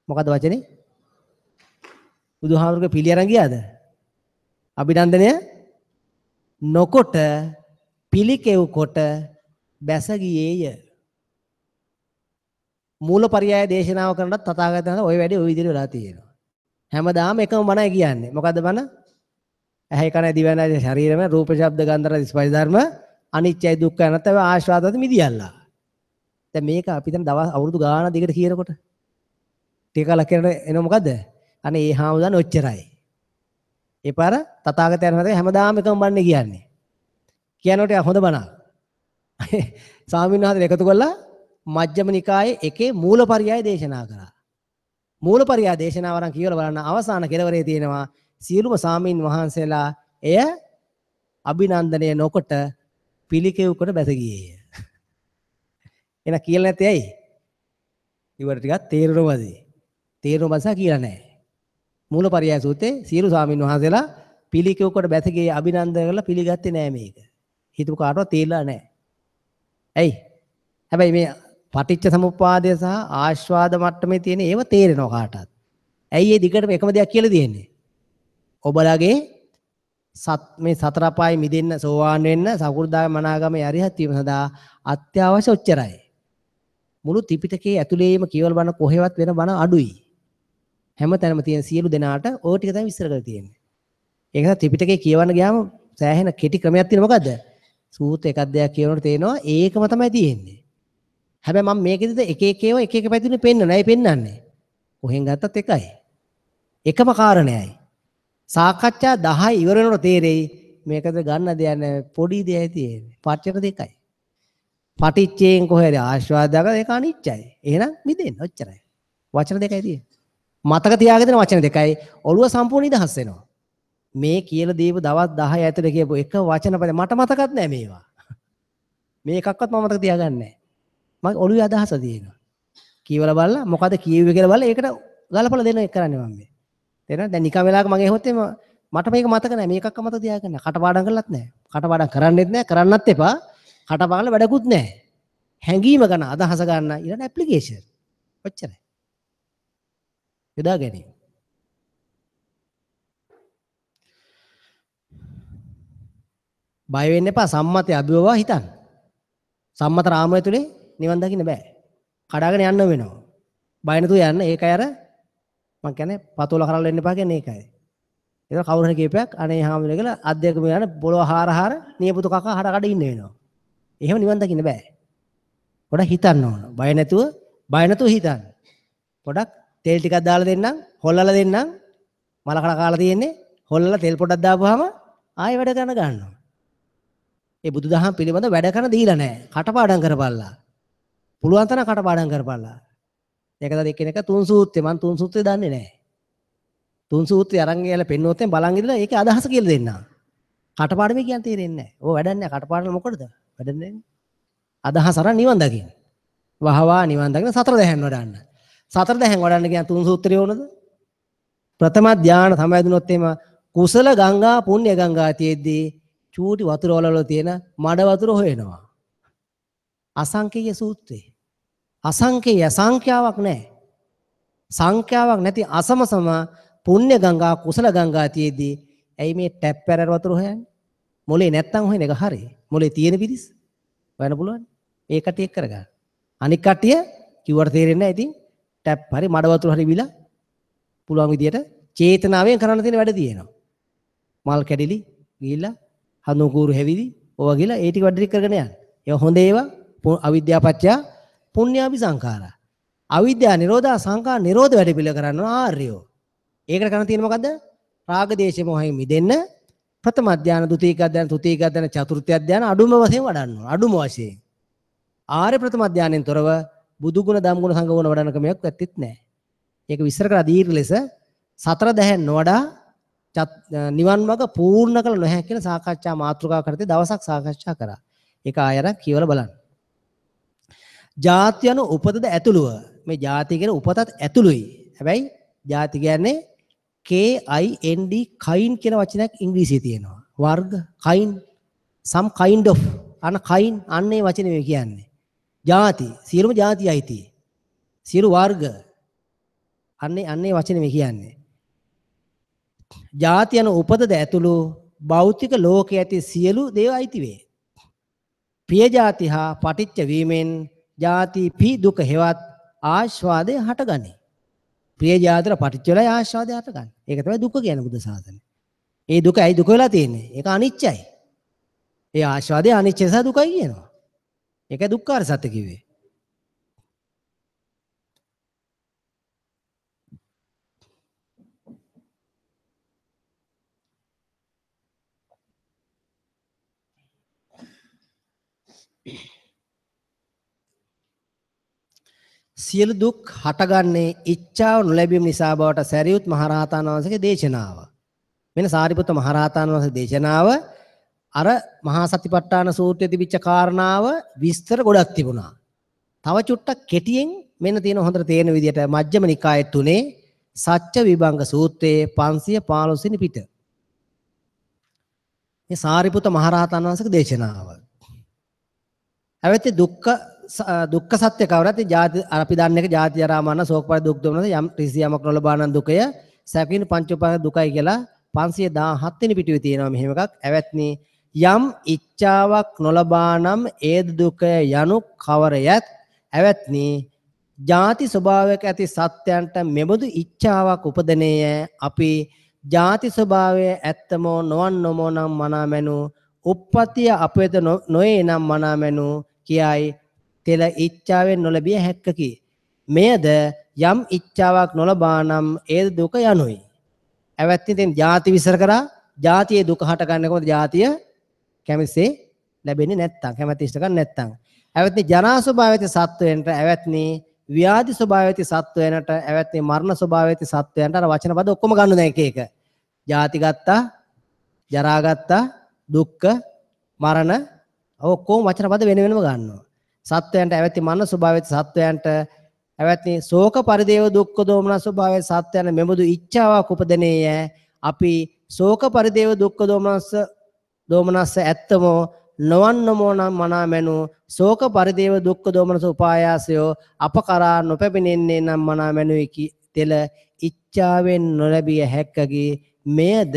මොකද්ද වචනේ? බුදුහාමුදුරුවෝ පිළි අරන් ගියාද? අභිනන්දනය නොකොට පිළිකෙව් කොට බැස ගියේය. මූලපරියාය දේශනාව කරනවත් තථාගතයන් වහන්සේ ඔය වැඩේ ඔය විදිහට වෙලා තියෙනවා. හැමදාම එකම බණයි කියන්නේ. මොකද්ද බණ? ඇහැ කන දිව නාසය ශරීරම රූප ශබ්ද ගන්ධ රස ස්පර්ශ ධර්ම අනිත්‍යයි දුක්ඛයි අනාත්තයි ආස්වාදවල මිදියල්ලා. දැන් මේක අපි දැන් දවස් අවුරුදු ගාන දිගට කියනකොට ටික කලක් කියනකොට එන මොකද්ද? අනේ ඒ හාමුදුරන් ඔච්චරයි. ඒ පාර තථාගතයන් වහන්සේ හැමදාම එකම බණනේ කියන්නේ. කියනකොට හොඳ බණක්. ස්වාමීන් වහන්සේ එකතු කරලා මජ්ක්‍ධිම නිකායේ එකේ මූලපරියාය දේශනා කරා. මූලපරියාය දේශනාව අරන් කියවලා බලන්න අවසාන කෙලවරේ තියෙනවා සියලුම ස්වාමීන් වහන්සේලා එය අභිනන්දනය නොකොට පිළිකෙව් කොට බැස ගියේය. එන කියලා නැත්තේ ඇයි? ඉවර ටිකක් තේරුණාද? තේරුණ බසා කියලා නැහැ. මූලපරියාය සූත්‍රයේ සියලු ස්වාමීන් වහන්සේලා පිළිකෙව් කොට බැස ගියේ අභිනන්දනය කරලා පිළිගත්තේ නෑ මේක. හිතපු කාටවත් තේරිලා නෑ. ඇයි? හැබැයි මේ පටිච්ච සමුප්පාදය සහ ආස්වාද මට්ටමේ තියෙන ඒව තේරෙනවා කාටත්. ඇයි ඒ දිගටම එකම දෙයක් කියලා තියෙන්නේ? ඔබලගේ සත් මේ සතර අපායේ මිදෙන්න සෝවාන් වෙන්න සකු르දාගාමී මනාගාමී අරිහත් වීම සඳහා අත්‍යවශ්‍ය ඔච්චරයි. මුළු ත්‍රිපිටකයේ ඇතුළේම කියවල බණ කොහෙවත් වෙන බණ අඩුයි. හැම තැනම තියෙන සියලු දෙනාට ඔය ටික තමයි විස්තර කරලා තියෙන්නේ. ඒක නිසා ත්‍රිපිටකේ කියවන්න ගියාම සෑහෙන කෙටි ක්‍රමයක් තියෙන මොකද්ද? සූත්‍ර එකක් දෙයක් කියවනකොට තේරෙනවා ඒකම තමයි තියෙන්නේ. හැබැයි මම මේකෙදිද එක එක ඒවා එක එක පැතිවලින් පෙන්නනවා. ඇයි පෙන්නන්නේ? කොහෙන් ගත්තත් එකයි. එකම කාරණයයි. සාකච්ඡා 10 ඉවර වෙනකොට තේරෙයි මේකද ගන්න දෙයක් නෑ, පොඩි දෙයයි තියෙන්නේ. පච්චර දෙකයි. පටිච්චයෙන් කොහේද ආස්වාදයක් ඒක අනිච්චයි. එහෙනම් මිදෙන්න ඔච්චරයි. වචන දෙකයි තියෙන්නේ. මතක තියාගෙන තියෙන වචන දෙකයි. ඔළුව සම්පූර්ණ නිදහස් වෙනවා. මේ කියලා දීපු දවස් 10 ඇතුළේ කියපු එක වචන පද මට මතකත් නෑ මේවා. මේ එකක්වත් මම මතක තියාගන්නේ නෑ. මගේ ඔළුවේ අදහස තියෙනවා. කියවලා බලලා මොකද කියුවේ කියලා බලලා ඒකට ගලපලා දෙන එක කරන්නේ මම මේ. තේරෙනවද? දැන් නිකන් වෙලාවක මගේ ඇහුවොත් එහෙම මට මේක මතක නෑ. මේ එකක්වත් මතක තියාගන්න නෑ. කටපාඩම් කරලත් නෑ. කටපාඩම් කරන්නෙත් නෑ. කරන්නත් එපා. කටපාඩම් වැඩකුත් නෑ. හැංගීම ගන්න අදහස ගන්න ඊළඟ ඇප්ලිකේෂන්. ඔච්චරයි. යොදා ගැනීම. බය වෙන්න එපා. සම්මතය අභිවවා හිතන්න. සම්මත රාමය තුලේ නිවන් දකින්න බෑ. කඩාගෙන යන්න වෙනවා. බය නැතුව යන්න. ඒකයි අර මං කියන්නේ පතෝල කරල් වෙන්න එපා කියන්නේ ඒකයි. ඒක කවුරු හරි කියපයක් අනේ හාමුදුරුවෝ කියලා අත් දෙකම යන පොළොව හාර හාර නියපොතු කකා හඩ කඩ ඉන්න වෙනවා. එහෙම නිවන් දකින්න බෑ. පොඩක් හිතන්න ඕන. බය නැතුව හිතන්න. පොඩක් තෙල් ටිකක් දාලා දෙන්නම්, හොල්ලලා දෙන්නම්. මල කඩ කාලා තියෙන්නේ. හොල්ලලා තෙල් පොඩක් දාපුවාම ආයෙ වැඩ කරන ගන්නවා. ඒ බුදුදහම පිළිබඳ වැඩ කරන දීලා නැහැ. කටපාඩම් කරපල්ලා. පුළුවන් තරම් කටපාඩම් කරපල්ලා. ඒක තමයි එක්කෙනෙක් තුන් සූත්‍රය මං තුන් සූත්‍රය දන්නේ නැහැ. තුන් සූත්‍රය අරන් ගිහලා පෙන්නුවොත් එම් බලන් ඉඳලා ඒකේ අදහස කියලා දෙන්නා. කටපාඩමේ කියන් තේරෙන්නේ නැහැ. ඔය වැඩක් නැහැ. කටපාඩම් මොකටද? වැඩක් නැහැ. අදහස අරන් නිවන් දකින්න. වහවා නිවන් දකින්න සතර දැහැන් වඩන්න. සතර දැහැන් වඩන්න කියන තුන් සූත්‍රය ඕනද? ප්‍රථම ධ්‍යාන සමවැදුනොත් එම කුසල ගංගා පුණ්‍ය ගංගා තියෙද්දී චූටි වතුර වල තියෙන මඩ වතුර හොයනවා. අසංකේය සූත්‍රය. අසංකේය සංඛ්‍යාවක් නැහැ. සංඛ්‍යාවක් නැති අසමසම පුණ්‍ය ගංගා කුසල ගංගා තියෙද්දී ඇයි මේ ටැප් පැරර වතුර හොයන්නේ? මොලේ නැත්තම් හොයන එක හරි. මොලේ තියෙන පිරිස් හොයන්න පුළුවන්. ඒ කට්ටිය එක් කරගන්න. අනික් කට්ටිය කිව්වට තේරෙන්නේ නැහැ. ඉතින් ටැප් හරි මඩ වතුර හරි බිලා පුළුවන් විදියට චේතනාවෙන් කරන්න තියෙන වැඩ තියෙනවා. මල් කැඩිලි ගිහිල්ලා හඳුන් කූරු හැවිදි ඕවා ගිහලා ඒ ටික වැඩ ටික කරගෙන යන්න. ඒවා හොඳ ඒවා අවිද්‍යාව පත්‍ය පුණ්‍යාභි සංඛාරා. අවිද්‍යාව නිරෝධා සංඛාර නිරෝධ වැඩ පිළිවෙල කරන්න ආර්යෝ. ඒකට කරන්න තියෙන්නේ මොකද්ද? රාග දේශ මොහෙන් මිදෙන්න ප්‍රථම ධ්‍යාන, ද්විතීක ධ්‍යාන, තෘතීක ධ්‍යාන, චතුර්ථ ධ්‍යාන අඩුම වශයෙන් වඩන්න ඕන. අඩුම වශයෙන්. ආර්ය ප්‍රථම ධ්‍යානෙන් තොරව බුදු ගුණ, ධම් ගුණ, සංඝ ගුණ වඩන ක්‍රමයක් ඇත්තෙත් නෑ. ඒක විස්තර කරලා දීර්ඝ ලෙස සතර දැහැන් නොවඩා නිවන් මඟ පූර්ණ කළ නොහැකි කියන සාකච්ඡා මාතෘකා කරතේ දවසක් සාකච්ඡා කරා. ඒක ආය අර කියවලා බලන්න. ජාති යන උපතද ඇතුළුව. මේ ජාති කියන උපතත් ඇතුළුයි. හැබැයි ජාති කියන්නේ K I N D kind කියන වචනයක් ඉංග්‍රීසියේ තියෙනවා. වර්ග kind, some kind of අන kind අන්න ඒ වචනේ මේ කියන්නේ. ජාති සියලුම ජාති අයිති. සියලු වර්ග අන්න ඒ වචනේ මේ කියන්නේ. ජාති යන උපතද ඇතුළු භෞතික ලෝකයේ ඇති සියලු දේව අයිති වේ. ප්‍රිය ජාති හා පටිච්ච වීමෙන් ජාති පි දුක හෙවත් ආස්වාදය හටගනී. ප්‍රිය ජාතිර පටිච්ච වෙලා ආස්වාදය හටගන්නේ. ඒක තමයි දුක කියන්නේ බුද්ධ ශාසනය. ඒ දුක ඇයි දුක වෙලා තියෙන්නේ? ඒක අනිච්චයි. ඒ ආස්වාදය අනිච්ච නිසා දුකයි කියනවා. ඒකයි දුක්ඛාර සත්‍ය කිව්වේ. සියලු දුක් හටගන්නේ ඉච්ඡාව නොලැබීම නිසා බවට සැරියුත් මහරහතන් වහන්සේගේ දේශනාව. මෙන්න සාරිපුත්ත මහරහතන් වහන්සේගේ දේශනාව අර මහා සතිපට්ඨාන සූත්‍රයේ තිබිච්ච කාරණාව විස්තර ගොඩක් තිබුණා. තව චුට්ටක් කෙටියෙන් මෙන්න තියෙන හොඳට තේරෙන විදියට මජ්ක්‍ධිම නිකායේ තුනේ සත්‍ය විභංග සූත්‍රයේ 515 වෙනි පිට. මේ සාරිපුත්ත මහරහතන් වහන්සේගේ දේශනාව. හැබැයි දුක්ඛ සත්‍ය කවරත් ජාති අපි දන්න එක ජාති ජරා මරණ ශෝක පරි දුක් දුම්නස යම් ත්‍රිසි යමක් නොලබා නම් දුකය සැපින පංච උපාදාන දුකයි කියලා 517 වෙනි පිටුවේ තියෙනවා මෙහෙම එකක්. ඇවැත්නි යම් ඉච්ඡාවක් නොලබා නම් ඒද දුකය යනු කවරයත් ඇවැත්නි ජාති ස්වභාවයක ඇති සත්‍යයන්ට මෙබඳු ඉච්ඡාවක් උපදනේය. අපි ජාති ස්වභාවය ඇත්තමෝ නොවන්නමෝ නම් මනාමැනු උප්පත්තිය අපේත නොයේ නම් මනාමැනු කියයි තෙල ඉච්ඡාවෙන් නොලැබිය හැක්කකි. මෙයද යම් ඉච්ඡාවක් නොලබා නම් ඒද දුක යනුයි. ඇවැත්නි දැන් ජාති විස්තර කරා, ජාතියේ දුක හටගන්නේ කොහොමද? ජාතිය කැමතිසේ ලැබෙන්නේ නැත්තම්, කැමැති ඉෂ්ට ගන්න නැත්තම්. ඇවැත්නි ජරා ස්වභාවය ඇති සත්වයන්ට, ඇවැත්නි ව්‍යාධි ස්වභාවය ඇති සත්වයන්ට, ඇවැත්නි මරණ ස්වභාවය ඇති සත්වයන්ට. අර වචන පද ඔක්කොම ගන්න දැන් එක එක. ජාති ගත්තා, ජරා ගත්තා, දුක්ඛ, මරණ, ඔක්කොම වචන පද වෙන වෙනම ගන්නවා. සත්වයන්ට ඇවැත්නි මරණ ස්වභාවය ඇති සත්වයන්ට, ඇවැත්නි ශෝක පරිදේව දුක්ඛ දෝමන ස්වභාවය සත්වයන් මෙබඳු ඉච්ඡාවක් උපදනේය. අපි ශෝක පරිදේව දුක්ඛ දෝමනස්ස ඇත්තමෝ නොවන්නමෝ නම් මනා මැනු ශෝක පරිදේව දුක්ඛ දෝමනස උපායාසයෝ අප කරා නොපැමිණෙන්නේ නම් මනා මැනුයි තෙල ඉච්ඡාවෙන් නොලැබිය හැක්කගේ මෙයද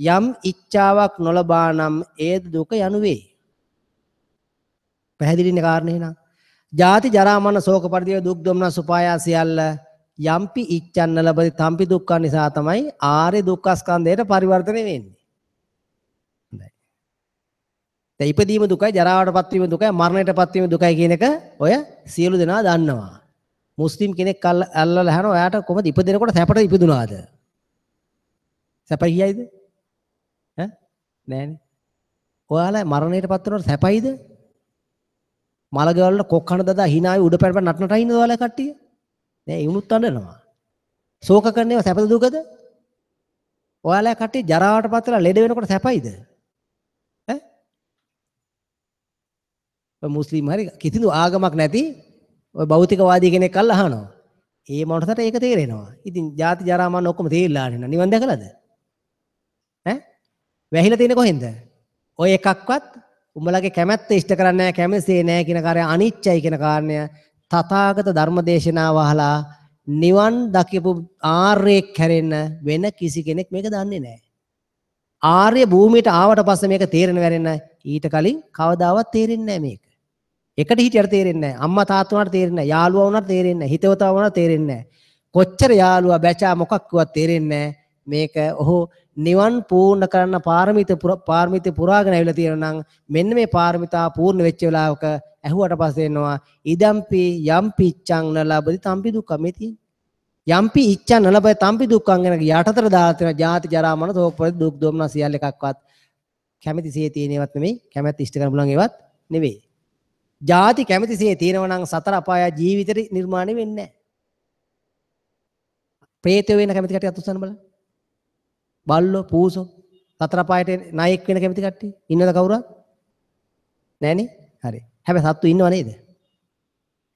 යම් ඉච්ඡාවක් නොලබා නම් ඒද දුක යනු වේ. පැහැදිලිනේ කාරණේ නං. ජාති ජරා මරණ ශෝක පරිදේව දුක් දෝමනස් උපායාස සියල්ල යම්පි ඉච්ඡන්න ලබති තම්පි දුක්ඛ නිසා තමයි ආර්ය දුක්ඛ ස්කන්ධයට පරිවර්තනය වෙන්නේ. හොඳයි. දැන් ඉපදීම දුකයි, ජරාවටපත් වීම දුකයි, මරණයටපත් වීම දුකයි කියන එක ඔය සියලු දෙනා දන්නවා. මුස්ලිම් කෙනෙක් අල්ලලා අහනවා ඔයාට කොහොමද ඉපදෙනකොට සැපට ඉපදුනාද? සැපයි කියයිද? ඈ නෑනේ. ඔයාලා මරණයටපත් වෙනකොට සැපයිද? මලගවල වල කොක් කන දදා hina ආවි උඩ පැන පැන නට නට ඉන්නද ඔයාලා කට්ටිය? නෑ, ඒ උනුත් අඬනවා. ශෝක කරන ඒවා සැපද දුකද? ඔයාලා කට්ටිය ජරාවටපත් වෙලා ලෙඩ වෙනකොට සැපයිද? ඈ? ඔය මුස්ලිම් හරි කිසිදු ආගමක් නැති ඔය භෞතිකවාදී කෙනෙක් අල්ල අහනවා. ඒ මොනටද ඒක තේරෙනවා. ඉතින් ජාති ජරා මරණ ඔක්කොම තේරිලා නේ. නිවන් දැකලාද? ඈ? වැහිලා තියෙන්නේ කොහෙන්ද? ඔය එකක්වත් උඹලගේ කැමැත්ත ඉෂ්ට කරන්නේ නැහැ, කැමැසේ නැහැ කියන කාර්යය අනිච්චයි කියන කාරණය තථාගත ධර්ම දේශනාව අහලා නිවන් දකිපු ආර්යෙක් හැරෙන්න වෙන කිසි කෙනෙක් මේක දන්නේ නැහැ. ආර්ය භූමියට ආවට පස්සේ මේක තේරෙන වැරෙන්න ඊට කලින් කවදාවත් තේරෙන්නේ නැහැ මේක. එකට හිටියට තේරෙන්නේ නැහැ. අම්මා තාත්තා වුණාට තේරෙන්නේ නැහැ. යාළුවා වුණාට තේරෙන්නේ නැහැ. හිතවතා වුණාට තේරෙන්නේ නැහැ. කොච්චර යාළුවා බැචා මොකක් කිව්වත් තේරෙන්නේ නැහැ. මේක ඔහු නිවන් පූර්ණ කරන්න පාරමිත පුරාගෙන ඇවිල්ලා තියෙනවා නම් මෙන්න මේ පාරමිතා පූර්ණ වෙච්ච වෙලාවක ඇහුවට පස්සේ එනවා ඉදම්පි යම්පි ඉච්ඡං නලබති තම්පි දුක්ඛ. මේ තියෙන්නේ යම්පි ඉච්ඡං නලබති තම්පි දුක්ඛං කියන යටතට දාලා තියෙන ජාති ජරා මරණ ශෝක පරිදේ දුක් දෝමන සියල්ල එකක්වත් කැමැතිසේ තියෙන ඒවත් නෙමෙයි, කැමැත්ත ඉෂ්ට කරන්න පුළුවන් ඒවත් නෙවෙයි. ජාති කැමැතිසේ තියෙනවා නම් සතර අපාය ජීවිතේ නිර්මාණය වෙන්නේ නැහැ. ප්‍රේතයෝ වෙන කැමැති කට්ටිය අත් උස්සන්න බලන්න. බල්ලෝ පූසෝ සතර අපායට නායක වෙන කැමති කට්ටිය ඉන්නවද කවුරුවත්? නෑනේ. හරි. හැබැයි සත්තු ඉන්නව නේද?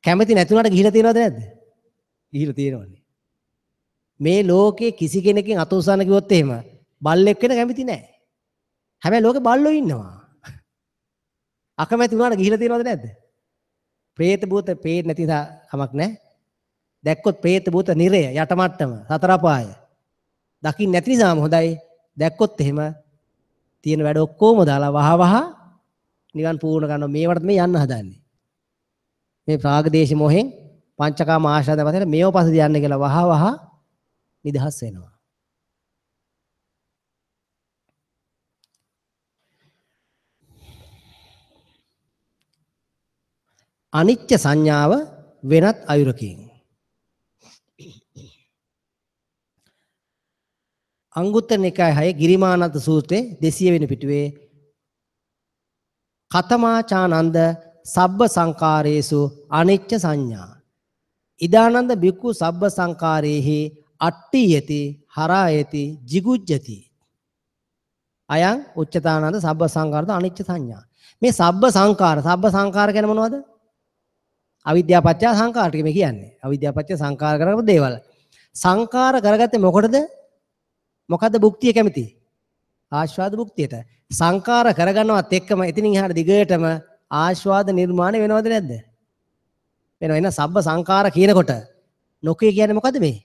කැමති නැති වුණාට ගිහිලා තියෙනවද නැද්ද? ගිහිලා තියෙනවනේ. මේ ලෝකේ කිසි කෙනකින් අත උස්සන්න කිව්වොත් එහෙම බල්ලෙක් වෙන කැමති නෑ. හැබැයි ලෝකේ බල්ලෝ ඉන්නවා. අකමැති වුණාට ගිහිලා තියෙනවද නැද්ද? ප්‍රේත භූත පේන්නේ නැති නිසා කමක් නෑ. දැක්කොත් ප්‍රේත භූත නිරය යට මට්ටම සතර අපාය. දකින්න නැති නිසාම හොඳයි. දැක්කොත් එහෙම තියෙන වැඩ ඔක්කොම දාලා වහ වහ නිවන් පූර්ණ කරනවා. මේවට මේ යන්න හදන්නේ. මේ රාග දේශ මොහෙන් පංචකාම ආශාද වශයෙන් මේව පස්සේ යන්න කියලා වහ වහ නිදහස් වෙනවා. අනිච්ච සංඥාව වෙනත් අයුරකින්. අංගුත්තර නිකාය 6 ගිරිමානන්ද සූත්‍රයේ 200 වෙනි පිටුවේ කතමාචානන්ද සබ්බ සංකාරේසු අනිච්ච සංඥා. ඉදානන්ද බික්ඛු සබ්බ සංකාරේහි අට්ඨියති හරායති jigujjati. අයං උච්චතානන්ද සබ්බ සංකාරද අනිච්ච සංඥා. මේ සබ්බ සංකාර, සබ්බ සංකාර කියන්නේ මොනවද? අවිද්‍යාව පත්‍ය සංකාර ටික මේ කියන්නේ. අවිද්‍යාව පත්‍ය සංකාර කරගපු දේවල්. සංකාර කරගත්තේ මොකටද? මොකද්ද භුක්තිය කැමති? ආස්වාද භුක්තියට. සංකාර කරගන්නවත් එක්කම එතනින් එහාට දිගටම ආස්වාද නිර්මාණය වෙනවද නැද්ද? වෙනවා. එහෙනම් සබ්බ සංකාර කියනකොට නොකිය කියන්නේ මොකද්ද මේ?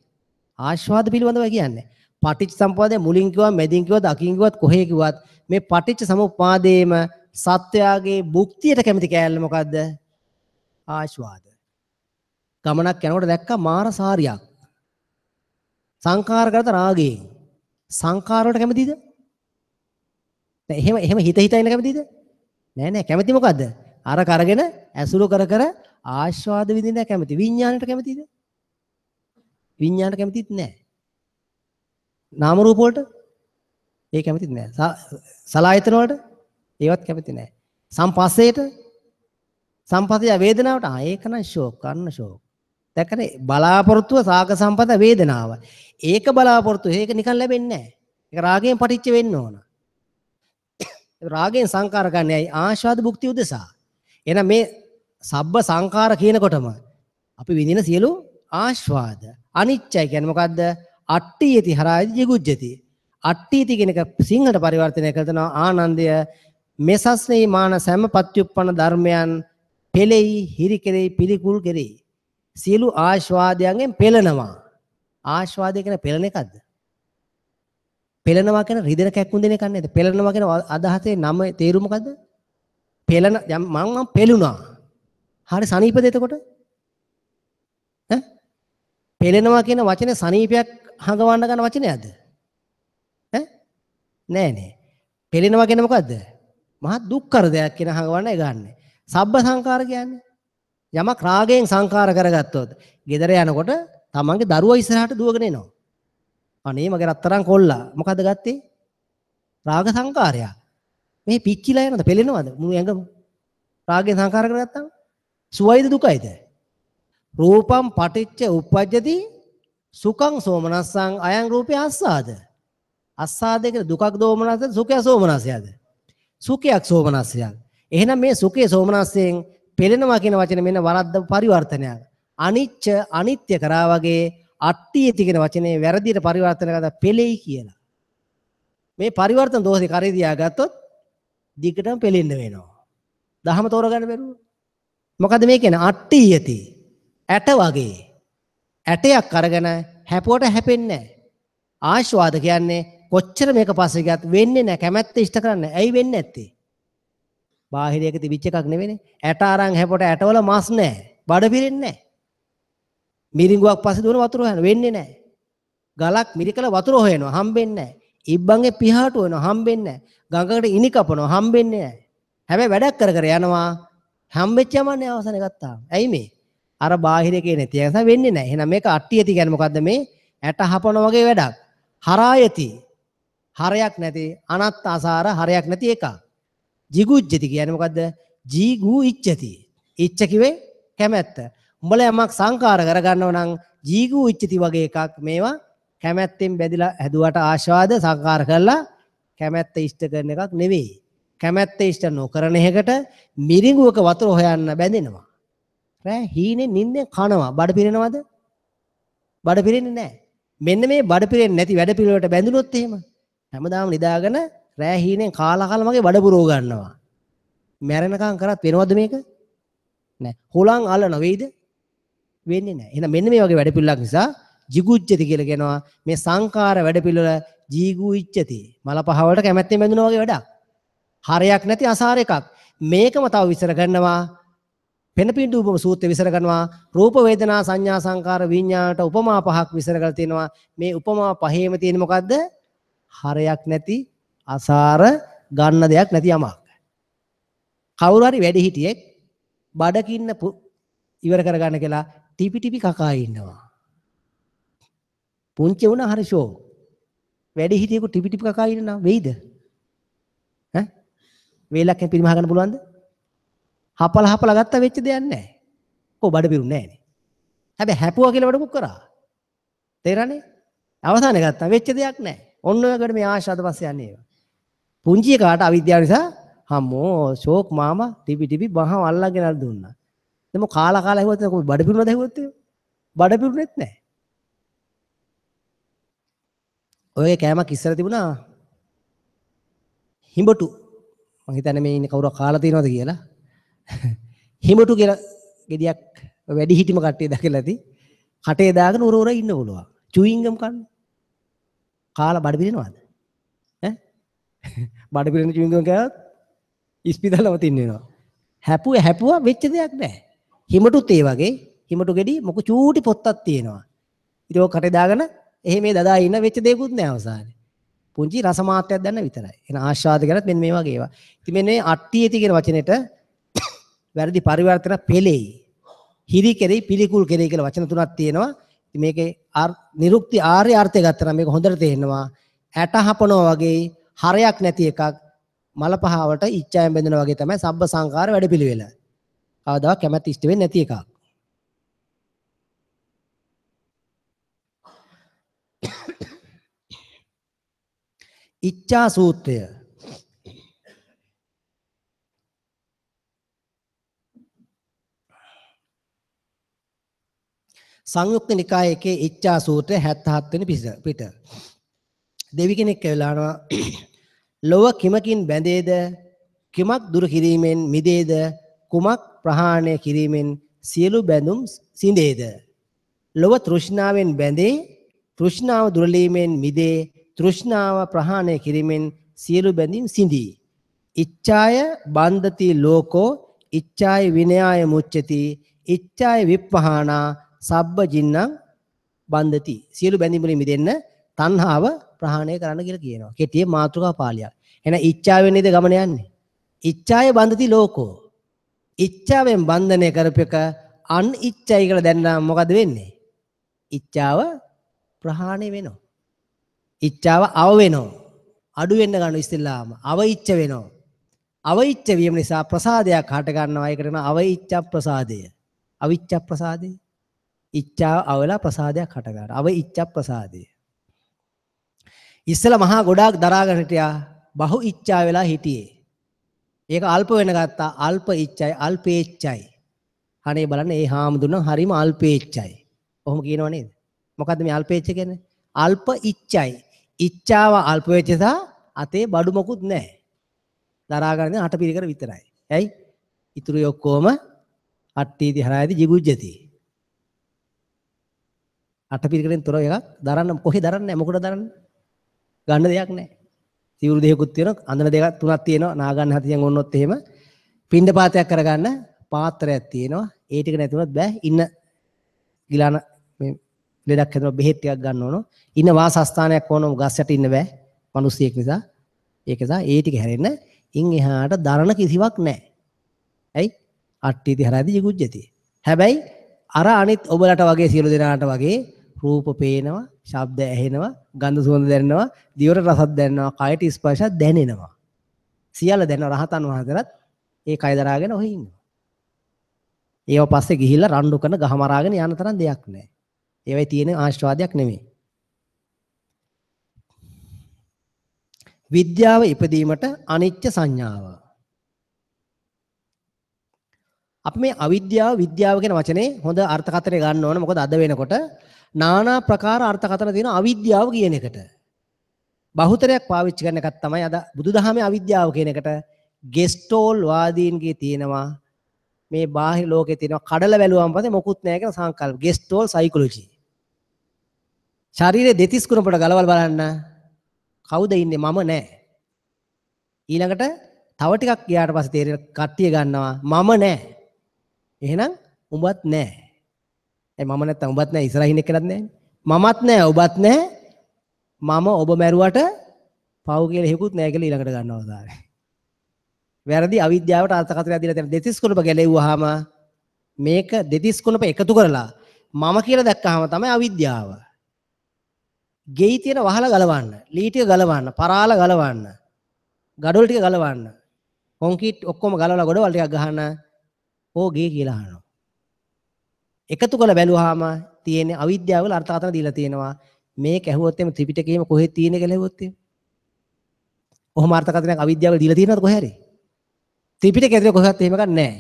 ආස්වාද පිළිබඳව කියන්නේ. පටිච්ච සමුප්පාදය මුලින් කිව්වා, මැදින් කිව්වත්, අකින් කිව්වත්, කොහේ කිව්වත් මේ පටිච්ච සමුප්පාදයේම සත්‍යයේ භුක්තියට කැමති කෑල්ල මොකද්ද? ආස්වාද. ගමනක් යනකොට දැක්කා මාර සාරියක්. සංකාර කරත රාගයෙන්. සංකාර වලට කැමතිද? නෑ. එහෙම එහෙම හිත හිත ඉන්න කැමතිද? නෑ නෑ. කැමති මොකද්ද? අර කරගෙන ඇසුරු කර කර ආස්වාද විඳින්න කැමති. විඥාණයට කැමතිද? විඥාණයට කැමතිත් නෑ. නාම රූප වලට ඒ කැමතිත් නෑ. සලායතන වලට ඒවත් කැමති නෑ. සම්පස්සේට සම්පස්සය වේදනාවට ආ ඒක නම් ෂෝක් අන්න ෂෝක්. දැක්කනේ බලාපොරොත්තුව සාග සම්පත වේදනාව. ඒක බලාපොරොත්තු ඒක නිකන් ලැබෙන්නේ නෑ. ඒක රාගයෙන් පටිච්ච වෙන්න ඕන. රාගයෙන් සංකාර ගන්න ඇයි ආශාද භුක්ති උදෙසා. එහෙනම් මේ සබ්බ සංකාර කියනකොටම අපි විඳින සියලු ආස්වාද අනිච්චයි කියන්නේ මොකද්ද? අට්ඨියති හරායති ජිගුජ්ජති. අට්ඨියති කියන එක සිංහලට පරිවර්තනය කළ තනවා ආනන්දය මෙසස්නේ මාන සෑම පත්‍යුප්පන්න ධර්මයන් පෙළෙයි හිරි කෙරෙයි පිළිකුල් කෙරෙයි. සියලු ආස්වාදයන්ගෙන් පෙළෙනවා. ආස්වාදය කියන්නේ පෙළෙන එකක්ද? පෙළෙනවා කියන රිදෙන කැක්කුම් දෙන එකක් නේද? පෙළෙනවා කියන අදහසේ නම තේරුම මොකද්ද? පෙළෙන මං පෙළුණා. හරි සනීපද එතකොට? ඈ පෙළෙනවා කියන වචනේ සනීපයක් හඟවන්න ගන්න වචනයක්ද? ඈ නෑ නෑ. පෙළෙනවා කියන්නේ මොකද්ද? මහා දුක්ඛර දෙයක් කියන හඟවන්න ඒ ගන්න. සබ්බ සංකාර කියන්නේ යමක් රාගයෙන් සංකාර කරගත්තොත් ගෙදර යනකොට තමන්ගේ දරුවා ඉස්සරහට දුවගෙන එනවා. අනේ මගේ රත්තරන් කොල්ලා මොකද්ද ගත්තේ? රාග සංකාරයක්. මේ පිච්චිලා යනවද පෙළෙනවද මුළු ඇඟම? රාගයෙන් සංකාර කරගත්තාම සුවයිද දුකයිද? රූපං පටිච්ච උප්පජ්ජති සුඛං සෝමනස්සං අයං රූපේ අස්සාද. අස්සාද කියන්නේ දුකක් දෝමනස්සද සුඛය සෝමනස්සයද? සුඛයක් සෝමනස්සයක්. එහෙනම් මේ සුඛයේ සෝමනස්සයෙන් පෙළෙනවා කියන වචනේ මෙන්න වරද්ද පරිවර්තනයක්. අනිච්ච අනිත්‍ය කරා වගේ අට්ඨියති කියන වචනේ වැරදියට පරිවර්තන කරලා පෙළෙයි කියලා. මේ පරිවර්තන දෝෂේ කරේ තියාගත්තොත් දිගටම පෙළෙන්න වෙනවා. දහම තෝරගන්න බැරුව. මොකද මේ කියන්නේ අට්ඨියති ඇට වගේ. ඇටයක් අරගෙන හැපුවට හැපෙන්නේ නැහැ. ආශ්වාද කියන්නේ කොච්චර මේක පස්සේ ගියත් වෙන්නේ නැහැ. කැමැත්ත ඉෂ්ට කරන්නේ. ඇයි වෙන්නේ නැත්තේ? බාහිරයක තිබිච්ච එකක් නෙවෙයිනේ. ඇට අරන් හැපුවට ඇටවල මස් නැහැ. බඩ පිරෙන්නේ නැහැ. මිරිඟුවක් පස්සේ දුවන වතුර හොයන වෙන්නේ නැහැ. ගලක් මිරිකල වතුර හොයනවා හම්බෙන්නේ නැහැ. ඉබ්බන්ගේ පිහාටු වෙනවා හම්බෙන්නේ නැහැ. ගඟකට ඉනි කපනවා හම්බෙන්නේ නැහැ. හැබැයි වැඩක් කර කර යනවා හම්බෙච්ච යමන්නේ අවසානයේ ගත්තාම. ඇයි මේ? අර බාහිර එකේ නැති එක නිසා වෙන්නේ නැහැ. එහෙනම් මේක අට්ටියති කියන්නේ මොකද්ද මේ? ඇට හපන වගේ වැඩක්. හරායති. හරයක් නැති අනත්ත අසාර හරයක් නැති එකක්. ජිගුජ්ජති කියන්නේ මොකද්ද? ජීගු ඉච්ඡති. ඉච්ඡ කිව්වේ කැමැත්ත. උඹලා යමක් සංකාර කරගන්නව නම් ජීගු ඉච්ඡති වගේ එකක් මේවා කැමැත්තෙන් බැඳිලා හැදුවට ආශාද සංකාර කරලා කැමැත්ත ඉෂ්ට කරන එකක් නෙවෙයි. කැමැත්ත ඉෂ්ට නොකරන එකට මිරිඟුවක වතුර හොයන්න බැඳෙනවා. රෑ හීනේ නිින්දෙන් කනවා. බඩ පිරෙනවද? බඩ පිරෙන්නේ නැහැ. මෙන්න මේ බඩ පිරෙන්නේ නැති වැඩ පිළිවෙලට බැඳුනොත් එහෙම හැමදාම නිදාගෙන රෑ හීනෙන් කාලා කාලා මගේ බඩ පුරව ගන්නවා. මැරෙනකන් කරත් වෙනවද මේක? නෑ. හොලන් අල්ලන වෙයිද? වෙන්නේ නෑ. එහෙනම් මෙන්න මේ වගේ වැඩ පිළිවෙලක් නිසා ජිගුජ්ජති කියලා කියනවා. මේ සංකාර වැඩ පිළිවෙල ජීගු ඉච්ඡති. මල පහ වලට කැමැත්තෙන් බැඳුනා වගේ වැඩක්. හරයක් නැති අසාර එකක්. මේකම තව විස්තර කරනවා. පෙනපිඬු උපම සූත්‍රය විස්තර කරනවා. රූප වේදනා සංඥා සංකාර විඥානට උපමා පහක් විස්තර කරලා තියෙනවා. මේ උපමා පහේම තියෙන මොකද්ද? හරයක් නැති අසාර ගන්න දෙයක් නැති යමක්. කවුරු හරි වැඩිහිටියෙක් බඩගින්න ඉවර කරගන්න කියලා ටිපි ටිපි කකා ඉන්නවා. පුංචි වුණා හරි ෂෝ. වැඩිහිටියෙකු ටිපි ටිපි කකා ඉන්නවා වෙයිද? ඈ වේලක් පිරිමහ ගන්න පුළුවන්ද? හපල හපල ගත්තා වෙච්ච දෙයක් නැහැ. කො බඩ පිරුන්නේ නැහැ නේ. හැබැයි හැපුවා කියලා වැඩකුත් කරා. තේරෙන්නේ? අවසානයේ ගත්තා වෙච්ච දෙයක් නැහැ. ඔන්න ඔය වගේ මේ ආශාද පස්සේ යන්නේ ඒවා. පුංචි එකාට අවිද්‍යාව නිසා හම්මෝ ෂෝක් මාමා ටිපි ටිපි බහම අල්ලගෙන අර දුන්නා. දැන් මො කාලා කාලා ඇහුවත් කො බඩ පිරුණාද ඇහුවොත් එහෙම? බඩ පිරුණෙත් නැහැ. ඔයගේ කෑමක් ඉස්සර තිබුණා හිඹටු. මං හිතන්නේ මේ ඉන්නේ කවුරු කාලා තියෙනවද කියලා. හිඹටු කියලා ගෙඩියක් වැඩි හිටිම කට්ටිය දැකලා ඇති. කටේ දාගෙන උර උර ඉන්න පුළුවන්. චුයින්ගම් කන්න. කාලා බඩ පිරෙනවද? ඈ බඩ පිරෙන චුයින්ගම් කෑවත් ඉස්පිතාලෙම තින්න වෙනවා. හැපුවා හැපුවා වෙච්ච දෙයක් නෑ. හිමටුත් ඒ වගේ හිමටු ගෙඩි මොක චූටි පොත්තක් තියෙනවා. ඉතින් ඔක කටේ දාගෙන එහෙම මේ දදා ඉන්න වෙච්ච දෙයක්වත් නෑ අවසානයේ. පුංචි රස මාත්‍රයක් දැන්න විතරයි. එන ආශාද ගැනත් මෙන්න මේ වගේ ඒවා. ඉතින් මෙන්න මේ අට්ටියති කියන වචනෙට වැරදි පරිවර්තන පෙළෙයි. හිරි කෙරෙයි පිළිකුල් කෙරෙයි කියලා වචන තුනක් තියෙනවා. ඉතින් මේකේ නිරුක්ති ආර්ය අර්ථය ගත්තා නම් මේක හොඳට තේරෙනවා. ඇට හපනවා වගේ හරයක් නැති එකක්. මල පහවට ඉච්ඡාවෙන් බැඳෙනා වගේ තමයි සබ්බ සංඛාර වැඩපිළිවෙල. කවදාවත් කැමැත්ත ඉෂ්ට වෙන්නේ නැති එකක්. ඉච්ඡා සූත්‍රය. සංයුක්ත නිකායේ එකේ ඉච්ඡා සූත්‍රය 77 වෙනි පිට. දෙවි කෙනෙක් ඇවිල්ලා අහනවා ලොව කිමකින් බැඳේද, කිමක් දුරු කිරීමෙන් මිදේද, කුමක් ප්‍රහාණය කිරීමෙන් සියලු බැඳුම් සිඳේද? ලොව තෘෂ්ණාවෙන් බැඳේ, තෘෂ්ණාව දුරලීමෙන් මිදේ, තෘෂ්ණාව ප්‍රහාණය කිරීමෙන් සියලු බැඳීම් සිඳී. ඉච්ඡාය බන්ධති ලෝකෝ, ඉච්ඡාය විනයාය මුච්ඡති, ඉච්ඡාය විප්පහානා සබ්බ ජින්නම් බන්ධති. සියලු බැඳීම් වලින් මිදෙන්න තණ්හාව ප්‍රහාණය කරන්න කියලා කියනවා. කෙටියේ මාතෘකා පාළියක්. එහෙනම් ඉච්ඡාවෙන් නේද ගමන යන්නේ? ඉච්ඡාය බන්ධති ලෝකෝ. ඉච්ඡාවෙන් බන්ධනය කරපෙක අන් ඉච්ඡයි කියලා දැනනම් මොකද වෙන්නේ? ඉච්ඡාව ප්‍රහාණය වෙනවා. ඉච්ඡාව අව වෙනවා. අඩු වෙන්න ගන්න ඉස්සෙල්ලාම අව ඉච්ඡ වෙනවා. අව ඉච්ඡ වීම නිසා ප්‍රසාදයක් හට ගන්නවා. ඒකට කියනවා අව ඉච්ඡ ප්‍රසාදය. අවිච්ඡ ප්‍රසාදය. ඉච්ඡාව අවලා ප්‍රසාදයක් හට ගන්නවා. අව ඉච්ඡ ප්‍රසාදය. ඉස්සෙල්ලා මහා ගොඩාක් දරාගෙන හිටියා. බහු ඉච්ඡා වෙලා හිටියේ. ඒක අල්ප වෙන ගත්තා. අල්ප ඉච්ඡයි, අල්පේච්ඡයි. අනේ බලන්න ඒ හාමුදුරන් හරිම අල්පේච්ඡයි. ඔහොම කියනව නේද? මොකද්ද මේ අල්පේච්ඡ කියන්නේ? අල්ප ඉච්ඡයි. ඉච්ඡාව අල්ප වෙච්ච නිසා අතේ බඩු මොකුත් නැහැ. දරා ගන්න අට පිරිකර විතරයි. ඇයි? ඉතුරු ඔක්කොම අට්ටීති හරායති ජිගුජ්ජති. අට පිරිකරෙන් තොර එකක් දරන්න කොහේ දරන්නේ? මොකටද දරන්නේ? ගන්න දෙයක් නැහැ. සිවුරු දෙකකුත් තියෙනවා, අඳන දෙකක් තුනක් තියෙනවා. නා ගන්න හතියන් ඕනොත් එහෙම පින්ඩ පාතයක් කරගන්න පාත්‍රයක් තියෙනවා. ඒ ටික නැතුණත් බෑ. ඉන්න ගිලාන මේ ලෙඩක් හැදෙනවා, බෙහෙත් ටිකක් ගන්න ඕන. ඉන්න වාසස්ථානයක් ඕන, ගස් යට ඉන්න බෑ. මිනිස්සෙක් නිසා. ඒක නිසා ඒ ටික හැරෙන්න ඉන් එහාට දරන කිසිවක් නැහැ. ඇයි? අට්ටීති හරාදී ජිගුජ්ජති. හැබැයි අර අනිත් ඔබලට වගේ සියලු දෙනාට වගේ රූප පේනවා, ශබ්ද ඇහෙනවා, ගන්ධ සුවඳ දැනෙනවා, දිවට රසක් දැනෙනවා, කයට ස්පර්ශයක් දැනෙනවා. සියල්ල දැනෙනවා. රහතන් වහන්සේලාත් ඒ කය දරාගෙන ඔහේ ඉන්නවා. ඒව පස්සේ ගිහිල්ලා රණ්ඩු කරන ගහ මරාගෙන යන තරම් දෙයක් නෑ. ඒවයි තියෙන ආශිර්වාදයක් නෙමෙයි. විද්‍යාව ඉපදීමට අනිත්‍ය සංඥාව. අපි මේ අවිද්‍යාව විද්‍යාව කියන වචනේ හොඳ අර්ථකථනය ගන්න ඕන. මොකද අද වෙනකොට නානා ප්‍රකාර අර්ථකථන තියෙන අවිද්‍යාව කියන එකට. බහුතරයක් පාවිච්චි කරන එකක් තමයි අද බුදුදහමේ අවිද්‍යාව කියන එකට. ගෙස්ටෝල් වාදීන්ගේ තියෙනවා මේ බාහිර ලෝකේ තියෙනවා කඩල බැලුවම පස්සේ මොකුත් නැහැ කියන සංකල්ප. ගෙස්ටෝල් සයිකොලොජි. ශරීරයේ දෙතිස් කුණපට ගලවල් බලන්න කවුද ඉන්නේ? මම නෑ. ඊළඟට තව ටිකක් ගියාට පස්සේ තේරෙන කට්ටිය ගන්නවා මම නෑ. එහෙනම් උඹත් නෑ. ඒ මම නැත්තම් උඹත් නෑ, ඉස්සරහින් එක්කනත් නෑ. මමත් නෑ, ඔබත් නෑ. මම ඔබ මැරුවට පව් කියලා හේකුත් නෑ කියලා ඊළඟට ගන්නවා තාරේ. වැරදි අවිද්‍යාවට අර්ථකථනයක් දීලා තියෙන දෙතිස් කුණප ගැලෙව්වහම මේක දෙතිස් කුණප එකතු කරලා මම කියලා දැක්කහම තමයි අවිද්‍යාව. ගෙයි තියෙන වහල ගලවන්න, ලී ටික ගලවන්න, පරාල ගලවන්න, ගඩොල් ටික ගලවන්න, කොන්ක්‍රීට් ඔක්කොම ගලවලා ගොඩවල් ටිකක් ගහන්න ඕ ගේ කියලා අහනවා. එකතු කරලා බැලුවාම තියෙන අවිද්‍යාව වල අර්ථකථන දීලා තියෙනවා. මේක ඇහුවොත් එimhe ත්‍රිපිටකයේම කොහෙද තියෙන්නේ කියලා ඇහුවොත් එහෙම. ඔහොම අර්ථකථනයක් අවිද්‍යාව දීලා තියෙනවද කොහේ හරි? ත්‍රිපිටකය ඇතුලේ කොහෙවත් එහෙම එකක් නැහැ.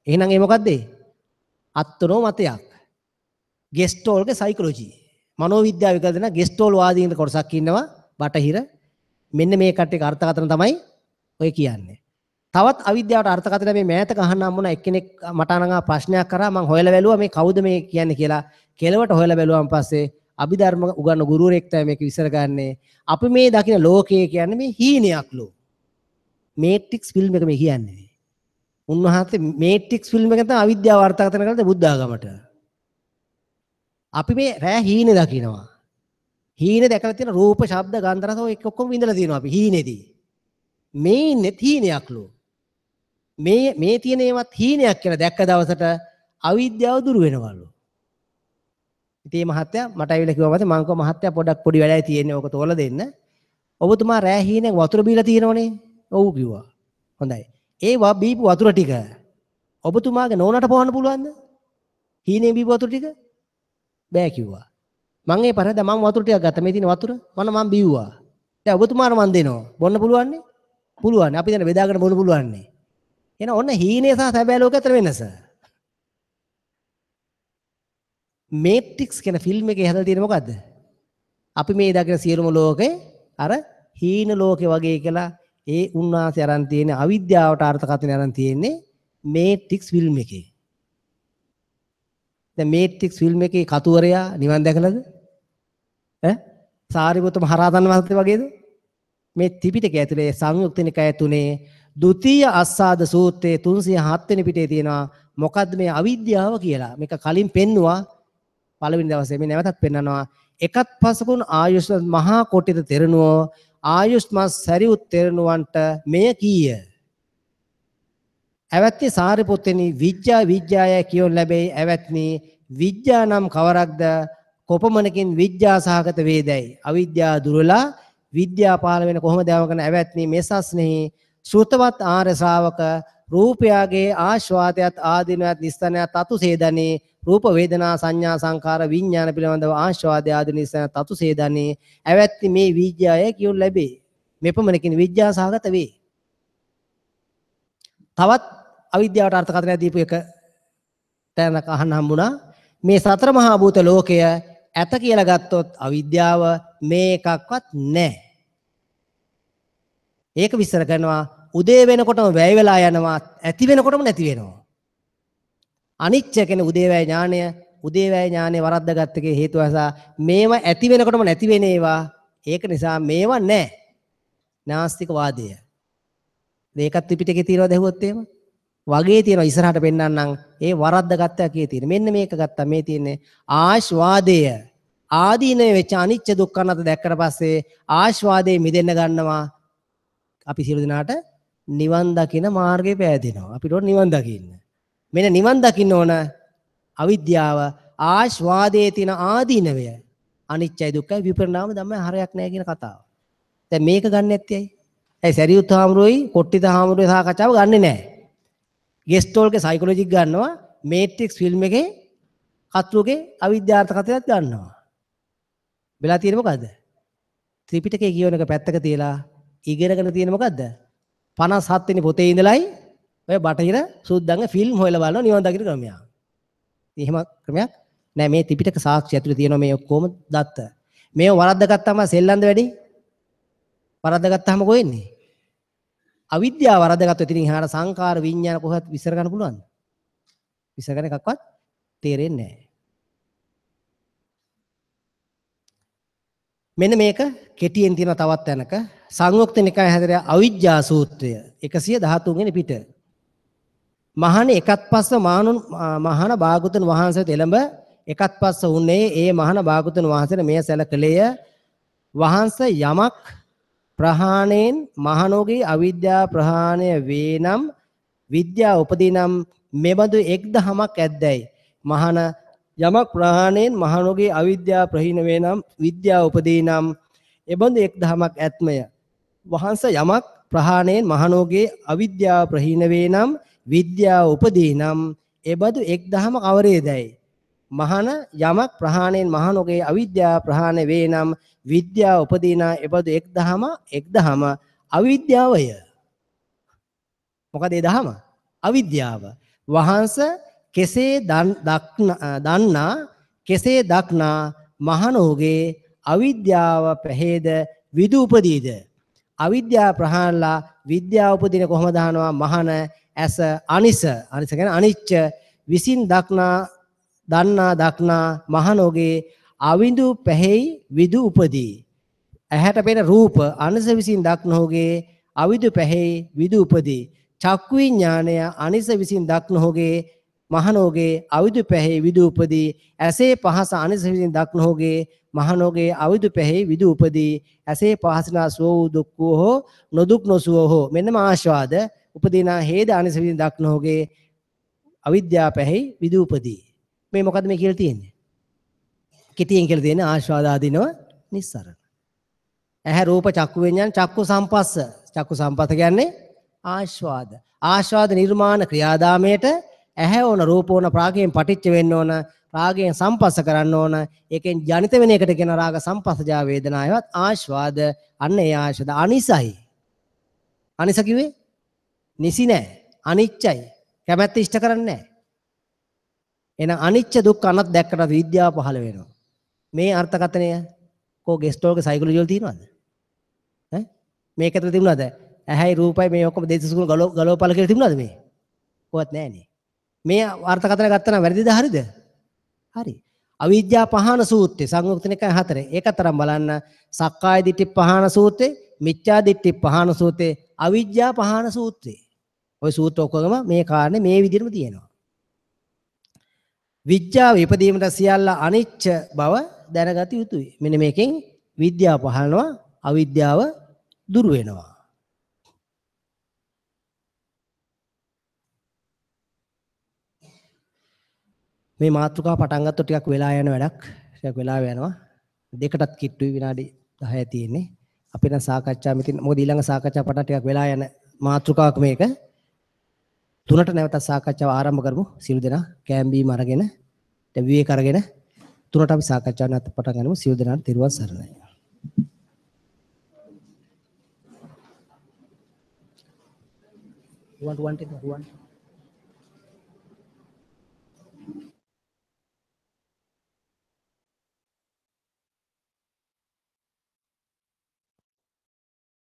එහෙනම් ඒ මොකද්ද ඒ? අත්නෝ මතයක්. ගෙස්ටෝල්ගේ සයිකොලොජි. මනෝවිද්‍යාව විකල්ප දෙන ගෙස්ටෝල් වාදීන් කොටසක් ඉන්නවා බටහිර. මෙන්න මේ කට්ටියක අර්ථකථන තමයි ඔය කියන්නේ. තවත් අවිද්‍යාවට අර්ථකථන මේ මෑතක අහන්න හම්බුණා එක්කෙනෙක් මට අනගා ප්‍රශ්නයක් කරා. මං හොයලා බැලුවා මේ කවුද මේ කියන්නේ කියලා. කෙලවට හොයලා බැලුවාන් පස්සේ අභිධර්ම උගන්වන ගුරුවරයෙක් තමයි මේක විස්තර කරන්නේ. අපි මේ දකින ලෝකය කියන්නේ මේ හීනයක්ලු. මේට්‍රික්ස් ෆිල්ම් එක මේ කියන්නේ. උන්වහන්සේ මේට්‍රික්ස් ෆිල්ම් එක තමයි අවිද්‍යාව අර්ථකථන කරන්නේ බුද්ධ ආගමට. අපි මේ රෑ හීනේ දකිනවා. හීනේ දැකලා තියෙන රූප, ශබ්ද, ගන්ධ, රස ඔය ඔක්කොම විඳලා තියෙනවා අපි හීනේදී. මේ ඉන්නේ හීනයක්ලු. මේ මේ තියෙන ඒවත් හීනයක් කියලා දැක්ක දවසට අවිද්‍යාව දුරු වෙනවලු. ඉතින් මේ මහත්තයා මට ඇවිල්ලා කිව්වා මං කිව්වා මහත්තයා පොඩක් පොඩි වැඩයි තියෙන්නේ ඕක තෝරලා දෙන්න. ඔබතුමා රෑ හීනෙන් වතුර බීලා තියෙනවනේ. ඔව් කිව්වා. හොඳයි. ඒ බීපු වතුර ටික ඔබතුමාගේ නෝනට පොවන්න පුළුවන්ද? හීනෙන් බීපු වතුර ටික? බෑ කිව්වා. මං ඒ පරද මං වතුර ටිකක් ගත්තා. මේ තියෙන වතුර මම මං බීව්වා. දැන් ඔබතුමාට මං දෙනවා. බොන්න පුළුවන්නේ? පුළුවන්. අපි දැන් බෙදාගෙන බොන්න පුළුවන්නේ. එහෙනම් ඔන්න හීනේ සහ සැබෑ ලෝකය අතර වෙනස. මේට්‍රික්ස් කියන ෆිල්ම් එකේ හදලා තියෙන මොකද්ද? අපි මේ දකින සියලුම ලෝකේ අර හීන ලෝකේ වගේ කියලා ඒ උන්වහන්සේ අරන් තියෙන අවිද්‍යාවට අර්ථකථනය අරන් තියෙන්නේ මේට්‍රික්ස් ෆිල්ම් එකේ. දැන් මේට්‍රික්ස් ෆිල්ම් එකේ කතුවරයා නිවන් දැකලාද? ඈ සාරිපුත්ත මහරහතන් වහන්සේ වගේද? මේ ත්‍රිපිටකය ඇතුලේ සංයුක්ත නිකාය තුනේ ද්විතීය අස්සාද සූත්‍රයේ 307 වෙනි පිටේ තියෙනවා මොකද්ද මේ අවිද්‍යාව කියලා. මේක කලින් පෙන්නුවා පළවෙනි දවසේ, මේ නැවතත් පෙන්නනවා. එකත් පසකුන් ආයුෂ්මත් මහා කොටිත තෙරණුවෝ ආයුෂ්මත් සරියුත් තෙරණුවන්ට මෙය කීය. ඇවැත්නි සාරිපුත්තනි විද්‍යා විද්‍යාය කියොන් ලැබෙයි. ඇවැත්නි විද්‍යා නම් කවරක්ද? කොපමණකින් විද්‍යා සහගත වේදයි? අවිද්‍යාව දුරලා විද්‍යා පහළ වෙන කොහොමද යවකන? ඇවැත්නි මෙසස්නෙහි ශ්‍රුතවත් ආර්ය ශ්‍රාවක රූපයාගේ ආස්වාදයත් ආදීනවත් නිස්සනයත් අතුසේදනේ රූප වේදනා සංඥා සංකාර විඥාන පිළිබඳව ආස්වාදය ආදී නිස්සන තතුසේදනේ. ඇවැත්නි මේ විද්‍යාය කියොන් ලැබේ. මෙපමණකින් විද්‍යා සහගත වේ. තවත් අවිද්‍යාවට අර්ථකථනයක් දීපු එක තැනක අහන්න හම්බුණා. මේ සතර මහා භූත ලෝකය ඇත කියලා ගත්තොත් අවිද්‍යාව මේ එකක්වත් නැහැ. ඒක විස්තර කරනවා උදේ වෙනකොටම වැය වෙලා යනවා, ඇති වෙනකොටම නැති වෙනවා. අනිච්ච කියන්නේ උදේවැය ඥානය, උදේවැය ඥානය වරද්දාගත්ත එකේ හේතුව නිසා මේවා ඇති වෙනකොටම නැති වෙන ඒවා. ඒක නිසා මේවා නැහැ. නාස්තික වාදය. මේකත් ත්‍රිපිටකේ තියෙනවද ඇහුවොත් එහෙම? වගේ තියෙනවා ඉස්සරහට පෙන්නන්නම් ඒ වරද්දාගත්ත එකේ තියෙන. මෙන්න මේක ගත්තා. මේ තියෙන්නේ ආස්වාදය. ආදීනව වෙච්ච අනිච්ච දුක්ඛ අනාත්ම දැක්කට පස්සේ ආස්වාදයේ මිදෙන්න ගන්නවා. අපි සියලු දෙනාට නිවන් දකින මාර්ගය පෑදෙනවා. අපිට ඕන නිවන් දකින්න. මෙන්න නිවන් දකින්න ඕන අවිද්‍යාව ආස්වාදයේ තියෙන ආදීනවය අනිච්චයි දුක්ඛයි විපරිණාම ධම්මයි හරයක් නෑ කියන කතාව. දැන් මේක ගන්න නැත්තේ ඇයි? ඇයි සරියුත් හාමුදුරුවෝයි කොට්ටිත හාමුදුරුවෝයි සාකච්ඡාව ගන්නෙ නෑ. ගෙස්ටෝල්ගේ සයිකොලොජි ගන්නවා, මේට්‍රික්ස් ෆිල්ම් එකේ කතුරුගේ අවිද්‍යාර්ථ කතාවක් ගන්නවා. වෙලා තියෙන්නේ මොකද්ද? ත්‍රිපිටකයේ කියවන එක පැත්තක තියලා ඉගෙනගෙන තියෙන මොකද්ද? 57 වෙනි පොතේ ඉඳලයි ඔය බටහිර සුද්දන්ගේ ෆිල්ම් හොයලා බලනවා නිවන් දකින්න ක්‍රමයක්. ඉතින් එහෙම ක්‍රමයක් නෑ. මේ ත්‍රිපිටක සාක්ෂි ඇතුලේ තියෙනවා මේ ඔක්කොම දත්ත. මේව වරද්දාගත්තාම සෙල්ලම්ද වැඩි? වරද්දාගත්තාම කොහෙන්නේ? අවිද්‍යාව වරද්දාගත්තොත් ඉතින් එහාට සංකාර විඥාන කොහොමද විස්තර කරන්න පුළුවන්ද? විස්තර කරන එකක්වත් තේරෙන්නේ නෑ. මෙන්න මේක කෙටියෙන් තියෙන තවත් තැනක සංයුක්ත නිකාය හැදෙන අවිජ්ජා සූත්‍රය 113 වෙනි පිට. මහණ එකත් පස්ස මහණ භාගතුන් වහන්සේට එළඹ එකත් පස්ස උනේ ඒ මහණ භාගතුන් වහන්සේට මෙය සැලකලේය. වහන්සේ යමක් ප්‍රහාණයෙන් මහණෝගේ අවිද්‍යා ප්‍රහාණය වේ නම් විද්‍යාව උපදී නම් මෙබඳු එක් දහමක් ඇද්දැයි. මහණ යමක් ප්‍රහාණයෙන් මහණෝගේ අවිද්‍යාව ප්‍රහීන වේ නම් විද්‍යාව උපදී නම් එබඳු එක් දහමක් ඇත්මය. වහන්සේ යමක් ප්‍රහාණයෙන් මහණෝගේ අවිද්‍යාව ප්‍රහීන වේ නම් විද්‍යාව උපදී නම් එබඳු එක් දහම කවරේදැයි. මහණ යමක් ප්‍රහාණයෙන් මහණෝගේ අවිද්‍යාව ප්‍රහාණය වේ නම් විද්‍යාව උපදී නම් එබඳු එක් දහම අවිද්‍යාවය. මොකද ඒ දහම? අවිද්‍යාව. වහන්සේ කෙසේ දන්නා කෙසේ දක්නා මහණෝගේ අවිද්‍යාව පැහේද විදු උපදීද? අවිද්‍යාව ප්‍රහාණලා විද්‍යාව උපදින කොහොමද අහනවා? මහණ ඇස අනිස, අනිස කියන්නේ අනිච්ච විසින් දක්නා දන්නා දක්නා මහණෝගේ අවිඳු පැහෙයි විදු උපදී. ඇහැට පෙනෙන රූප අනිස විසින් දක්නෝගේ අවිදු පැහෙයි විදු උපදී. චක්කු විඥානය අනිස විසින් දක්නෝගේ මහණෝගේ අවිදු පැහෙයි විදු උපදී. ඇසේ පහස අනිස විසින් දක්නෝගේ මහණෝගේ අවිදු පැහෙයි විදු උපදී. ඇසේ පහසනා සුව වූ දුක් වූ හෝ නොදුක් නොසුව හෝ මෙන්නම ආස්වාද උපදීනා හේද අනිස විසින් දක්නෝගේ අවිද්‍යාව පැහෙයි විදු උපදී. මේ මොකද්ද මේ කියලා තියෙන්නේ? කෙටියෙන් කියලා තියෙන්නේ ආස්වාද ආදීනව නිස්සරණ. ඇහැ රූප චක්කු විඤ්ඤාණ චක්කු සම්පස්ස. චක්කු සම්පස්ස කියන්නේ ආස්වාද. ආස්වාද නිර්මාණ ක්‍රියාදාමයට ඇහැ ඕන, රූප ඕන, රාගයෙන් පටිච්ච වෙන්න ඕන, රාගයෙන් සම්පස්ස කරන්න ඕන. ඒකෙන් ජනිත වෙන එකට කියන රාග සම්පස්සජා වේදනාවවත් ආස්වාද. අන්න ඒ ආස්වාද අනිසයි. අනිස කිව්වේ නිසි නෑ, අනිච්චයි, කැමැත්ත ඉෂ්ට කරන්නේ නෑ. එහෙනම් අනිච්ච දුක්ඛ අනත් දැක්කට විද්‍යාව පහළ වෙනවා. මේ අර්ථකථනය කෝ ගෙස්ටෝල්ගේ සයිකොලොජි වල තියෙනවද? ඈ මේක ඇතුළේ තිබුණාද? ඇහැයි රූපයි මේ ඔක්කොම දෙතිස් ගුණ ගලවපල කියලා තිබුණාද මේ? කොහොත් නෑනේ. මේ අර්ථකථන ගත්තා නම් වැරදිද හරිද? හරි. අවිද්‍යා පහන සූත්‍රය සංයුක්ත නිකාය 4. ඒකතරම් බලන්න සක්කාය දිට්ඨි පහන සූත්‍රය, මිච්ඡා දිට්ඨි පහන සූත්‍රය, අවිද්‍යා පහන සූත්‍රය. ඔය සූත්‍ර ඔක්කොගම මේ කාරණේ මේ විදිහටම තියෙනවා. විද්‍යාව ඉපදීමට සියල්ල අනිච්ච බව දැනගත යුතුයි. මෙන්න මේකෙන් විද්‍යාව පහළනවා, අවිද්‍යාව දුරු වෙනවා. මේ මාතෘකාව පටන් ගත්තොත් ටිකක් වෙලා යන වැඩක්. ටිකක් වෙලා යනවා. දෙකටත් කිට්ටුයි විනාඩි 10 තියෙන්නේ. අපි නම් සාකච්ඡා මෙතින් මොකද ඊළඟ සාකච්ඡා පටන් ටිකක් වෙලා යන මාතෘකාවක් මේක. තුනට නැවතත් සාකච්ඡාව ආරම්භ කරමු. සියලු දෙනා කෑම බීම අරගෙන විවේක අරගෙන තුනට අපි සාකච්ඡාව නැවත පටන් ගනිමු. සියලු දෙනාට තෙරුවන් සරණයි. රුවන් රුවන් රුවන්.